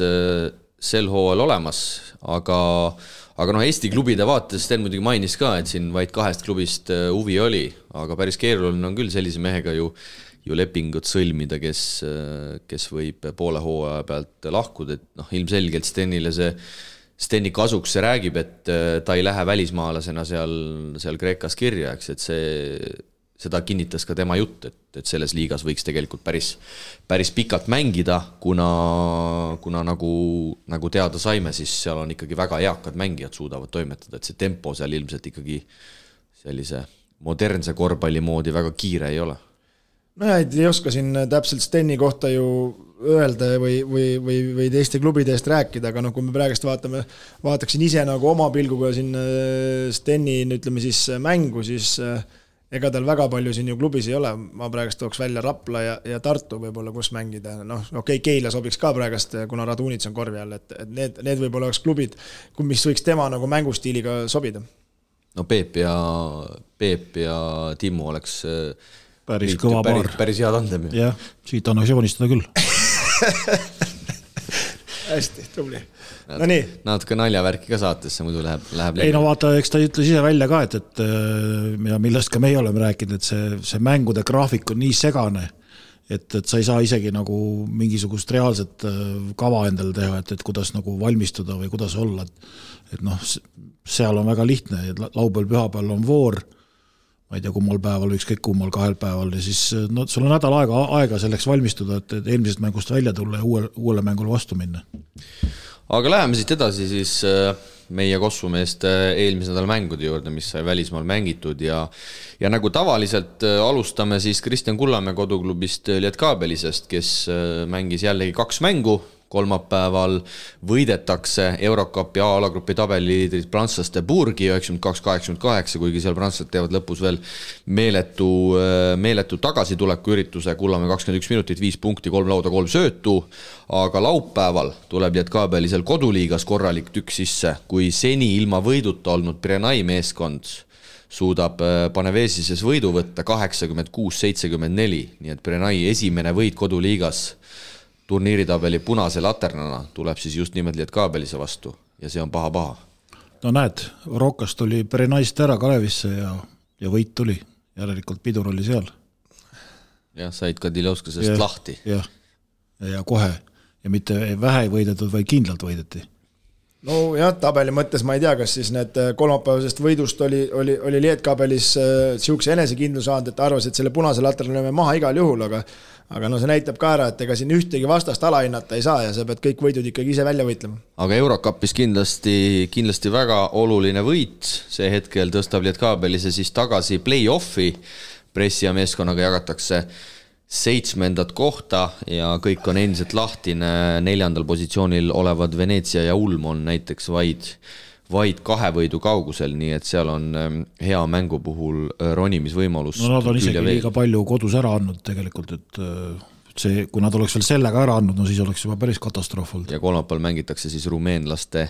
sel hooajal olemas, aga Eesti klubide vaates Sten muidugi mainis ka, et siin vaid 2 klubist huvi oli, aga päris keeruline on küll sellise mehega ju lepingut sõlmida, kes võib poole hooaja pealt lahkuda, et ilmselgelt Steni kasuks see räägib, et ta ei lähe välismaalasena seal Kreekas kirja, eks, et seda kinnitas ka tema jutt, et selles liigas võiks tegelikult päris pikalt mängida, kuna nagu teada saime, siis seal on ikkagi väga eakad mängijad suudavad toimetada, et see tempo seal ilmselt ikkagi sellise modernse korvpalli moodi väga kiire ei ole. No ei oska siin täpselt Steni kohta ju öelda või teiste klubide eest rääkida, aga kui me praegust vaataksin ise nagu oma pilguga siin Steni, ütleme siis mängu, siis ega tal väga palju siin ju klubis ei ole, ma praegust tooks välja Rapla ja Tartu võib-olla, kus mängida, Keila sobiks ka praegust, kuna Radunits on korvi all, et need võib-olla oleks klubid, mis võiks tema nagu mängustiiliga sobida. No Peep ja Timmu oleks päris kõva paar. Päris hea tandem. Jah, siit annaks joonistada küll. Hästi, tubli. No nii. Natuke naljavärki ka saatesse, muidu läheb ei no vaata, eks ta ütles ise välja ka, et millest ka meie oleme rääkinud, et see mängude graafik on nii segane, et sa ei saa isegi nagu mingisugust reaalset kava endale teha, et kuidas nagu valmistuda või kuidas olla, et seal on väga lihtne, et laupäeval pühapäeval on voor, ma ei tea, kummal päeval, ükskõik kummal 2 päeval ja siis sul on nädal aega selleks valmistuda, et eelmisest mängust välja tulla ja uuele mängule vastu minna. Aga läheme siit edasi siis meie Kossumeeste eelmise nädala mängude juurde, mis sai välismaal mängitud ja nagu tavaliselt alustame siis Kristjan Kullamäe koduklubist Lietkabelisest, kes mängis jällegi 2 mängu. Kolmapäeval võidetakse Eurocupi A-alagrupi tabeliliidrid prantslaste Burgi 92-88, kuigi seal prantslased teevad lõpus veel meeletu tagasituleku ürituse, Kullamäe 21 minutit, 5 punkti, 3 lauda, 3 söötu, aga laupäeval tuleb Lietkabelisel koduliigas korralik tükk sisse, kui seni ilma võiduta olnud Pirenai meeskond suudab Panevesises võidu võtta 86-74, nii et Pirenai esimene võit koduliigas turniiritabeli punase laternana tuleb siis just nimelt Lietkabelise vastu ja see on paha. No näed, Rokas tuli Perenaist ära Kalevisse ja võit tuli, järelikult pidur oli seal. Jah, said ka Dilovskasest lahti. Ja kohe ja mitte vähe ei võidetud, vaid kindlalt võideti. no jah, tabeli mõttes ma ei tea, kas siis need kolmapäevasest võidust oli Lietkabelis siukse enesekindluse saanud, et arvas, et selle punase latrali lööme maha igal juhul, aga no see näitab ka ära, et ega siin ühtegi vastast alahinnata ei saa ja sa pead kõik võidud ikkagi ise välja võitlema. Aga Eurocupis kindlasti väga oluline võit, see hetkel tõstab Lietkabelise siis tagasi play-offi, Pressia meeskonnaga jagatakse 7. kohta ja kõik on endiselt lahtine, 4. positsioonil olevad Veneetsia ja Ulm on näiteks vaid 2 võidu kaugusel, nii et seal on hea mängu puhul ronimisvõimalus. No nad on isegi liiga palju kodus ära andnud tegelikult, et see, kui nad oleks veel sellega ära andnud, no siis oleks juba päris katastroof olnud. Ja kolmapäeval mängitakse siis rumeenlaste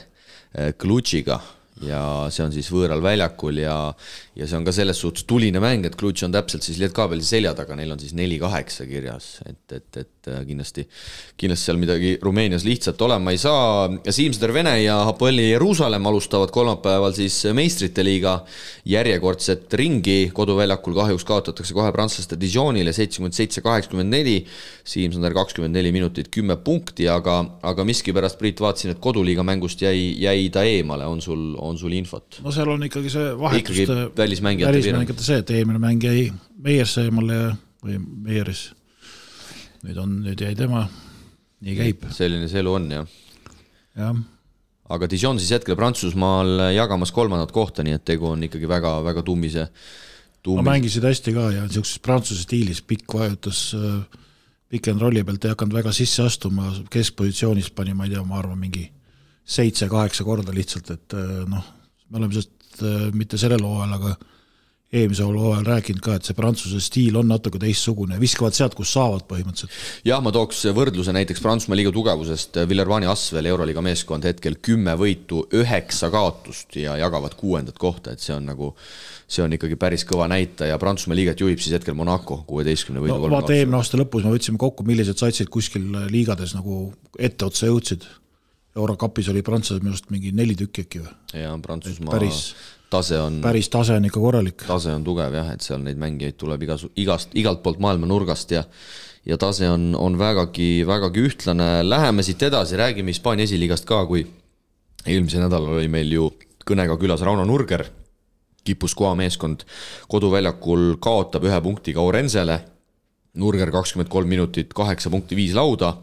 Klutšiga ja see on siis võõral väljakul ja see on ka selles suhtes tuline mäng, et Klutš on täpselt siis Lietkabelise selja taga, neil on siis 4-8 kirjas, et kindlasti seal midagi Rumeenias lihtsalt olema ei saa. Siimseder Vene ja Hapoeli Jeruusalemm alustavad kolmapäeval siis meistrite liiga järjekordset ringi, koduväljakul kahjuks kaotatakse kohe prantslaste Dijonile 77-84, Siimseder 24 minutit 10 punkti, aga miskipärast Priit vaatasin, et koduliiga mängust jäi ta eemale, on sul infot? No seal on ikkagi see vahetuste välismängijate see, et eelmine mäng jäi Meierse eemale või Meieris. Nüüd jäi tema, nii käib. Selline see elu on, jah. Aga Dijon siis hetkel Prantsusmaal jagamas 3. kohta, nii et tegu on ikkagi väga tummise. No mängisid hästi ka ja niisuguses prantsuse stiilis pikk vajutas pikk and rolli pealt ei hakanud väga sisse astuma, keskpositsioonis pani, ma ei tea, ma arvan mingi 7-8 korda lihtsalt, et me oleme sellest mitte sellel hooajal, aga eelmise hooajal rääkinud ka, et see prantsuse stiil on natuke teistsugune, viskavad sealt, kus saavad põhimõtteliselt. Jah, ma tooks võrdluse näiteks Prantsusmaa liiga tugevusest, Villervani Asvel Euroliiga meeskond hetkel 10 võitu, 9 kaotust ja jagavad 6. kohta, et see on ikkagi päris kõva näita ja Prantsusmaa liigat juhib siis hetkel Monaco 16 võidu. No vaata eelmine aasta lõpus me võtsime kokku, millised satsid kuskil liigades nagu etteotsa jõudsid. Eurocupis oli Prantsused minust mingi 4 tükki äkki või? Ja Prantsusmaa tase on ikka korralik. Tase on tugev jah, et seal neid mängijaid tuleb igalt poolt maailma nurgast ja tase on vägagi ühtlane. Läheme siit edasi, räägime Hispaania esiliigast ka, kui eelmise nädalal oli meil ju kõnega külas Rauno Nurger, Guipuscoa meeskond koduväljakul kaotab 1 punktiga Orensele, Nurger 23 minutit, 8 punkti, 5 lauda,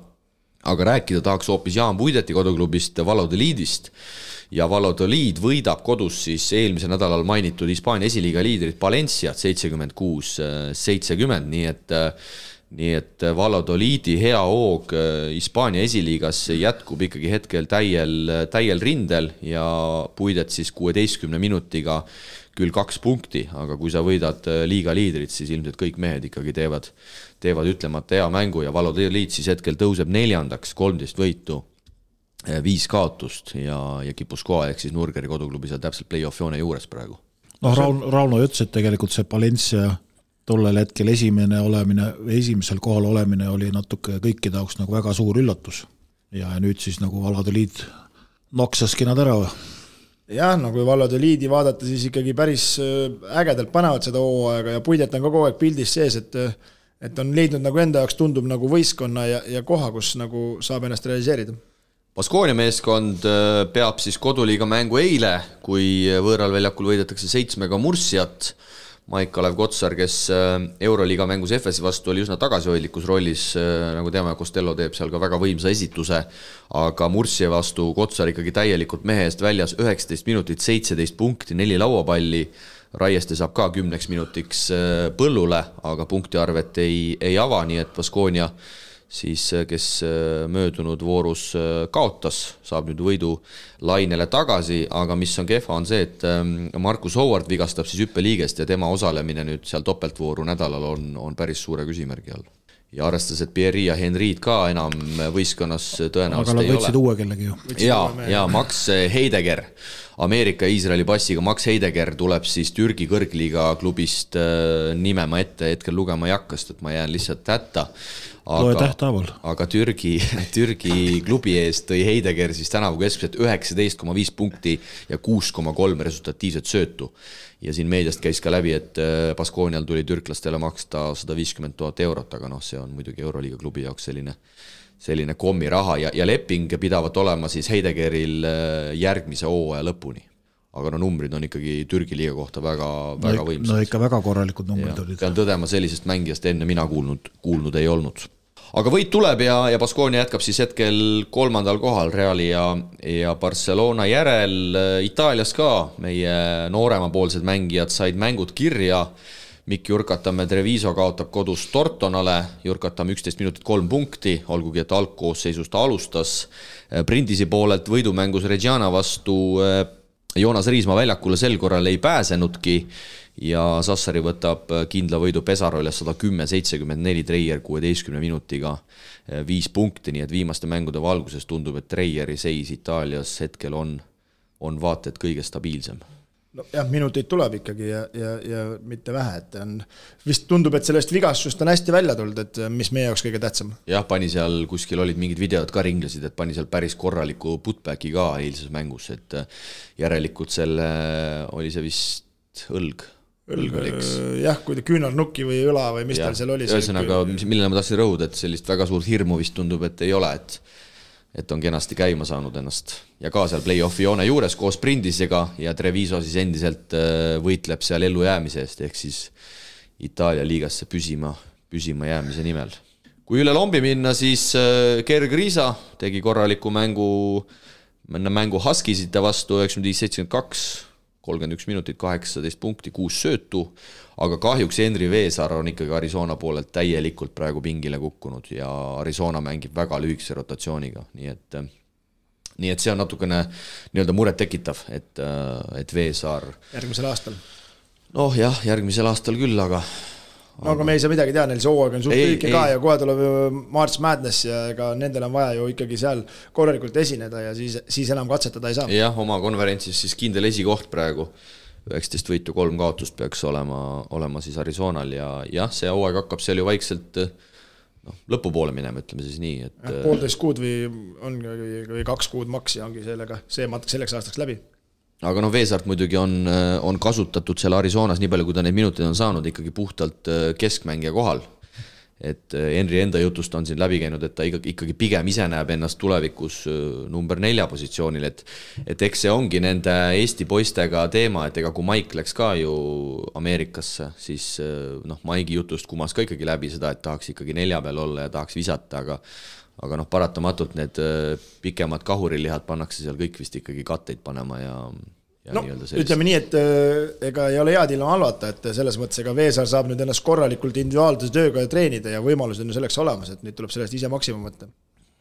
aga rääkida tahaks hoopis Jaan Puideti koduklubist Valladolidist ja Valladolid võidab kodus siis eelmise nädalal mainitud Hispaania esiliiga liidrit Valenciat 76-70, nii et Valladolidi hea hoog Hispaania esiliigas jätkub ikkagi hetkel täiel rindel ja Puidet siis 16 minutiga küll 2 punkti, aga kui sa võidad liiga liidrit, siis ilmselt kõik mehed ikkagi teevad ütlemata hea mängu ja Valladolid siis hetkel tõuseb 4., 13 võitu, 5 kaotust ja Guipuscoa ehk siis Nurgeri koduklubi seal täpselt play-off joone juures praegu. Rauno ütles, et tegelikult see Valencia tollel hetkel esimesel kohal olemine oli natuke kõikide jaoks nagu väga suur üllatus ja nüüd siis nagu Valladolid noksaski nad ära. Jah, no kui Valladolidi vaadata, siis ikkagi päris ägedalt panevad seda hooaega ja Puidet on kogu aeg pildis sees, et on leidnud nagu enda jaoks tundub nagu võistkonna ja koha, kus nagu saab ennast realiseerida. Baskonia meeskond peab siis koduliiga mängu eile, kui võõral väljakul võidetakse 7 Mursiat. Maik-Kalev Kotsar, kes Euroliiga mängus FS vastu oli üsna tagasihoidlikus rollis, nagu teame, Costello teeb seal ka väga võimsa esituse, aga Mursia vastu Kotsar ikkagi täielikult mehe eest väljas 19 minutit, 17 punkti, 4 lauapalli, Raieste saab ka 10 minutiks põllule, aga punktiarvet ei ava, nii et Baskonia siis, kes möödunud voorus kaotas, saab nüüd võidu lainele tagasi, aga mis on kehva on see, et Marcus Howard vigastab siis hüppeliigest ja tema osalemine nüüd seal topeltvooru nädalal on päris suure küsimärgi all. Ja arvestas, et Pierre ja Henriid ka enam võistkonnas tõenäoliselt ei ole. Aga nad võtsid uue kellegi ju. Ja Max Heidegger, Ameerika Iisraeli passiga Max Heidegger tuleb siis Türgi kõrgliiga klubist nime ma hetkel lugema ei hakka, sest ma jään lihtsalt hätta. Aga Türgi klubi eest tõi Heidegger siis tänavu keskmiselt 19,5 punkti ja 6,3 resultatiivset söötu. Ja siin meediast käis ka läbi, et Baskonial tuli türklastele maksta 150 000 eurot, aga see on muidugi Euroliiga klubi jaoks selline kommiraha ja leping pidavat olema siis Heidegeril järgmise hooaja lõpuni. Aga no numbrid on ikkagi Türgi liiga kohta väga võimsad. No ikka väga korralikud numbrid olid. Pean tõdema, sellisest mängijast enne mina kuulnud ei olnud. Aga võit tuleb ja Baskonia jätkab siis hetkel 3. kohal Reali ja Barcelona järel. Itaalias ka meie nooremapoolsed mängijad said mängud kirja. Mikk Jurkatamme Treviso kaotab kodus Tortonale, Jurkatamme 11 minutit 3 punkti, olgugi et algkoosseisust ta alustas. Brindisi poolelt võidumängus Reggiana vastu Joonas Riismaa väljakule sel korral ei pääsenudki ja Sassari võtab kindla võidu Pesaroles 110-74 Treier 16 minutiga 5 punkti, nii et viimaste mängude valguses tundub, et Treieri seis Itaalias hetkel on vaated kõige stabiilsem. No jah, minuteid tuleb ikkagi ja mitte vähe, et vist tundub, et sellest vigastust on hästi välja tulnud, et mis meie jaoks kõige tähtsam. Jah, pani seal kuskil olid mingid videod ka ringlesid, et pani seal päris korraliku putbacki ka eilses mängus, et järelikult selle oli see vist õlg oliks. Jah, kui ta küünarnukki või õla või mis tal seal oli. Ühesõnaga, millele ma tahtsin rõhuda, et sellist väga suurt hirmu vist tundub, et ei ole, et on kenasti käima saanud ennast ja ka seal play-offi joone juures koos Brindisega ja Treviso siis endiselt võitleb seal ellu jäämise eest ehk siis Itaalia liigasse püsima jäämise nimel. Kui üle lombi minna, siis Gerg Riisa tegi korraliku mängu Huskisite vastu 95-72, 31 minutit, 18 punkti, 6 söötu, aga kahjuks Henri Veesaar on ikkagi Arizona poolelt täielikult praegu pingile kukkunud ja Arizona mängib väga lühikese rotatsiooniga, nii et see on natukene nii-öelda muret tekitav, et Veesaar järgmisel aastal. Noh jah, järgmisel aastal küll, aga me ei saa midagi teha, neil see hooaeg on suht lühike ka ja kohe tuleb March Madness ja ega nendel on vaja ju ikkagi seal korralikult esineda ja siis enam katsetada ei saa. Jah, oma konverentsis siis kindel esikoht praegu 19 võitu 3 kaotust peaks olema siis Arizonal ja jah, see hooaeg hakkab seal ju vaikselt lõpupoole minema, ütleme siis nii. Et 1,5 kuud või 2 kuud maks ja ongi see matk selleks aastaks läbi. Aga Veesaart muidugi on kasutatud seal Arizonas nii palju, kui ta neid minuteid on saanud ikkagi puhtalt keskmängija kohal. Et Henri enda jutust on siin läbi käinud, et ta ikkagi pigem ise näeb ennast tulevikus number 4 positsioonil, et eks see ongi nende Eesti poistega teema, et ega kui Mike läks ka ju Ameerikasse, siis Maigi jutust kumas ka ikkagi läbi seda, et tahaks ikkagi 4 peal olla ja tahaks visata, aga paratamatult need pikemad kahurilihad pannakse seal kõik vist ikkagi katteid panema ja ütleme nii, et ega ei ole head ilma halvata, et selles mõttes ega Veesaar saab nüüd ennast korralikult individuaalse tööga treenida ja võimalused on selleks olemas, et nüüd tuleb sellest ise maksimum võtta.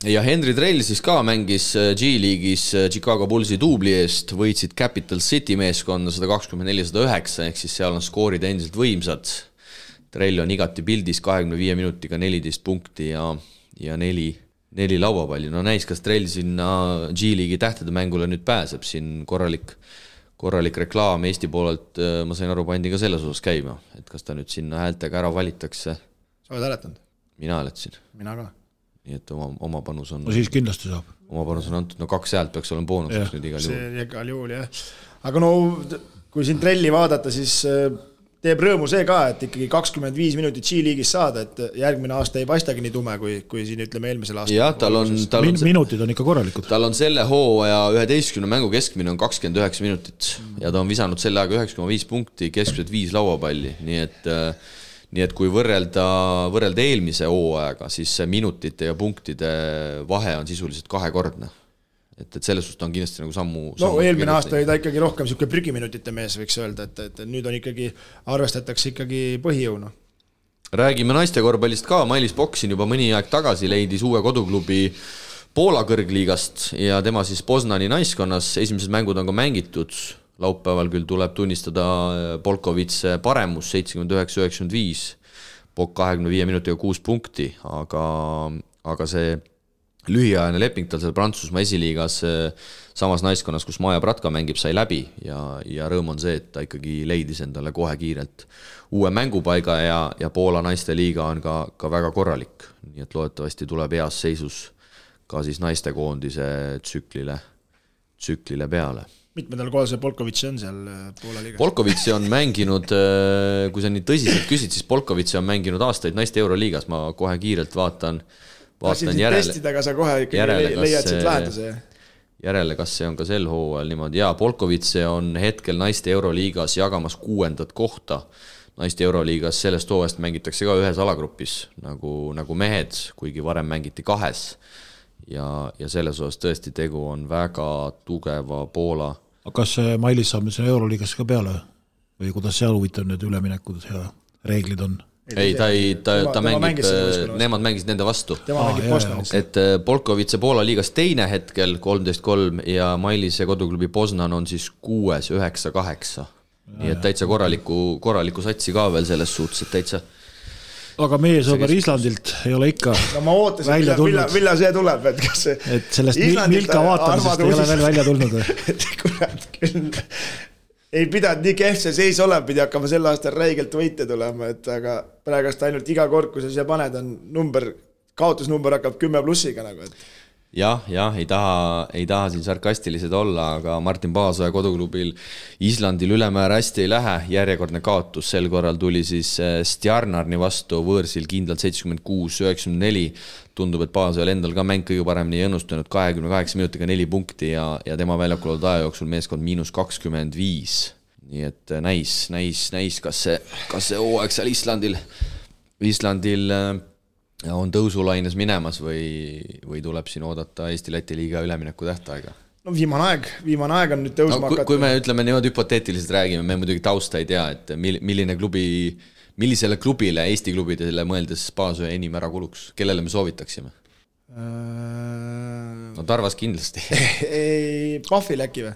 Ja Henry Drell siis ka mängis G-liigis Chicago Bullsi duubli eest, võitsid Capital City meeskonna 124-109, ehk siis seal on skoorid endiselt võimsad. Drell on igati pildis 25 minutiga 14 punkti ja 4 lauapalli. No näis, kas Drell sinna G-liigi tähtede mängule nüüd pääseb, siin korralik reklaam Eesti poolelt, ma sain aru, pandi ka selles osas käima, et kas ta nüüd sinna häältega ära valitakse. Sa oled hääletanud? Mina hääletasin. Mina ka. Nii et oma panus on... No siis kindlasti saab. Oma panus on antud, 2 häält peaks olema boonuseks nüüd igal juhul. See igal juhul, jah. Aga kui siin Drelli vaadata, siis teeb rõõmu see ka, et ikkagi 25 minutit G-liigis saada, et järgmine aasta ei paistagi nii tume, kui siin ütleme eelmisel aastal. Jah, tal on minutid on ikka korralikud. Tal on selle hooaja 11 mängu keskmine on 29 minutit ja ta on visanud selle aega 9,5 punkti, keskmiselt 5 lauapalli, nii et kui võrrelda eelmise hooajaga, siis minutite ja punktide vahe on sisuliselt 2-kordne. Et selles suhtes on kindlasti nagu sammu eelmine aasta oli ta ikkagi rohkem selline prügiminutite mees, võiks öelda, et nüüd on ikkagi, arvestatakse ikkagi põhijõuna. Räägime naiste korvpallist ka, Mailis Boksin juba mõni aeg tagasi leidis uue koduklubi Poola kõrgliigast ja tema siis Poznani naiskonnas, esimesed mängud on ka mängitud, laupäeval küll tuleb tunnistada Polkovits paremus 79-95, Pok 25 minutiga 6 punkti, aga see lühiajane leping tal seal Prantsusmaa esiliigas samas naiskonnas, kus Maja Pratka mängib, sai läbi ja rõõm on see, et ta ikkagi leidis endale kohe kiirelt uue mängupaiga ja Poola naiste liiga on ka väga korralik, nii et loodetavasti tuleb heas seisus ka siis naistekoondise tsüklile peale. Mitmendal kohal see Polkovitsi on seal Poola liigas? Polkovitsi on mänginud, kui sa nii tõsiselt küsid, siis Polkovitsi on mänginud aastaid naiste Euroliigas, ma kohe kiirelt vaatan vaatan järele. Testida, aga sa kohe ikkagi leiad siit lahenduse. Järele, kas see on ka sel hooajal niimoodi. Jaa, Polkovitse on hetkel naiste Euroliigas jagamas 6. kohta. Naiste Euroliigas sellest hooajast mängitakse ka ühes alagrupis, nagu mehed, kuigi varem mängiti 2. Ja selles osas tõesti tegu on väga tugeva Poola. Aga kas Mailis saab nüüd Euroliigas ka peale? Või kuidas seal huvitav need üleminekud ja reeglid on? Ei, ta mängib, nemad mängisid nende vastu. Tema mängib Poznanis. Et Polkovitse Poola liigas 2. hetkel 13-3 ja Mailise koduklubi Poznan on siis 6, 9, 8. Nii et täitsa korraliku satsi ka veel selles suhtes, et täitsa. Aga meie sõber Islandilt ei ole ikka no ma ootasin, millal see tuleb, et kas see... Et sellest Milka vaatamisest ei ole veel välja tulnud. Et kurat küll... Ei pidanud nii kehv see seis olema, pidi hakkama sel aastal räigelt võite tulema, et aga praegast ainult iga kord, kui sa siia paned, on kaotusnumber hakkab 10+-iga nagu, et... Jah, ei taha siin sarkastilised olla, aga Martin Paasoja koduklubil Islandil ülemäära hästi ei lähe, järjekordne kaotus, sel korral tuli siis Stjarnarni vastu võõrsil kindlalt 76-94, tundub, et Paasojal endal ka mäng kõige paremini ei õnnustunud, 28 minutiga 4 punkti ja tema väljakul olnud aja jooksul meeskond -25, nii et näis, kas see hooaeg seal Islandil on tõusulaines minemas või tuleb siin oodata Eesti-Läti liiga ülemineku tähtaega? No viimane aeg on nüüd tõusma hakata. Kui me ütleme niimoodi hüpoteetiliselt räägime, me muidugi tausta ei tea, et millisele klubile, Eesti klubidele mõeldes Paasoja enim ära kuluks? Kellele me soovitaksime? No Tarvas kindlasti. Pahvile äkki või?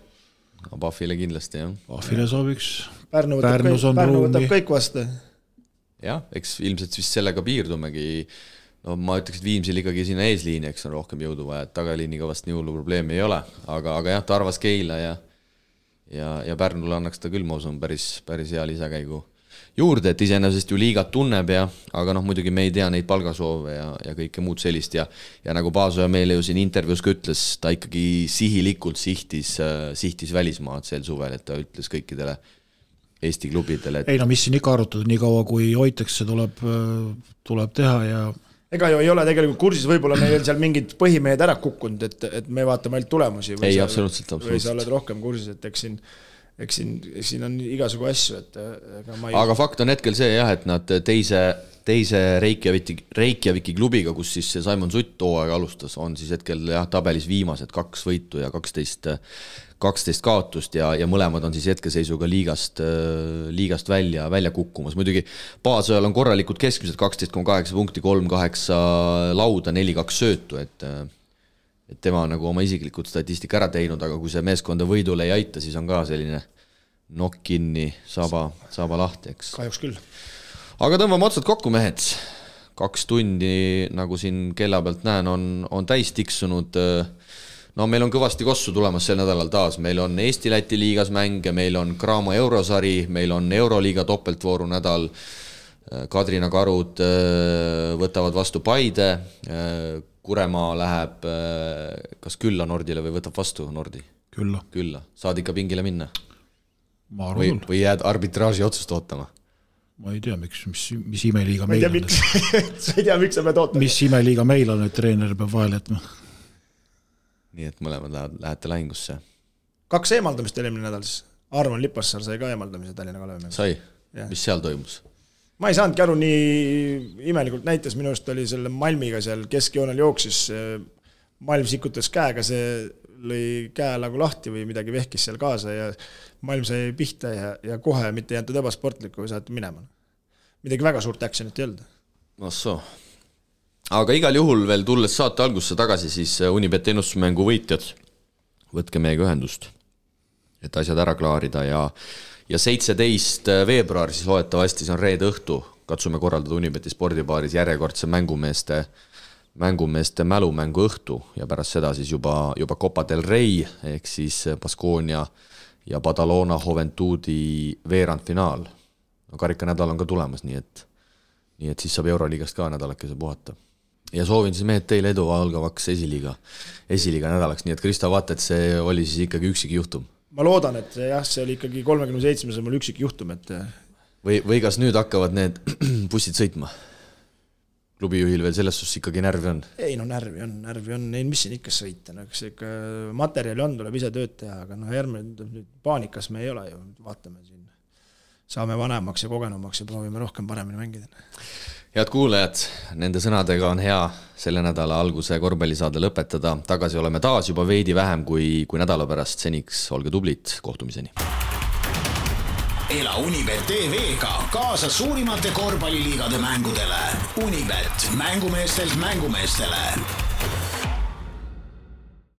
No Pahvile kindlasti, jah. Pahvile sooviks. Pärnu võtab kõik vastu. Jah, eks ilmselt vist sellega piirdumegi. No ma ütleks, et Viimsil ikkagi sinna eesliini, eks on rohkem jõudu vaja, et tagaliiniga vast nii hullu probleemi ei ole, aga jah, Tarvas, Keila ja Pärnule annaks ta küll, ma usun, päris hea lisakäigu juurde, et iseenesest ju liigat tunneb aga muidugi me ei tea neid palgasoove ja kõike muud sellist ja nagu Paasoja meile ju siin intervjuus ka ütles, ta ikkagi sihilikult sihtis välismaad sel suvel, et ta ütles kõikidele Eesti klubidele. Ei no mis siin ikka arutada, nii kaua kui hoitakse tuleb teha ja ega ju ei ole tegelikult kursis, võib-olla meil seal mingid põhimehed ära kukkunud, et me vaatame ainult tulemusi. Ei, absoluutselt. Või sa oled rohkem kursis, et eks siin on igasugu asju. Aga fakt on hetkel see jah, et nad teise Reykjaviki klubiga, kus siis Simon Sutt hooaega alustas, on siis hetkel tabelis viimased 2 võitu ja 12 kaotust ja mõlemad on siis hetkeseisuga liigast välja kukkumas. Muidugi Paasojal on korralikud keskmised 12,8 punkti, 3,8 lauda, 4,2 söötu, et tema on nagu oma isiklikud statistika ära teinud, aga kui see meeskonda võidule ei aita, siis on ka selline nokk kinni, saba lahti, eks. Kahjuks küll. Aga tõmbame otsad kokku, mehed. 2 tundi, nagu siin kella pealt näen, on täis tiksunud. No meil on kõvasti kossu tulemas sel nädalal taas. Meil on Eesti-Läti liigas mänge, meil on Graamo eurosari, meil on Euroliiga topeltvooru nädal. Kadrina Karud võtavad vastu Paide. Kuremaa läheb kas külla Nordile või võtab vastu Nordi? Külla. Saad ikka pingile minna? Või jääd arbitraaži otsust ootama? Ma ei tea, mis imeliiga meil on. Sa ei tea, miks sa pead ootama? Mis imeliiga meil on, et treener peab vahel jätma? Nii et mõlemad lähete lahingusse. 2 eemaldamist eelmine nädal siis. Arvan Lipassaar sai ka eemaldamise Tallinna Kalevi. Sai? Mis seal toimus? Ma ei saanudki aru, nii imelikult näitas, minu arust oli selle Malmiga seal keskjoonel jooksis, Malm sikutas käega, see lõi käe nagu lahti või midagi vehkis seal kaasa ja Malm sai pihta ja kohe mitte jääntud ebasportlikku või saati minema. Midagi väga suurt actionit ei olnud. Nossoo. Aga igal juhul veel tulles saate algusse tagasi, siis Unibet ennustusmängu võitjad, võtke meiega ühendust, et asjad ära klaarida ja 17. veebruar siis loetavasti, see on reede õhtu, katsume korraldada Unibeti spordibaaris järjekordse mängumeeste mälumängu õhtu ja pärast seda siis juba Copa del Rey ehk siis Baskonia ja Badalona Juventudi veerandfinaal. No karikanädal on ka tulemas, nii et siis saab Euroliigast ka nädalakese puhata. Ja soovin siis mehed teile edu algavaks esiliiga nädalaks, nii et Krista, vaata, et see oli siis ikkagi üksik juhtum. Ma loodan, et jah, see oli ikkagi 37. mul üksik juhtum, et... Või kas nüüd hakkavad need bussid sõitma? klubijuhil veel selles suhtes ikkagi närvi on? Ei no närvi on, ei mis siin ikka sõita, no eks ikka materjali on, tuleb ise tööd teha, aga no järgmine paanikas me ei ole ju, vaatame siin, saame vanemaks ja kogenumaks ja proovime rohkem paremini mängida. Head kuulajad, nende sõnadega on hea selle nädala alguse korvpallisaade lõpetada, tagasi oleme taas juba veidi vähem kui nädala pärast, seniks olge tublid, kohtumiseni. Ela Unibet TV-ga kaasa suurimate korvpalliliigade mängudele. Unibet, mängumeestelt mängumeestele.